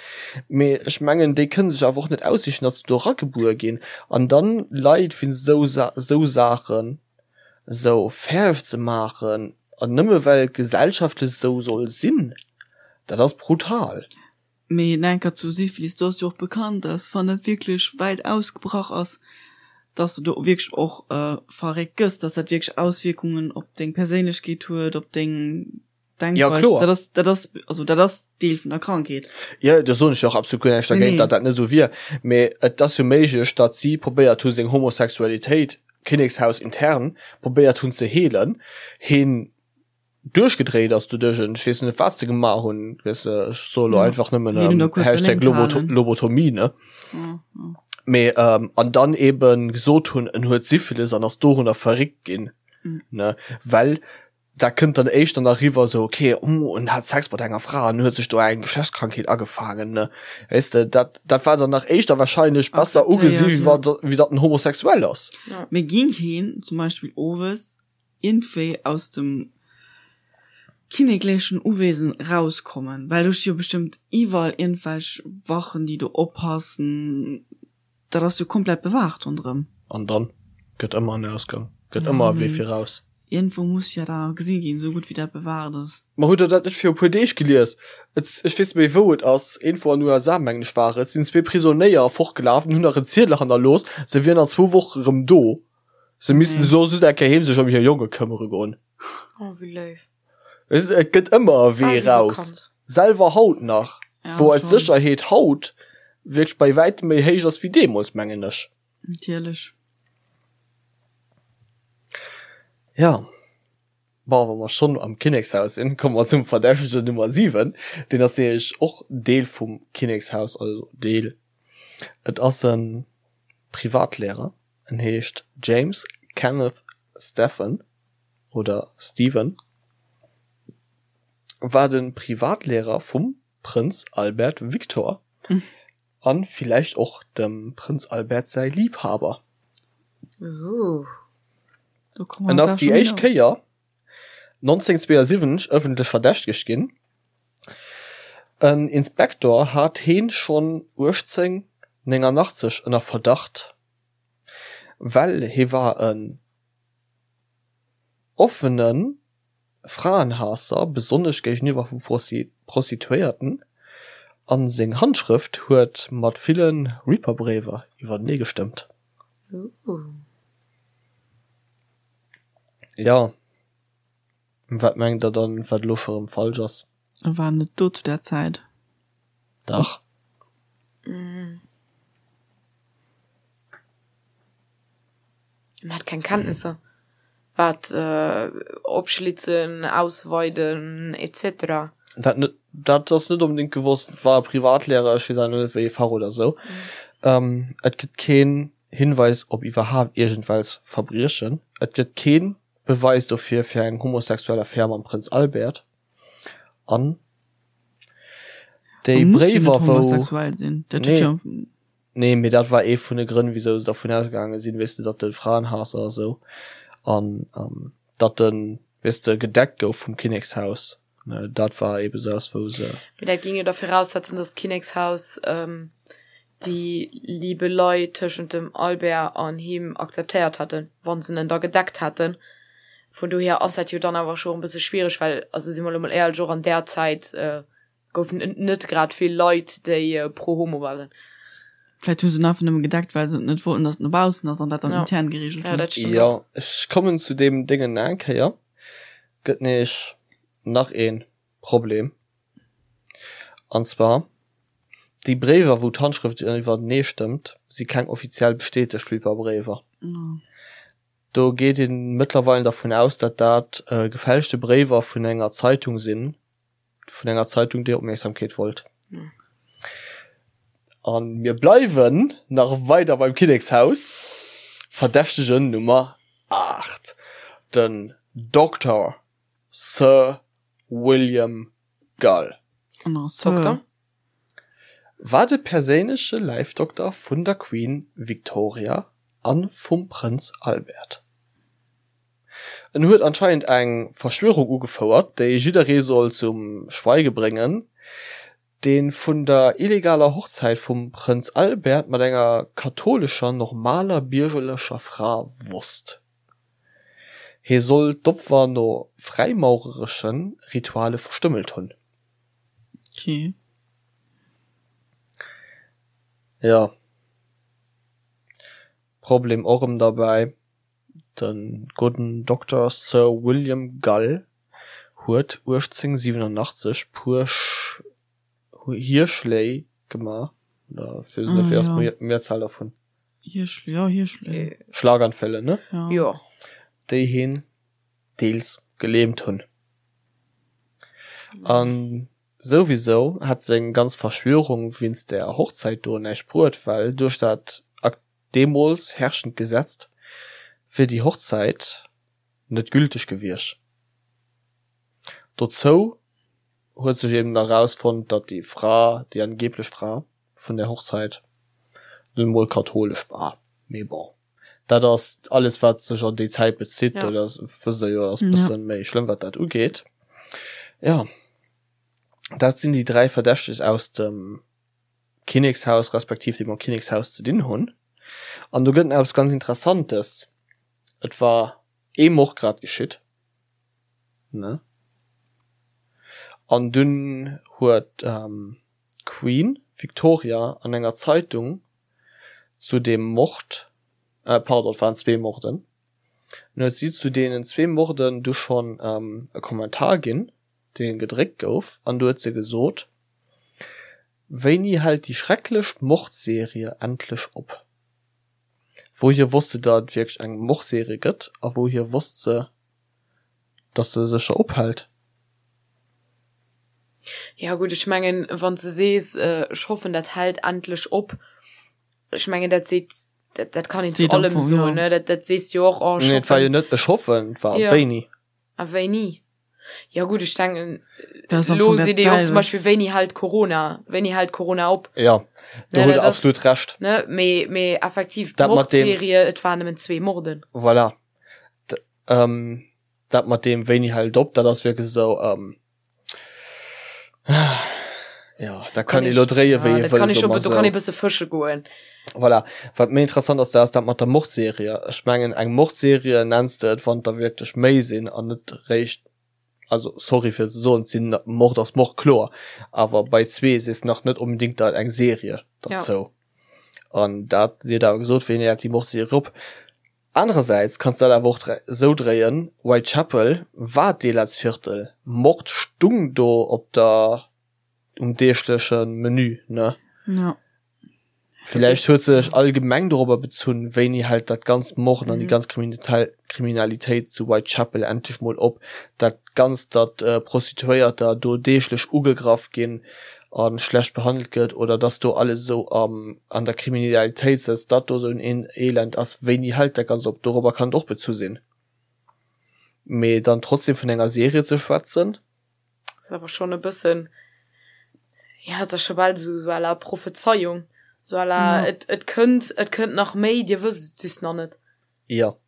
mee ech mengen, déi kënne sech awer och net aussichen, datt se do eragebuer ginn. An dann Leit fir esou esou Saachen esou fäerdeg ze maachen, an nëmme well et gesellschaftlech esou soll sinn, dat ass brutal. Mee enker zu Syphilis, do ass jo och bekannt, dass wann dat wierklech wäit ausgebrach ass, dass du do wierklech och verréckt gëss, dass dat wierklech Auswierkungen op deng Perséinlechkeet huet, op deng Denkweis. Ja, kloer. Dat ass, dat ass, also dat ass Deel vun der Krankheet. Jo, do soen ech jo och absolut guer näischt dergéint, datt dat net esou wier. Mee et ass jo méiglech, datt si probéiert hu seng Homosexualitéit, Kinnekshaus intern, probéiert hunn ze heelen. Heen duerchgedréit ass doduerch en ech weess net wat se gemaach hunn weess de ech soe lo einfach nëmmen ähm, Hashtag Loboto Lobotomie ne mee ähm, an dann eben gesot hunn en huet Syphilis an ass dorunner verréckt ginn mhm. ne well da kënnt dann éischter nach riwwer so okay oh, en hat Sex mat enger Fra an huet sech do eng Geschlechtskrankheet agefaangen ne weess de dat dat war dann nach éischter wahrscheinlech besser ugesi wéi wat wéi datt en homosexuell ass. Ja. Mee ging heen zum Beispill owes iergendwéi aus dem kinneklechen Uwesen rauskommen, well do sti jo bestëmmt iwwerall iergendwelch Wachen, déi do oppassen, dat ass jo komplett bewaacht ronderëm. An dann gëtt ëmmer en Ausgang, gëtt ëmmer e Wee fir raus. Iergendwou muss jo dat gesi ginn, esou gutt wéi dat bewaacht ass. Ma hutt der dat net viru puer Deeg gelies? Et, ech weess net méi wou et ass, iergendwou an USA mengen ech war et, sinn zwee Prisonéier fortgelaf an hunn nach en Ziedel hannerlooss, se wieren an zwou Woche rëm do. Se missten so just eng Kéier heem sech ëm hir Jonge këmmere goen. Oh, wéi léif. Et et gëtt ëmmer e Wee Bal wéi raus. Vakanz. Selwer haut nach, Ja, wou eis schon. Sécherheet haut wierklech bei wäitem méi héich ass wéi deemools, mengen ech. Natierlech. Ja. Bon, wa mer schonn am Kinnekshaus sinn, komme mer zum Verdächtegen Nummer 7. Deen ass nämlech och Deel vum Kinnekshaus, also Deel, et ass e Privatlehrer, en heescht James Kenneth Stephen oder Stephen, war de Privatlehrer vum Prënz Albert Victor an villäicht och dem Prënz Albert säi Liebhaber. En ass déi éischt Kéier 1972 ëffentlech verdächtegt ginn. En Inspektor hat heen schonn 1889 ënner Verdacht, well hee war en offene Fraenhaasser, besonnesch géigeniwwer vu Prostituéierten, a seng Handschrëft huet mat ville Reaper-Bréiwer iwwertenee gestëmmt. Jo, wat mengt der dann, wat elo scho rëm falsch ass? E war net do zu där Zäit. Dach. En hat keng Kenntnisser, wat opschlitzen, ausweiden etc. Dat net, dat ass net onbedéngt gewosst. Et war e Privatlehrer, ech weess awer net wéi ee Fach oder sou. Et gëtt keen Hinweis op iwwerhaapt iergendwelch Verbriechen. Et gëtt kee Beweis dofir fir eng homosexuell Affär mam Prënz Albert. An déi Bréiwer wou. Homosexuell sinn, dat huet jo. Nee, mee dat war ee vun de Grënn, wisou se dervun ausgaange sinn, weess de, datt de Fraenhaasser a sou an datt en, weess de, gedeckt gouf vum Kinnekshaus. Dat war eebe sou, wou se. Mee dat géing jo da viraussetzen, datt d'Kinnekshaus déi Liebelei tëschent dem Albert an him akzeptéiert hätten, wa se en da gedeckt hätten. Vun dohier ass dat jo dann awer scho e bësse schwiereg, well, also si mer elo mol éierlech, och an där Zäit goufen et net grad vill Leit, déi pro homo waren. Vläicht hu se en einfach nëmme gedeckt, well se net wollten, datt et no baussen ass an dat dann intern gereegelt hunn. Jo, ech kommen zu deem Déngen nach eng Kéier. Gëtt nämlech nach ee Problem, an zwar déi Bréiwer, wou d'Handschrëft iwwertenee stëmmt, si keng offiziell bestätegt Reaper-Bréiwer. Do geet ee mëttlerweil dervun aus, datt dat gefälschte Bréiwer vun enger Zeitung sinn, vun enger Zeitung, déi Opmierksamkeet wollt. A mir bleiwen nach weider beim Kinnekshaus. Verdächtegen Nummer 8, den Dokter Sir William Gull. Dokter? War de perséinleche Läifdokter vun der Queen Victoria a vum Prënz Albert. En huet anscheinend eng Verschwörung ugefouert, déi jidderee soll zum Schweige bréngen, dee vun der illegaler Hochzäit vum Prënz Albert mat enger kathoulescher normaler biergerlecher Fra wosst. Hie soll d'Opfer no fräimaureresche Rituale verstümmelt hunn. Okay. Jo. Problem och erëm derbäi, De gudden Dokter Sir William Gull huet 1887 puer Hierschléi gemaach, oder ech weess net, wéi ass d'Mehrzahl dervun? Hierschléi, jo, Hierschléi. Schlaganfälle, ne? Jo. Déi hien deels gelähmt hunn. A souwisou hätt seng ganz Verschwörung wéinst där Hochzäit do näischt bruet, well duerch dat deemools herrschend Gesetz wier déi Hochzäit net gülteg gewiescht. Dozou huet sech eben nach erausfonnt, datt déi Fra, déi angeblech Fra vun där Hochzäit, nun emol kathoulesch war. Mee bon, dat ass alles wat sech an déi Zäit bezitt, dat ass, wësst der jo, ass e bësse méi schlëmm wat dat ugeet. Jo, dat sinn déi 3 Verdächteg aus dem Kinnekshaus respektiv déi mam Kinnekshaus ze dinn hunn. An do gëtt en eppes ganz Interessantes, Et war ee Mord grad geschitt, ne? An dunn huet d'Queen Victoria an enger Zeitung zu deem Mord, pardon, et waren zwee Morden, dunn huet si zu deenen zwee Morden du schonn e Kommentar ginn, dee gedréckt gouf, an du huet se gesot, Wéini hält déi schrecklech Mordserie endlech op? Wouhier wosst se, datt et wierklech eng Mordserie gëtt a wouhier wosst se. Dass se sécher ophält. Ja gutt, ech mengen, wann s de sees, ech hoffen, dat hält endlech op, ech mengen, dat seet, dat, dat kann een zu allem soen, ne? Dat, dat sees de jo och, oh, ech Nee, et war jo hoffen. net ech hoffen, et war Ja. wéini. A wéini? Ja gutt, ech denken, Dat ass am elo Fong dat seet ee jo och zum selwecht. Beispill, wéini hält Corona, wéini hält Corona op? Ja, do Ne, hutt dat Der ass, absolut Recht. ne, mee, mee effektiv, Dat mat deem. d'Mordserie, et waren nëmmen zwee Morden. Voilà. D, ähm, Dat mat deem wéini hält op, dat ass wierklech esou, ähm, jo, dat kann ee lo dréie wéi ee Dat kann wëll, ee soe scho, mer do kann ee esou. bësse fësche goen. Voilà. Wat méi interessant ass, dat ass dat mat der Mordserie. Ech mengen, eng Mordserie nenns de et, wann der wierklech méi sinn an net réischt, also sorry fir et ze soen, et sinn, Mord ass Mord, kloer, awer bei zwee sees de nach net onbedéngt dat eng Serie derzou. An dat, si huet awer gesot, wéini hält déi Mordserie op? Anerersäits kanns de dat awer och esou dréien, Whitechapel war d'Elendsviertel, Mord stung do op der, um deegleche Menü, ne? Ja. Villäicht huet se sech allgemeng dorobber bezunn, wéini hält dat ganzt Morden an déi ganz Kriminalitéit zu Whitechapel endlech mol op, dat ganzt, datt Prostituéierter do deeglech ugegraff ginn a schlecht behandelt gëtt oder dass do alles esou am an der Kriminalitéit sëtzt, datt do esou en Elend ass, wéini hält dat Ganzt op? Dorobber kann et och bezu sinn. Mee dann trotzdem vun enger Serie ze schwätzen. Ass awer schonn e bëssen, ja, et ass scho bal esou esou à la Prophezeiung, esou à la et et kënnt, et kënnt nach méi, dir wësst et just nach net. Jo.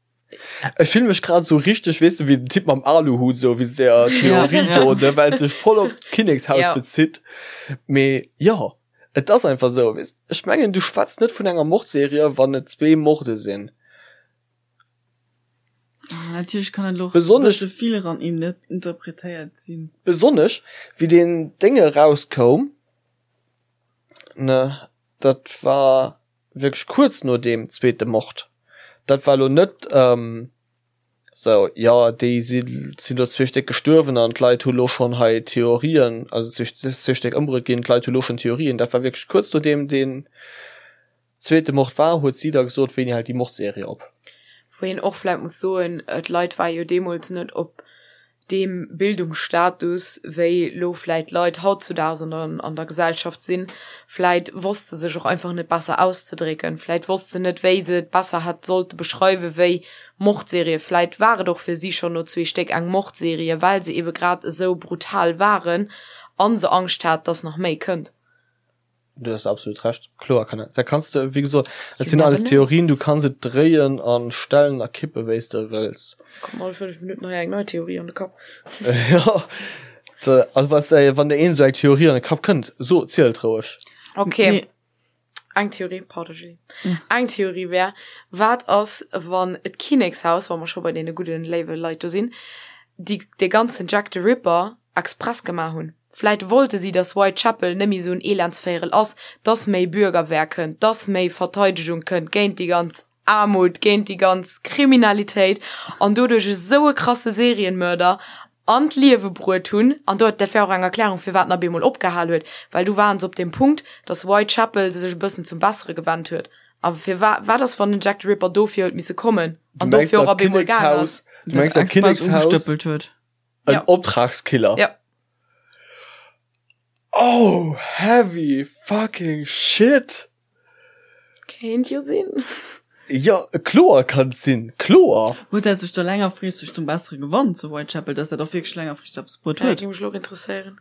Ech fillen mech grad sou richteg, weess de, wéi den Typ mam Aluhut, sou wéi der Theorie do, ne, well et sech voll op d'Kinnekshaus Ja. bezitt. Mee jo, et ass einfach sou, weess, ech mengen, du schwätz net vun enger Mordserie, wann et zwee Morde sinn. Ah, natierlech kann et elo och e Besonnesch- bësse vill eran interpretéiert sinn. Besonnesch, wéi deen Déng erauskoum, ne, dat war wierklech kuerz no deem zweete Mord. Dat war elo net esou, jo déi sinn do zwee Stéck gestuerwen an d'Leit hu lo schonn hei Theorien, also zwee Stéck ëmbruet ginn, d'Leit hu lo schonn Theorien. Dat war wierklech kuerz nodeem deen zweete Mord war, huet si da gesot, wéini hält déi Mordserie op. Wou een och vläit muss soen, d'Leit ware jo deemools net op deem Bildungsstatus, wéi lo vläit d'Leit hautzudaags an der, an der Gesellschaft sinn. Vläit wosst se sech och einfach net besser auszedrécken. Vläit wosst se net, wéi se et besser hätt sollte beschreiwen, wéi Mordserie. Vläit war et och fir si schonn no zwee Stéck eng Mordserie, well se ebe grad esou brutal waren a se Angscht hat, dass nach méi kënnt. Du hues absolut Recht. Kloer kann dat kanns de, wéi gesot, et You sinn never alles know. Theorien, du kanns et dréien an stellen a kippe wéi s de wëlls. Kommt all 5 Minutten hei eng nei Theorie an de Kapp. Jo, also was, wann der een esou eng Theorie an de Kapp kënnt, so, ziel et roueg. Okay. Nee. Eng Theorie, pardon Julie. Ja. Eng Theorie wär, wat ass wann d'Kinnekshaus, wa mer scho bei deene gudden, léiwe Leit do sinn, déi dee ganzen Jack the Ripper express gemaach hunn? Vläit wollte si, dass Whitechapel net méi esou en Elendsvéierel ass, dass méi Bürgerwehr kënnt, dass méi Verteidegung kënnt géint déi ganz Aarmut, géint déi ganz Kriminalitéit an doduerch esou e krasse Serienmörder an d'Liewe bruet hunn. An do, dat wär och eng Erklärung, firwat en op eemol opgehal huet, well du waren se op deem Punkt, dass Whitechapel sech e bëssen zum Bessere gewennt huet. A firwa, wat ass, wann den Jack the Ripper dofir huet misse kommen Du an mengs dofir och dat op eemol gaang ass? Kinnekshaus, du mengs dat Kinnekshaus, Ugestëppelt huet. en Ja. Optragskiller? Ja. Oh, heavy fucking shit! Kéint jo sinn. Jo, kloer kann et sinn, kloer! Huet dat sech da längerfristeg zum Bessere gewannt zu Whitechapel, dass dat och wierklech längerfristeg eppes bruet Dat huet? géing mech elo och interesséieren.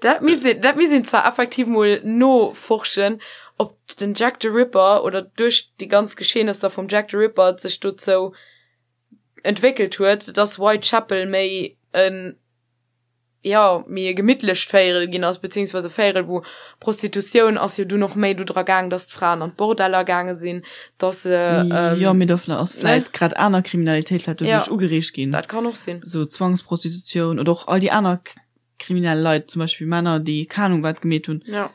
Dat misst een, dat misst een zwar effektiv mol noforschen, ob den Jack the Ripper oder duerch déi ganz Geschehnesser vum Jack the Ripper et sech dozou entwéckelt huet, dass Whitechapel méi en, jo, méi e gemittlecht Véierel ginn ass, beziehungsweise e Véierel, wou Prostitutioun ass jo dunn och méi do dra gaang, dass d'Fraen an d'Bordeller gaange sinn, dass se, Jo, mee do ass ne? vläit grad aner Kriminalitéit vläit Ja, doduerch ugereegt ginn, dat kann och sinn. sou Zwangsprostitutioun oder och all déi aner kriminell Leit, zum Beispill Männer, déi keng Ahnung wat gemeet hunn. Ja.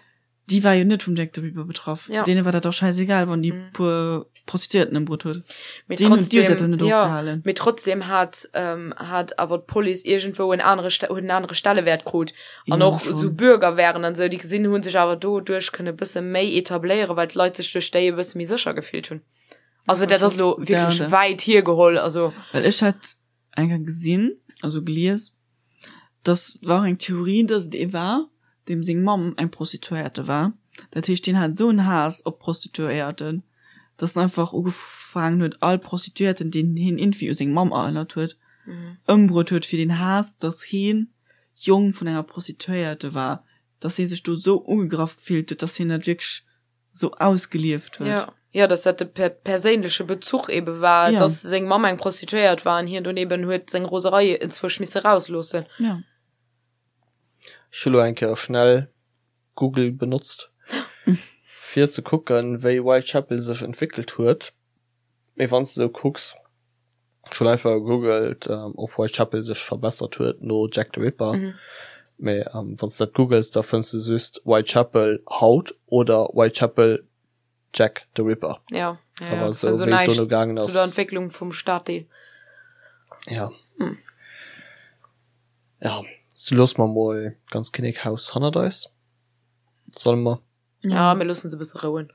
Déi war jo net vum Jack the Ripper betraff. Ja. Deene war dat och schäisegal, wann déi Mhm. puer Prostituierten ëmbruet huet. Mee Deen huet, déi huet dat trotzdem, dann net ja, ofgehalen. mee trotzdem hat, ähm, hat awer d'Police iergendwou en anere, huet en anere Stellewäert krut. An Jo, och schon. esou Bürgerwehren an esou, déi gesinn hu sech awer doduerch kënne bësse méi etabléieren, well d'Leit sech duerch déi e bësse méi sécher gefillt hunn. Also dat ass elo wierklech Da, da. wäit hiergeholl, also. Well ech hat. eng Kéier gesinn, also gelies, dass war eng Theorie, dass et ee war, deem seng Mamm eng Prostituéierte war. Dat heescht, deen hat esou en Haass op Prostituéierten, dass en einfach ugefaangen huet, all Prostituéierten, deen hien iergendwéi u seng Mamm erënnert huet, ëmbruet huet, fir deen Haass, dass hien Jong vun enger Prostituéierte war, dass hie sech do esou ugegraff gefillt huet, dass hien dat wierklech sou ausgelieft huet. Ja, ja, dass dat de per perséinleche Bezuch ebe war, ja. dass seng Mamm eng Prostituéiert war an hien dunn eben huet seng Roserei enzwousch misse rausloossen. Ja. Ech hu lo eng Kéier schnell Google benotzt, fir ze kucken, wéi Whitechapel sech entwéckelt huet. Mee wann s de sou kucks, ech hunn einfach gegoogelt, ob Whitechapel sech verbessert huet no Jack the Ripper, mee wann s de dat googels, da fënns de just Whitechapel haut oder Whitechapel Jack the Ripper. Ja, ja, ja. Awer sou wéi et dono gaangen ass. Zu der Entwécklung vum Staddeel. Ja. Ja, sou loosse mer mol d'ganz Kinnekhaus hannert eis. Solle mer? Ja, mir loossen se e bësse rouen.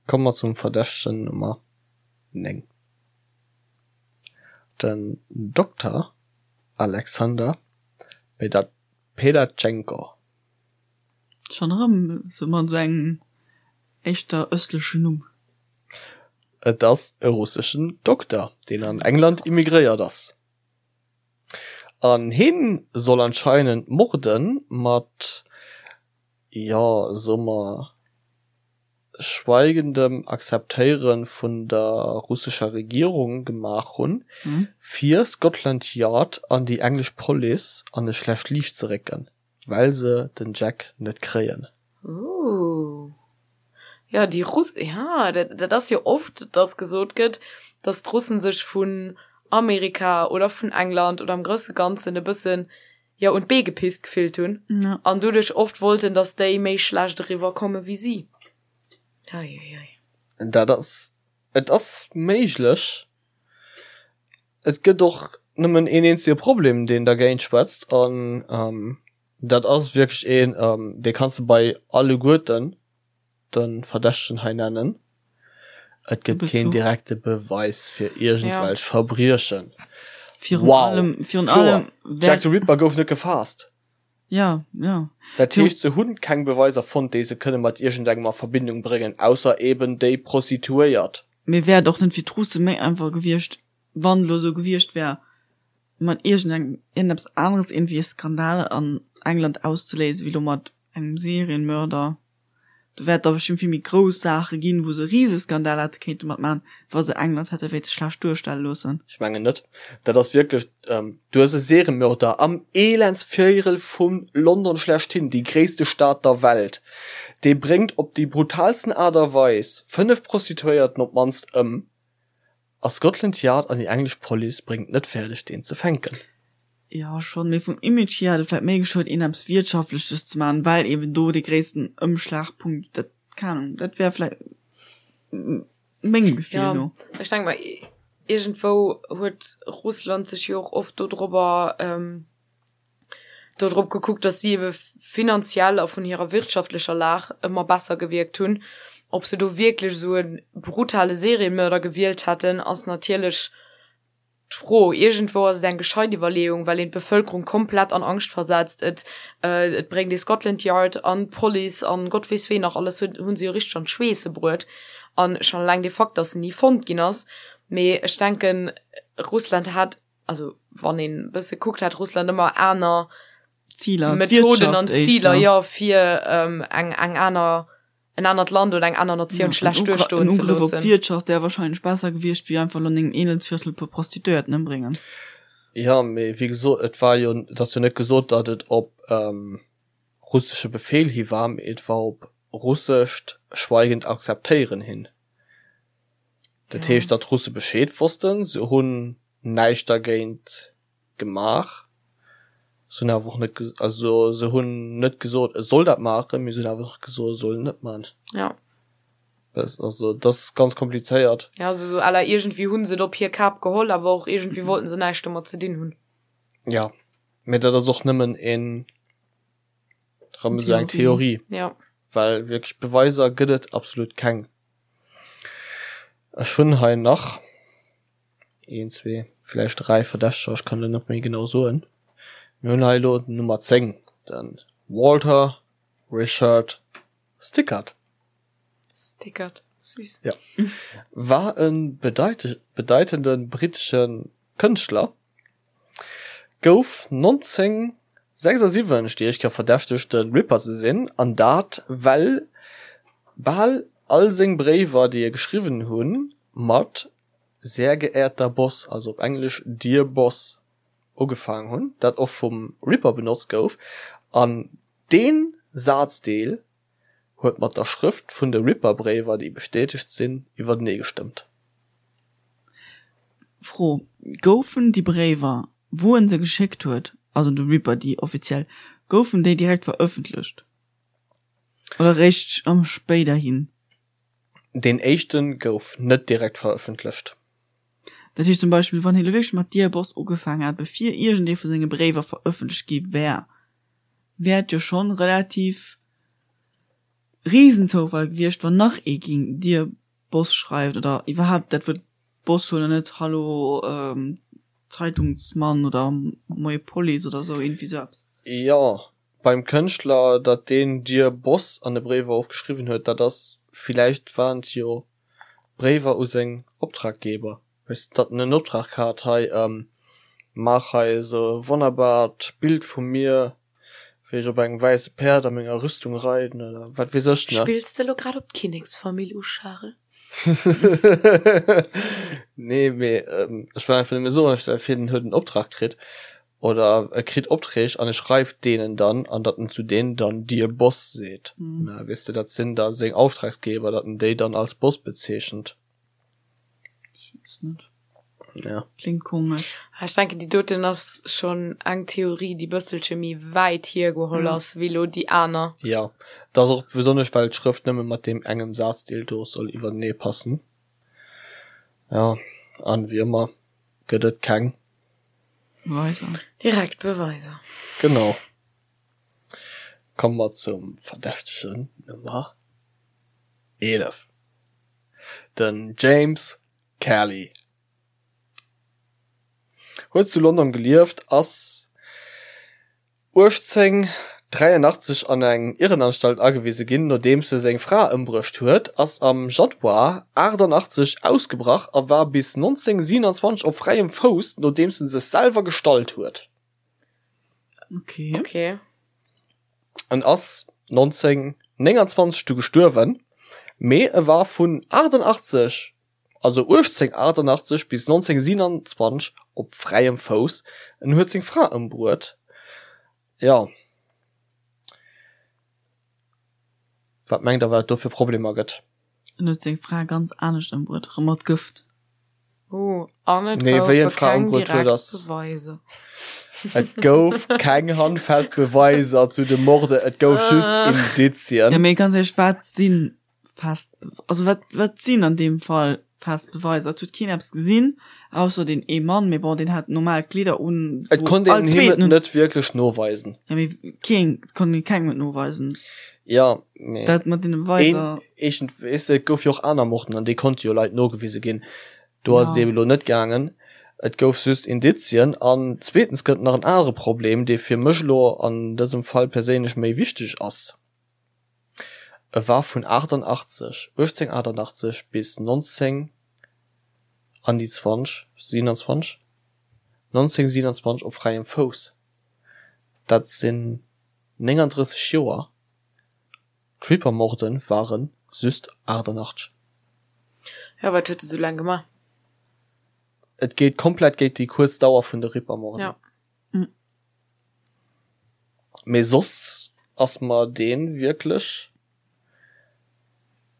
Komme mer zum Verdächtegen Nummer 9, den Dokter Alexander Pedatschenko. Schonn erëm sou mat esou engem éischter ëstlechen Numm. Et ass e russeschen Dokter, deen an England immigréiert ass. An hien soll anscheinend Morden mat jo, soe mer, schweigendem Akzeptéiere vun der russescher Regierung gemaach hunn, fir Scotland Yard an déi englesch Police an e schlecht Liicht ze récken, well se den Jack net kréien. Ooh. Jo, déi Russ, ja, dat, dat ass jo oft, dass gesot gëtt, dass d'Russen sech vun Amerika oder vun England oder am grousse Ganzen e bëssen jo un d'Bee gepisst gefillt hunn ja. an doduerch oft wollten, dass déi méi schlecht eriwwer komme wéi si. Eieiei. Dat ass, et ass méiglech. Et gëtt och nëmmen een eenzege Problem, deen dergéint schwätzt, an dat ass wierklech een, dee kanns de bei alleguerten de Verdächtegen hei nennen, Et gëtt keen direkte Beweis fir iergendwelch Verbriechen. Virun allem, virun allem, Jack the Ripper gouf net gefaasst. Ja, ja. Dat heescht, se hunn keng Beweiser fonnt, déi se kënne mat iergendengem a Verbindung bréngen, ausser eben déi Prostituéiert. Mee wär et och net fir d'Russe méi einfach gewiescht, wann elo esou gewiescht wär, mat iergendengem, iergendeppes aneres iergendwéi e Skandal an England auszeléisen, wéi elo mat engem Serienmörder? Do wäert da bestëmmt vill méi grouss Saache ginn, wou se e Riseskandal hätte kéinte mat maachen, wa se England hätte wéilte schlecht duerstelle loossen. Ech mengen net. Dat ass wierklech, du hues e Seriemörder am Elendsvierel vu London schlechthin, déi gréisste Stad der Welt, dee bréngt op déi brutalsten Aart a Weis 5 Prostituéierten op d'mannst ëm, A Scotland Yard an déi englesch Police bréngt net fäerdeg deen ze fänken. Jo schonn, mee vum Image hier hätt et vläit méi geschuet een eppes Wirtschaftleches ze maachen, well eben do dee gréissten Ëmschlagpunkt, dat, keng Ahnung, dat wär vläit mengem Gefill no. Jo, ech denke mer iergendwou huet Russland sech jo och oft dodrobber dodrop gekuckt, datt si ebe finanziell a vun hirer wirtschaftlecher Lag ëmmer besser gewierkt hunn. Ob se do wierklech esou e brutale Seriemörder gewielt hätten, ass natierlech d'Fro. Iergendwou ass et eng gescheit Iwwerleeung, well een d'Bevëlkerung komplett an Angscht versetzt. Et et bréngt ee Scotland Yard an d'Police an Gott weess ween nach alles huet, hu se jo richteg an d'Schweesse bruet. An schonn eleng de Fakt, datt en ni fonnt ginn ass. Mee ech denken, Russland hat also wann een e bësse kuckt, hat Russland ëmmer aner Ziler, Methoden an Ziler, jo, fir ähm, eng, eng aner, en anert Land oder eng aner Natioun schlecht duerstoen ze loossen. En Ugrëff op d'Wirtschaft wär wahrscheinlech besser gewiescht, wéi einfach elo an engem Elendsviertel e puer Prostituéierten ëmbréngen. Jo, mee wéi gesot, et war jo, et ass jo net gesot, datt et op ähm, russesche Befehl hi war, mee et war op russescht schweigend Akzeptéieren hin. Dat heescht, datt d'Russe Bescheed wossten, se hunn näischt dergéint gemaach, se hunn awer och net, also se hunn net gesot, e soll dat maachen, mee se hunn awer och gesot, e soll et net maachen. Ja. Also dat ass ganz komplizéiert. Ja, also sou à la iergendwéi hu se et op hir Kap geholl, awer och iergendwéi wollten se näischt domat ze dinn hunn. Ja, mee dat ass och nëmmen een, erëm esou eng Theorie. Ja. Well wierklech Beweiser gëtt et absolut keng. Ech hunn hei nach een, zwee, Villäicht 3 Verdächteger, ech kann elo net méi genau soen. Mir hunn hei elo den Nummer 10, de Walter Richard Stickert. Stickert, süß. Ja. War e bedeitende brittesche Kënschtler, gouf 1976 déi éischt Kéier verdächtegt, de Ripper ze sinn, an dat well bal all seng Bréiwer, déi e geschriwwen hunn, mat Sehr geehrter Boss, also op Englesch Dear Boss, ugefaangen hunn, dat och vum Ripper benotzt gouf, an dee Sazdeel huet mat der Schrëft vun de Ripper-Bréiwer, déi bestätegt sinn, iwwertenee gestëmmt. Fro, Goufen déi Bréiwer, wou en se geschéckt huet, also de Ripper déi offiziell, goufen déi direkt verëffentlecht oder réischt spéiderhin? Deen éischte gouf net direkt verëffentlecht. Dat heescht zum Beispill, wann hie lo wierklech mat Dear Boss ugefaangen hätt, bevir iergendee vu senge Bréiwer verëffentlecht gi wär, wär et jo schonn relativ Riesenzoufall gewiescht, wann nach ee ging Dear Boss schreift oder iwwerhaapt dat Wuert Boss huet an net Hallo Zeitungsmann oder Moie Police oder sou, iergendwéi sou eppes. Jo, Beim Kënschtler, datt deen Dear Boss an de Bréiwer ofgeschriwwen huet, dat ass, villäicht waren et jo Bréiwer u seng Optraggeber, weess de, datt en en Optrag hat, hei, maach hei esou e wonnerbart Bild vu mir, wéi ech op engem wäisse Päerd a menger Rüstung reiden oder wat weess ech, ne? Spills de elo grad op d'Kinneksfamill u, Charel? Nee, mee ech wëll einfach nëmme soen, stell vir, den huet en Optrag kritt oder e kritt Opträg an e schreift deenen dann an datt en zu deenen dann Dear Boss seet. Na, weess de, dat sinn da seng Auftragsgeber, datt en déi dann als Boss bezeechent. Ech weess net. Ja. Klingt komesch. Ech denken, déi doten ass schonn eng Theorie, déi bësselche méi wäit hiergeholl ass wéi elo déi aner. Jo, dat ass och besonnesch, well d'Schrëft nëmme mat deem engem Sazdeel do soll iwwertenee passen. Jo, an wéi ëmmer gëtt et keng. Beweiser. Direkt Beweiser. Genau. Komme mer zum Verdächtegen Nummer 11, den James Kelly. Huet zu London gelieft, ass 1883 an eng Irrenanstalt agewise ginn, nodeems e seng Fra ëmbruecht huet, ass am Januar 88 ausgebrach a war bis 1927 op fräiem Fouss, nodeems en sech selwer gestallt huet. Okay. Okay. En ass 1929 du gestuerwen, mee e war vun 88, also 1888 bis 1927 op fräiem Fouss. En huet seng Fra ëmbruet. Jo. Wat mengt der, wat et do fir Problemer gëtt? En huet seng Fra ganz anescht ëmbruet, erëm mat Gëft. Oh, an et Nee, wéi en goufe d'Fra keng ëmbruet huet, direkt ass. Beweiser. Et gouf keng handfest Beweiser zu de Morde, et gouf just Indizien. Ja, mee ganz éierlech, wat si fest, also wat, wat sinn an deem Fall fest Beweiser? Et huet keen eppes gesinn, ausser deen ee Mann, mee bon, deen hat normal Kleeder un, Et wou konnt all een him et zweeten. net wierklech noweisen. Ja, mee keen, et konnt een kengem et noweisen. Ja, mee Dat mat deene een, Beweiser. eegent, weess de, et gouf jo och aner Morden an déi konnte jo Leit nogewise ginn. Do ass et Ja. eeben elo net gaangen. Et gouf just Indizien. An zweetens gëtt et nach en anere Problem, dee fir mech elo an dësem Fall perséinlech méi wichteg ass. E war vun 88, 1888 bis 19 an déi 20, 27, 1927 op fräiem Fouss. Dat sinn 39 Joer. D'Ripper-Morden ware just 88. Jo, wat huet e sou laang gemaach? Et geet komplett géint déi kuerz Dauer vun de Ripper-Morden. Ja. Mee soss ass mer deen wierklech.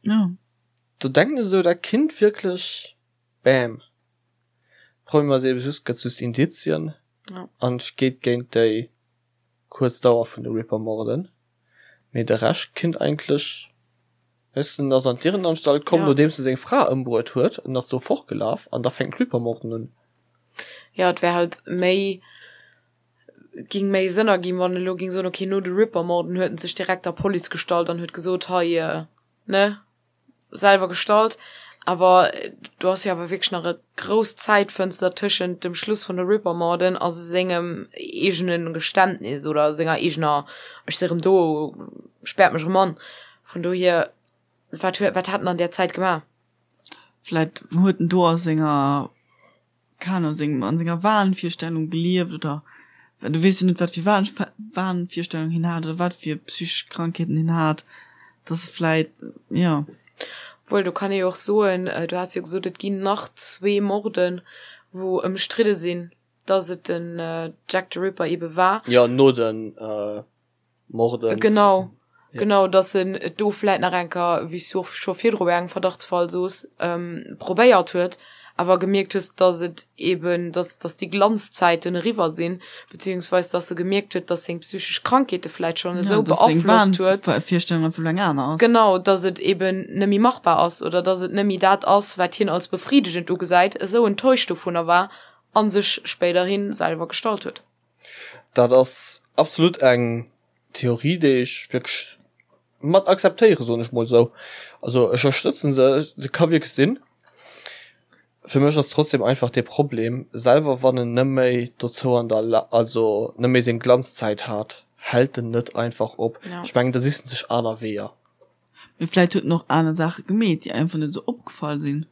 Ja. Do denken ech esou, dat kinnt wierklech, bam. Problem ass eben just, gëtt just Indizien an et geet géint déi kuerz Dauer vun de Ripper-Morden. Mee de Rescht kinnt eigentlech, weess de, en ass an d'Irrenanstalt komm, nodeems e seng Fra ëmbruet huet, en ass do fortgelaf an da fänken d'Ripper-Morden un. Jo, et wär halt méi, ging méi Sënn erginn, wann en elo ging soen, ok, no de Ripper-Morden huet en sech direkt der Police gestallt an huet gesot, hei, ne, selwer gestallt. Awer do ass jo awer wierklech nach e grouss Zäitfënster tëschent dem Schluss vun de Ripper-Morden a sengem eegene Geständnis oder senger eegener Ech si rëm do, späert mech erëm an. Vun dohier, wat huet, wat hat en an där Zäit gemaach? Vläit huet en do a senger keng Ahnung, sengem, an senger Wahnvirstellung gelieft oder well du weess jo net wat fir Wahn, Wahnvirstellung hien hat oder wat fir psychesch Krankheeten hien hat, dass e vläit, jo. Obwuel, do kann ee jo och soen, du has jo gesot, et ginn nach zwee Morden, wou ëmstridde sinn, dass et den Jack the Ripper ebe war. Jo, no den Morden. Genau, genau, dass en et do vläit nach eng Kéier, wéi s du och scho virdru bei engem Verdachtsfall soos, probéiert huet, awer gemierkt hues, dass et eben, dass, dass déi Glanzzäiten eriwwer sinn, beziehungsweis dass e gemierkt huet, dass seng psychesch Krankheete vläit schonn esou beaflosst huet. Virstellung einfach eng aner ass. Genau, dass et eben net méi machbar ass oder dass et net méi dat ass, wat hien als befriedegend ugesäit, esou enttäuscht dovunner war a sech spéiderhi selwer gestallt huet. Dat ass absolut eng Theorie, déi ech wierklech mat akzeptéieren, soen ech mol esou. Also ech ënnerstëtzen se, se ka wierklech sinn. Fir mech ass trotzdem einfach dee Problem, selwer wann en net méi dozou an der La also net méi seng Glanzzäit hat, hält en net einfach op. Ja. Ech mengen, da sicht en sech aner Weeër. Mee vläit huet en och aner Saache gemeet, déi einfach net esou opgefall sinn.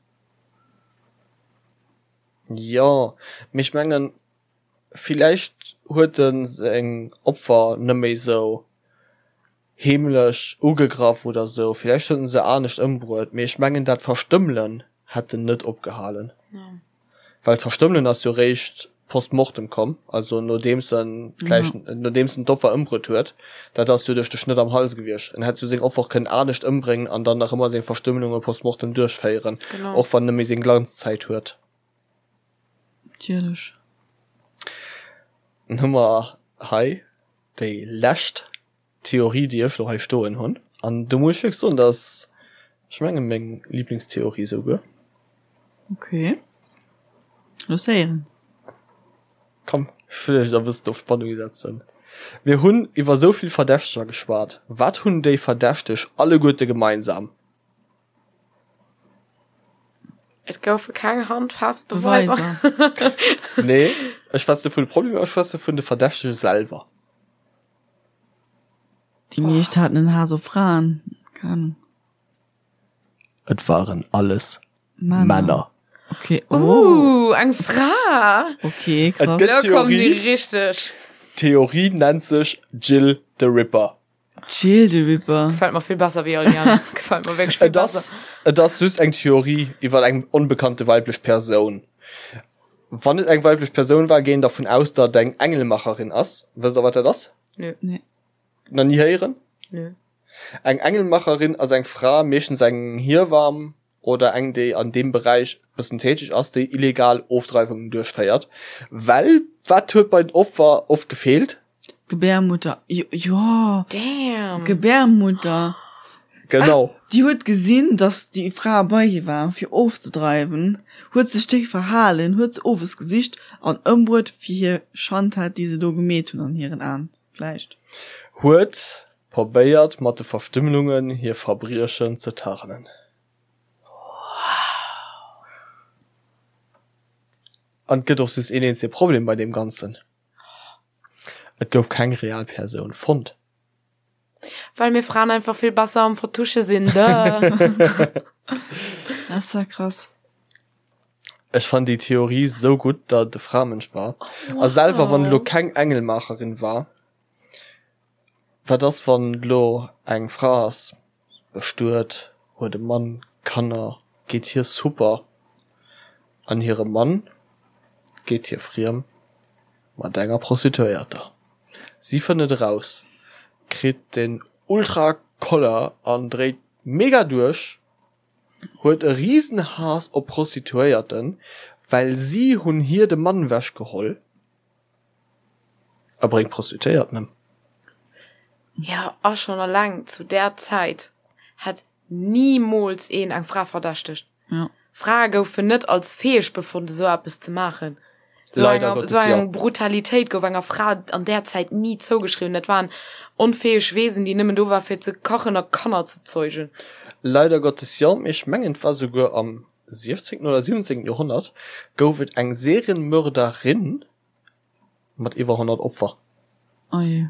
Jo, mee ech mengen, Villäicht huet en seng Opfer net méi sou heemlech ugegraff oder sou, villäicht huet en se anescht ëmbruet, mee ech mengen dat Verstëmmelen hätt en net opgehalen, well d'Verstëmmelen ass jo réischt post mortem komm, also nodeems en d'Läich, nodeems en d'Opfer ëmbruet huet, dat ass jo duerch de Schnëtt am Hals gewiescht. En hätt jo seng Opfer och kënnen anescht ëmbréngen an dann nach ëmmer seng Verstëmmelunge post mortem duerchféieren, och wann en net méi seng Glanzzäit huet. Natierlech. Dann hu mer hei déi lescht Theorie, déi ech elo hei stoen hunn. An do muss ech wierklech soen, dat ass, ech mengen, meng Liblingstheorie esouguer. Ok. Looss héieren. Komm, ech wëll iech da e bëssen op Spannung setzen. Mir hunn iwwer esou vill Verdächteger geschwat. Wat hunn déi Verdächteg alleguerte gemeinsam? Et goufe keng handfest Beweiser. Nee, ech schwätze vun de Problemer, ech schwätze vun de Verdächtege selwer. Déi meescht haten en Haass op Fraen, keng Ahnung. Et waren alles Männer. Okay, oh. Uh, eng Fra! Okay, krass. Et gëtt Lo kommen déi Theorie, richteg. d'Theorie nennt sech Jill the Ripper. Jill the Ripper. Gefällt mer vill besser wéi all déi aner. Gefällt mer wierklech vill Et ass, besser. et ass just eng Theorie iwwer eng onbekannte weiblech Persoun. Wann et eng weiblech Persoun war, géing dervun aus, datt et eng Engelmacherin ass. Wësst der, wat dat ass? Nö. Nee. Nach ni héieren? Nö. Eng Engelmacherin ass eng Fra, meeschtens eng Hiewamm oder eng, déi an deem Beräich bëssen täteg ass, déi illegal Ofdreiwungen duerchféiert. Well wat huet bei den Opfer oft gefeelt? D'Gebärmutter, jo, jo, Damn! d'Gebärmutter. Genau. Ah, déi huet gesinn, dass déi Fra bei hir war, fir ofzedreiwen, huet sech déck verhalen, huet se owes gesicht an ëmbruet fir hir Schandtat, déi se do gemeet hunn an hiren Aen vläicht. Huet probéiert mat de Verstümmelungen hir Verbriechen ze tarnen. An et gëtt och just een eenzege Problem bei deem Ganzen, Et gouf keng real Persoun fonnt. Well mir Fraen einfach vill besser am Vertusche sinn, duh. Das war krass. Ech fannen déi Theorie sou gutt, datt et e Framënsch war. A selwer wann et elo keng Engelmaacherin war, Wat ass wann elo eng Fra ass bestuet, huet e Mann, Kanner, geet hir super an hire Mann geet hir friem mat enger Prostituéierter. Si fënnt et eraus, kritt den ultra Koller an dréit mega duerch, huet e riesen Haass op Prostituéierten, well si hunn hir de Mann wech geholl. A bréngt Prostituéierten ëm. Jo, a schonn alleng zu där Zäit hätt nimools een eng Fra verdächtegt. Ja. Frae goufen net als fäeg befonnt, esou eppes ze maachen. So Leider enger, Gottes, so ja. eng Brutalitéit gouf enger Fra an där Zäit ni zougeschriwwen. Dat waren onfäeg Wesen, déi nëmmen do war fir ze kachen a Kanner ze zeugen. Leider Gottes jo, mee ech mengen et war souguer am 16. oder 17. Joerhonnert gouf et eng Serienmörderin mat iwwer 100 Opfer. Oh je.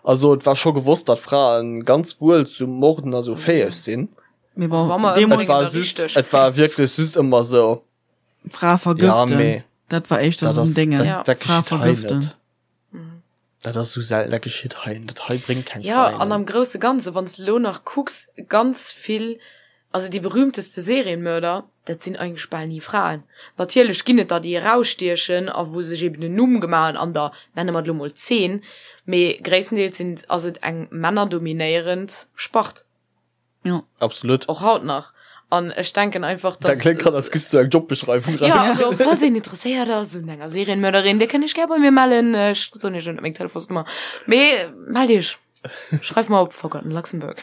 Also et war scho gewosst, datt Frae ganz wuel zu Morden a sou fäeg sinn. Mee bon, Wa mer Et deemools war ëmbréngen, da just, richteg. et war wierklech just ëmmer sou. Fra Ja, vergëften, mee dat war éischter dat sou en ass, Déngen. dat, Ja. dat Fra geschitt hei vergëften. net. Dat ass sou selten, dat geschitt hei net. Dat hei bréngt keng Ja, Fraen an ëm. am grousse Ganze, wann s de elo nach kucks, ganz vill, also déi berühmteste Serienmörder, dat sinn eigentlech bal ni Fraen. Natierlech ginn et der, déi erausstiechen a wou sech eben en Numm gemaach hunn an der, nenne mer et elo mol, Zeen, mee gréisstendeels sinn, ass et eng männerdominéierend Spart. Ja. Absolut. Och haut nach. An ech denken einfach, Dat dass. kléngt grad, als giffs du eng Jobbeschreiwung Ja, raus. also falls een interesséiert ass un enger Serienmörderin, dir kënnt iech gär bei mir mellen. Ech soen iech elo net meng Telefonsnummer, mee mellt iech. Schreift mer op Forgotten Luxembourg.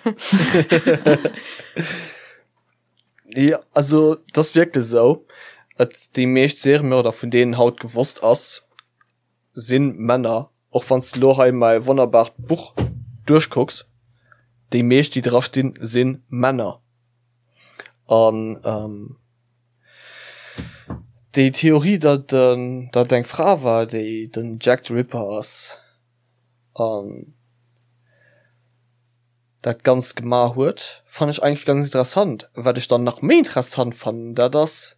Ja, also et ass wierklech esou, et déi meescht Seriemörder, vun deenen haut gewosst ass, sinn Männer, och wanns de lo hei mäi wonnerbart Buch duerchkucks, déi meescht déi dra stinn sinn Männer. An déi Theorie datt datt eng Fra war déi den Jack the Ripper ass an dat ganzt gemaach huet, fannen ech eigentlech ganz interessant. Wat ech dann nach méi interessant fannen, dat ass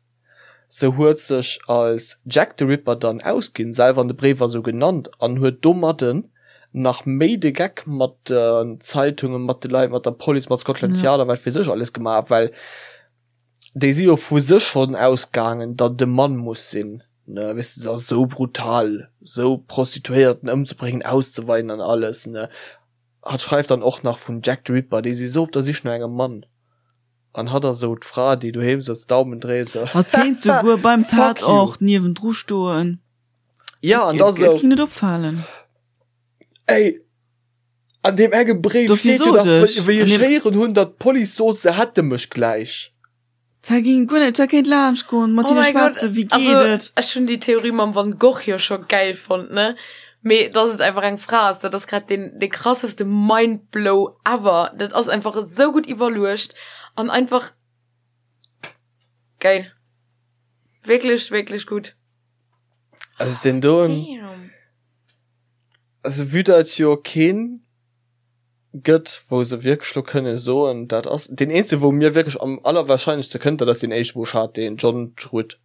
Se huet sech als Jack the Ripper dann ausginn, selwer an de Bréiwer sou genannt, an huet domadden nach méi de Geck mat den Zeitungen, mat de Leit, mat der Police, mat Scotland Yard a wat weess ech alles gemaach, well déi si jo vu sech schonn ausgaangen, datt et e Mann muss sinn, ne, weess de, dat ass sou brutal, sou Prostituéierten ëmzebréngen, auszeweien an alles, ne. Hatt schreift dann och nach vun Jack the Ripper, déi si sou op der Sich no engem Mann. An hatt ass esou d'Fra, déi doheem sëtzt, Daumen dréit, esou, Hatt kéint souguer beim Fuck you! Tatort niewendru stoen. Ja, an da Et sou, ging net opfalen. Ey, an deem enge Bréif Dofir steet jo sot nach, ech, wéi an ech deem. héieren hunn, datt d'Police sot, se hätte mech gläich. D'Zäit ging guer net, d'Zäit kéint laanscht goen, mat Oh hinne mäi Gott, schwätzen, wéi geet also et? ech hunn déi Theorie mam Van Gogh jo scho gäil fonnt, ne? Mee dass et einfach eng Fra ass, dat ass grad deen dee krasseste Mindblow ever. Dat ass einfach esou gutt iwwerluecht an einfach geil. Wierklech, wierklech gutt. Also deen doen, Damn. also vue dat jo keen gëtt, wou se wierklech lo kënne soen, dat ass deen eenzege wou mir wierklech am allerwahrscheinlechste kënnt, dat ass deen éischte wou ech hat, deen John Druitt.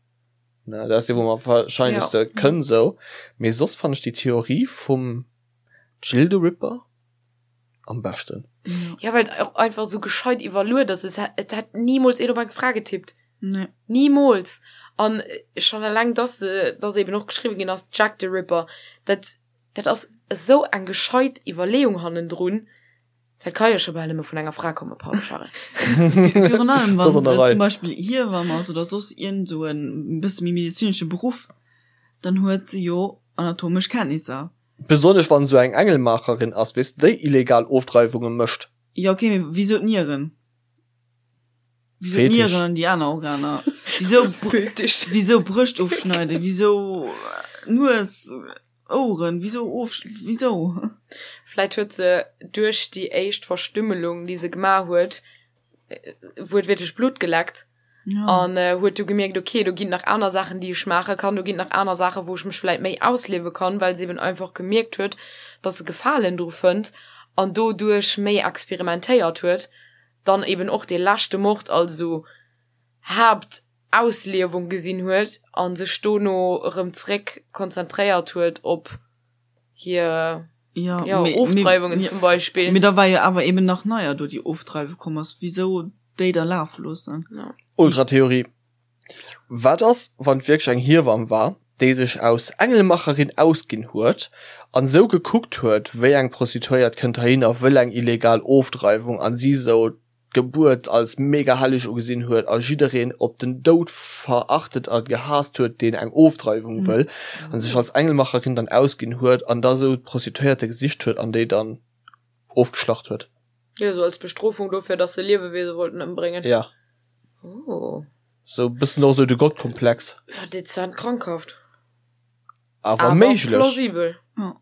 Ne, dat ass dee wou mer am wahrscheinlechste Ja. kënn sou. Mee soss fannen ech déi Theorie vum Jill the Ripper am beschten. Ja. Ja, well et och einfach sou gescheit iwwerluet ass. Es hätt, et hätt nimools een op eng Fra getippt. Nee. Nimools. An schonn eleng, dass se, dass eben och geschriwwen ginn ass, Jack the Ripper, dat, dat ass esou eng gescheit Iwwerleeung hannendrun. Dat ka jo scho bal nëmme vun enger Fra kommen, pardon Charel. Virun allem Dat wann ass an der se Rei. zum Beispill Hiewamm ass oder soss iergend esou en bësse méi medezinesche Beruff, dann huet se jo anatomesch Kenntnisser. Besonnesch wann esou eng Engelmaacherin ass, weess de, déi illegal Ofdreiwunge mécht. Jo ok, mee wisou d'Nieren? Wisou Fetisch. d'Nieren an déi aner Organer? Wisou Fetisch. wisou Brëscht ofschneiden? Wisou Nues? Oueren, wisou of, wisou? Vläit huet se duerch déi éischt Verstümmelung, déi se gemaach huet, wuertwiertlech Blutt geleckt an huet du gemierkt, ok, do ginn nach aner Saachen, déi ech maache kann, do ginn nach aner Saachen, wou ech mech vläit méi ausliewe kann, well se eben einfach gemierkt huet, dass se Gefalen dru fënnt an doduerch méi experimentéiert huet, dann eben och dee leschte Mord als esou Haapt Ausliewung gesinn huet a sech dono erëm zréck konzentréiert huet op hir Ja, jo, mee, Ofdreiwungen mee, zum Beispill. Mee da war jo awer eben nach neier do déi Ofdreiwe komm ass. Wisou déi da lafe loossen? Ja. Ultratheorie, Wat ass, wann et wierklech eng Hiewamm war, déi sech aus Engelmacherin ausginn huet an sou gekuckt huet, wéi eng Prostituéiert kënnt heihin a wëll eng illegal Ofdreiwung an si sou d'Gebuert als mega helleg ugesinn huet a jiddereen op den Doud verachtet a gehaasst huet, deen eng Ofdreiwung wëll, a sech als Engelmacherin dann ausginn huet an da sou d'Prostituéierte gesicht huet an déi dann ofgeschlacht huet. Jo, sou als Bestrofung dofir, dass se Liewewiese wollten ëmbréngen. Ja. Oh. Sou e bëssen och sou de Gottkomplex. Ja, dezent krankhaft. Awer méiglech. Plausibel. Ja.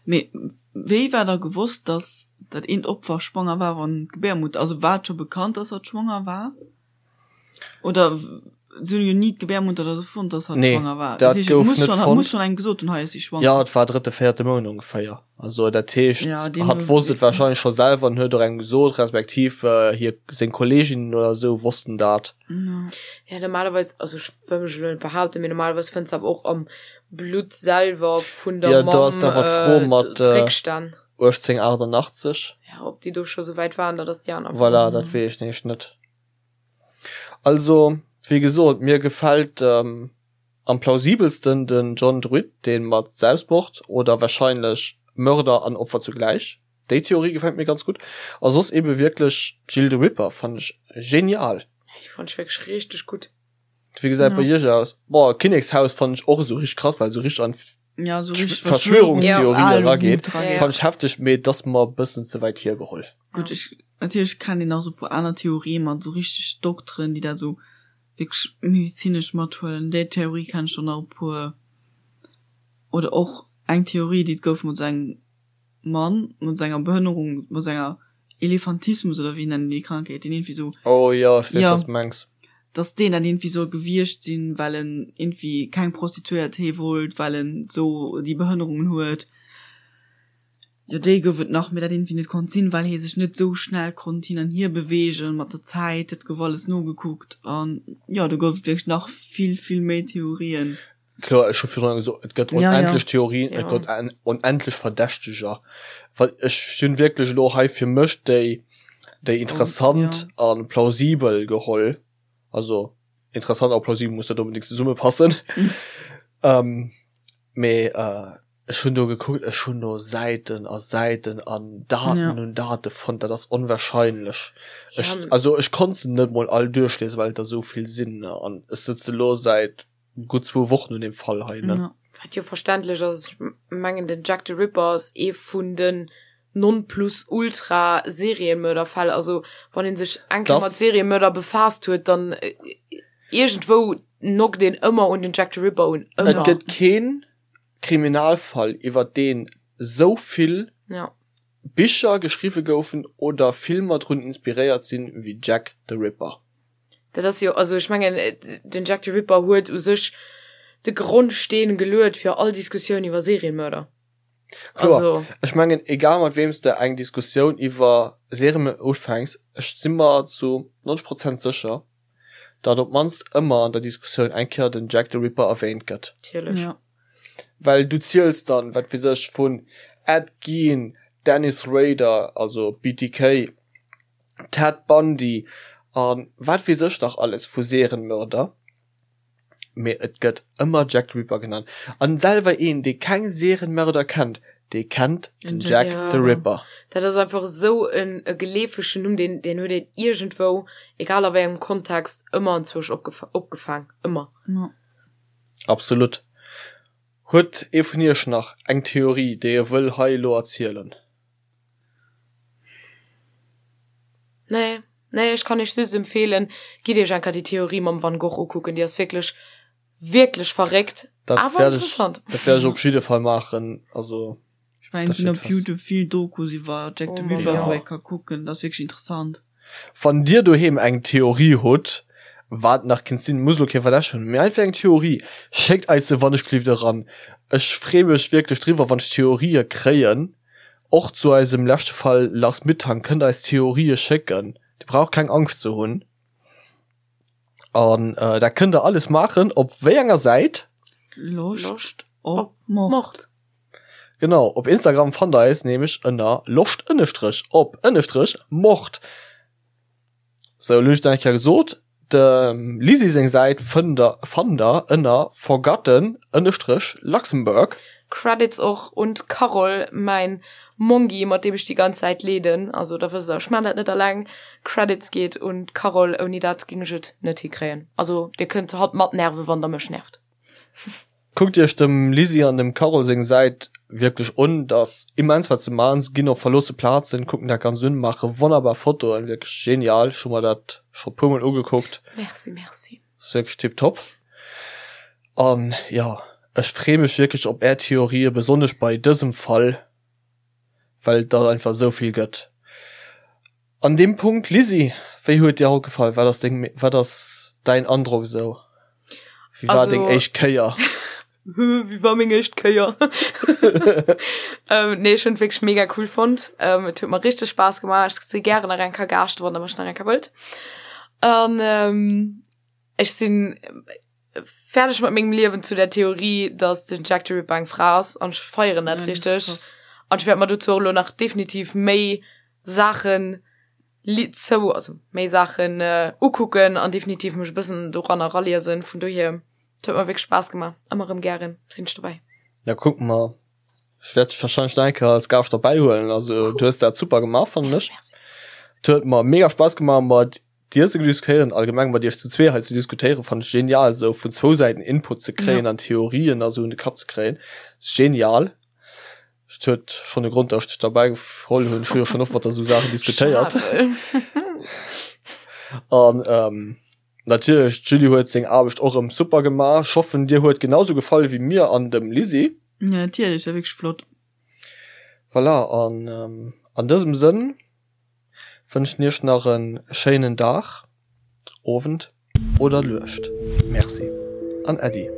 Mee wéi war da gewosst, dass dat eent Opfer schwanger war, wann d'Gebärmutter, also war et scho bekannt, dass hatt schwanger war? Oder se hunn jo ni d'Gebärmutter oder sou fonnt, dass hatt Nee, schwanger war. dat Dat heescht, et gouf muss net schonn, hatt fonnt. muss schonn engem gesot hunn, hei ass si schwanger. Jo, et war drëtte, véierte Mount ongeféier. Also dat heescht, Ja, deemno hatt wosst et warscheinlech scho selwer an huet och engem gesot, respektiv hir, seng Kolleeginnen oder sou wossten dat. Ja. Ja, normalerweis, also ech wëll mech elo net behaupten, mee normalerweis fënns de awer och am Blutt selwer vun der Ja, do ass Mamm da awer d'Fro mat d'Réckstänn. 1888. Ja, ob déi do scho sou wäit waren, dat ass déi aner Fro. Voilà, dat weess ech nämlech net. Also, wéi gesot, mir gefält am plausibelsten den John Druitt, dee mat Selbstmord oder wahrscheinlech Mörder an Opfer zugläich. Déi Theorie gefält mir ganz gutt. A soss ebe wierklech Jill the Ripper fannen ech genial. Déi fannen ech wierklech richteg gutt. Wéi gesäit bei iech aus? Boah, Kinnekshaus fannen ech och esou richteg krass, well esou richteg an Ja, so richtig Verschwörungstheorien erageet. Ja. Fannen ech hefteg, mee et ass mer e bëssen ze wäit hiergeholl. Gutt, ech, natierlech kennt een nach esou e puer aner Theorien mat esou richteg Dokteren, déi dat esou wierklech medizinesch mathuelen. Déi Theorie kenn ech och nach e puer. Oder och eng Theorie, déi et gouf mat esou engem Mann mat senger Behënnerung, mat senger Elefantismus oder wéi nennen déi Krankheet, deen iergendwéi sou. Oh jo, ech weess Ja. wat s de mengs. Dass deen dat iergendwéi soll gewiescht sinn, well en iergendwéi keng Prostituéiert hee wollt, well en sou déi Behënnerungen huet. Jo, déi gouf et nach, mee dat iergendwéi net konnt sinn, well hee sech net sou schnell konnt hin an hier beweegen mat der Zäit. Dat gouf alles nogekuckt an jo, do gouf et wierklech nach vill, vill méi Theorien. Kloer, ech hu virdrun gesot, et gëtt onendlech Theorien, et gëtt onendlech Verdächteger. Well ech hunn wierklech elo hei fir mech déi, déi interessant a plausibel geholl. Also interessant a plausibel muss net onbedéngt zesummepassen. Mee ech hunn do gekuckt, ech hunn do Säiten a Säiten an Daten un Date fonnt, dat ass onwahrscheinlech. Ech, also ech konnt se net mol all duerchliesen, well et der esou vill sinn. An ech sëtze lo säit gutt zwou Wochen un deem Fall hei, ne? Ja. Wat jo verständlech ass, ech mengen den Jack the Ripper ass ee vun den Nonplusultra-Seriemörderfäll, also wann een sech eng Kéier mat Seriemörder befaasst huet, dann iergendwou knockt een ëmmer un den Jack the Ripper un, Et ëmmer. gëtt keen Kriminalfall iwwer deen esou vill Ja. Bicher geschriwwe goufen oder Filmer drun inspiréiert sinn wéi Jack the Ripper. Dat ass jo, also ech mengen, den Jack the Ripper huet u sech de Grondsteen geluet fir all Diskussioun iwwer Serienmörder. Kloer, Also. ech mengen, egal mat weem s de eng Diskussioun iwwer Serienmörder ufänks, ech si mer zu 90 Prozent sécher, datt op d'mannst ëmmer an der Diskussioun eng Kéier den Jack the Ripper erwähnt gëtt. Natierlech. Ja. Well du ziels dann, wat weess ech, vun Ed Gein, Dennis Rader, also BTK, Ted Bundy a wat weess ech nach alles vu Serienmörder, mee et gëtt ëmmer Jack the Ripper genannt. An selwer een, dee keng Serienmörder kennt, dee kennt den Jack the Ripper. Dat ass einfach esou en geleefegen Numm, deen deen huet een iergendwou, egal a wéi engem Kontext, ëmmer anzwousch opgefaang, ëmmer. Absolut. Huet ee vun iech nach eng Theorie, déi e wëll hei elo erzielen? Nee, nee, ech kann iech just empfehlen, gitt iech enker déi Theorie mam Van Gogh ukucken, déi ass wierklech, wierklech verréckt, Dat awer wäert ech, interessant. dat wäert ech op jidde Fall maachen, also Ech mengen, dat et ginn steet op fest. Youtube vill Dokus iwwer Jack the Oh Mann, Ripper, ja. wou ee ka kucken, dat ass wierklech interessant. Wann dir doheem eng Theorie hutt, wat nach kinnt sinn, muss elo kee Verdächteg hunn, mee einfach eng Theorie, schéckt eis se wannechgelift eran. Ech free mech wierklech driwwer, wann ech Theorië kréien. Och zu eisem leschte Fall Lars Mittank kënnt eis Theorië schécken, dir braucht keng Angscht ze hunn. An dat kënnt der alles maachen op wéi enger Säit? Loscht Loscht op op Mord. Mord. Genau, op Instagram fannt der eis nämlech ënner loscht ënnestrech op ënnestrech mord. Sou, elo hunn ech dat eng Kéier gesot. Dem Lisi seng Säit fënnt der fannt der ënner forgotten ënnestrech Luxembourg. Credits och un d'Carole, mäin Mongi, mat deem ech déi ganz Säit leeden. Also da wësst der, ech maan dat net alleng. Credits geet un d'Carole, ouni dat ging ech et net hikréien. Also dir kënnt hatt matnerven, wann der mech nervt. Kuckt iech dem Lisi an dem Carole seng Säit wierklech un, dat ass immens wat se maan, se ginn op verloosse Plazen, kucken dat ganz un, maache wonnerbar Fotoen, wierklech genial, ech hu mer dat. Scho puer mol ugekuckt. Merci, merci. Ass wierklech tiptop. An jo, ech free mech wierklech op är Theorië, besonnesch bei dësem Fall, well et der einfach esou vill gëtt. An deem Punkt, Lisi, wéi huet dir haut gefall? Wat ass deng, wat ass däin Androck esou? Wéi war deng éischt Kéier? Wéi war meng éischt Kéier? Ähm, nee, ech hunn et wierklech mega cool fonnt. Ähm, et huet mer richteg Spaass gemaach. Ech si gären nach eng Kéier Gaascht, wann der mech nach eng Kéier wëllt. An ähm, ech sinn fäerdeg mat mengem Liewen zu der Theorie, dass den Jack the Ripper eng Fra ass an ech feieren dat richteg. An ech wäert mer dozou och elo nach definitiv méi Saachen li zou, also méi Saachen ukucken an definitiv mech e bëssen doranner eraliesen. Vun dohier, et huet mer wierklech Spaass gemaach. Ëmmer erëm gären sinn ech dobäi. Ja, kucke mer. Ech wäert dech wahrscheinlech nach eng Kéier als Gaascht derbäi huelen. Also du hues dat super gemaach, fannen ech. Et huet mer mega Spaass gemaach mat dir ze diskutéieren, allgemeng mat iech zu zwee hei ze diskutéieren, fannen ech genial, esou vun zwou Säiten Input ze kréien an Theorien a sou un de Kapp ze kréien. Genial. Et huet schonn e Grond, datt ech dech derbäi geholl hunn. Ech hu jo schonn oft mat der esou Saachen diskutéiert. An ähm, natierlech, d'Julie huet seng Aarbecht och erëm super gemaach. Ech hoffen, dir huet genau sou gefall wéi mir an dem Lisi. Ja, natierlech, war wierklech flott. Voilà, an ähm, an dësem Sënn wënschen iech nach e schéinen Dag, Owend oder Nuecht. Merci an Äddi.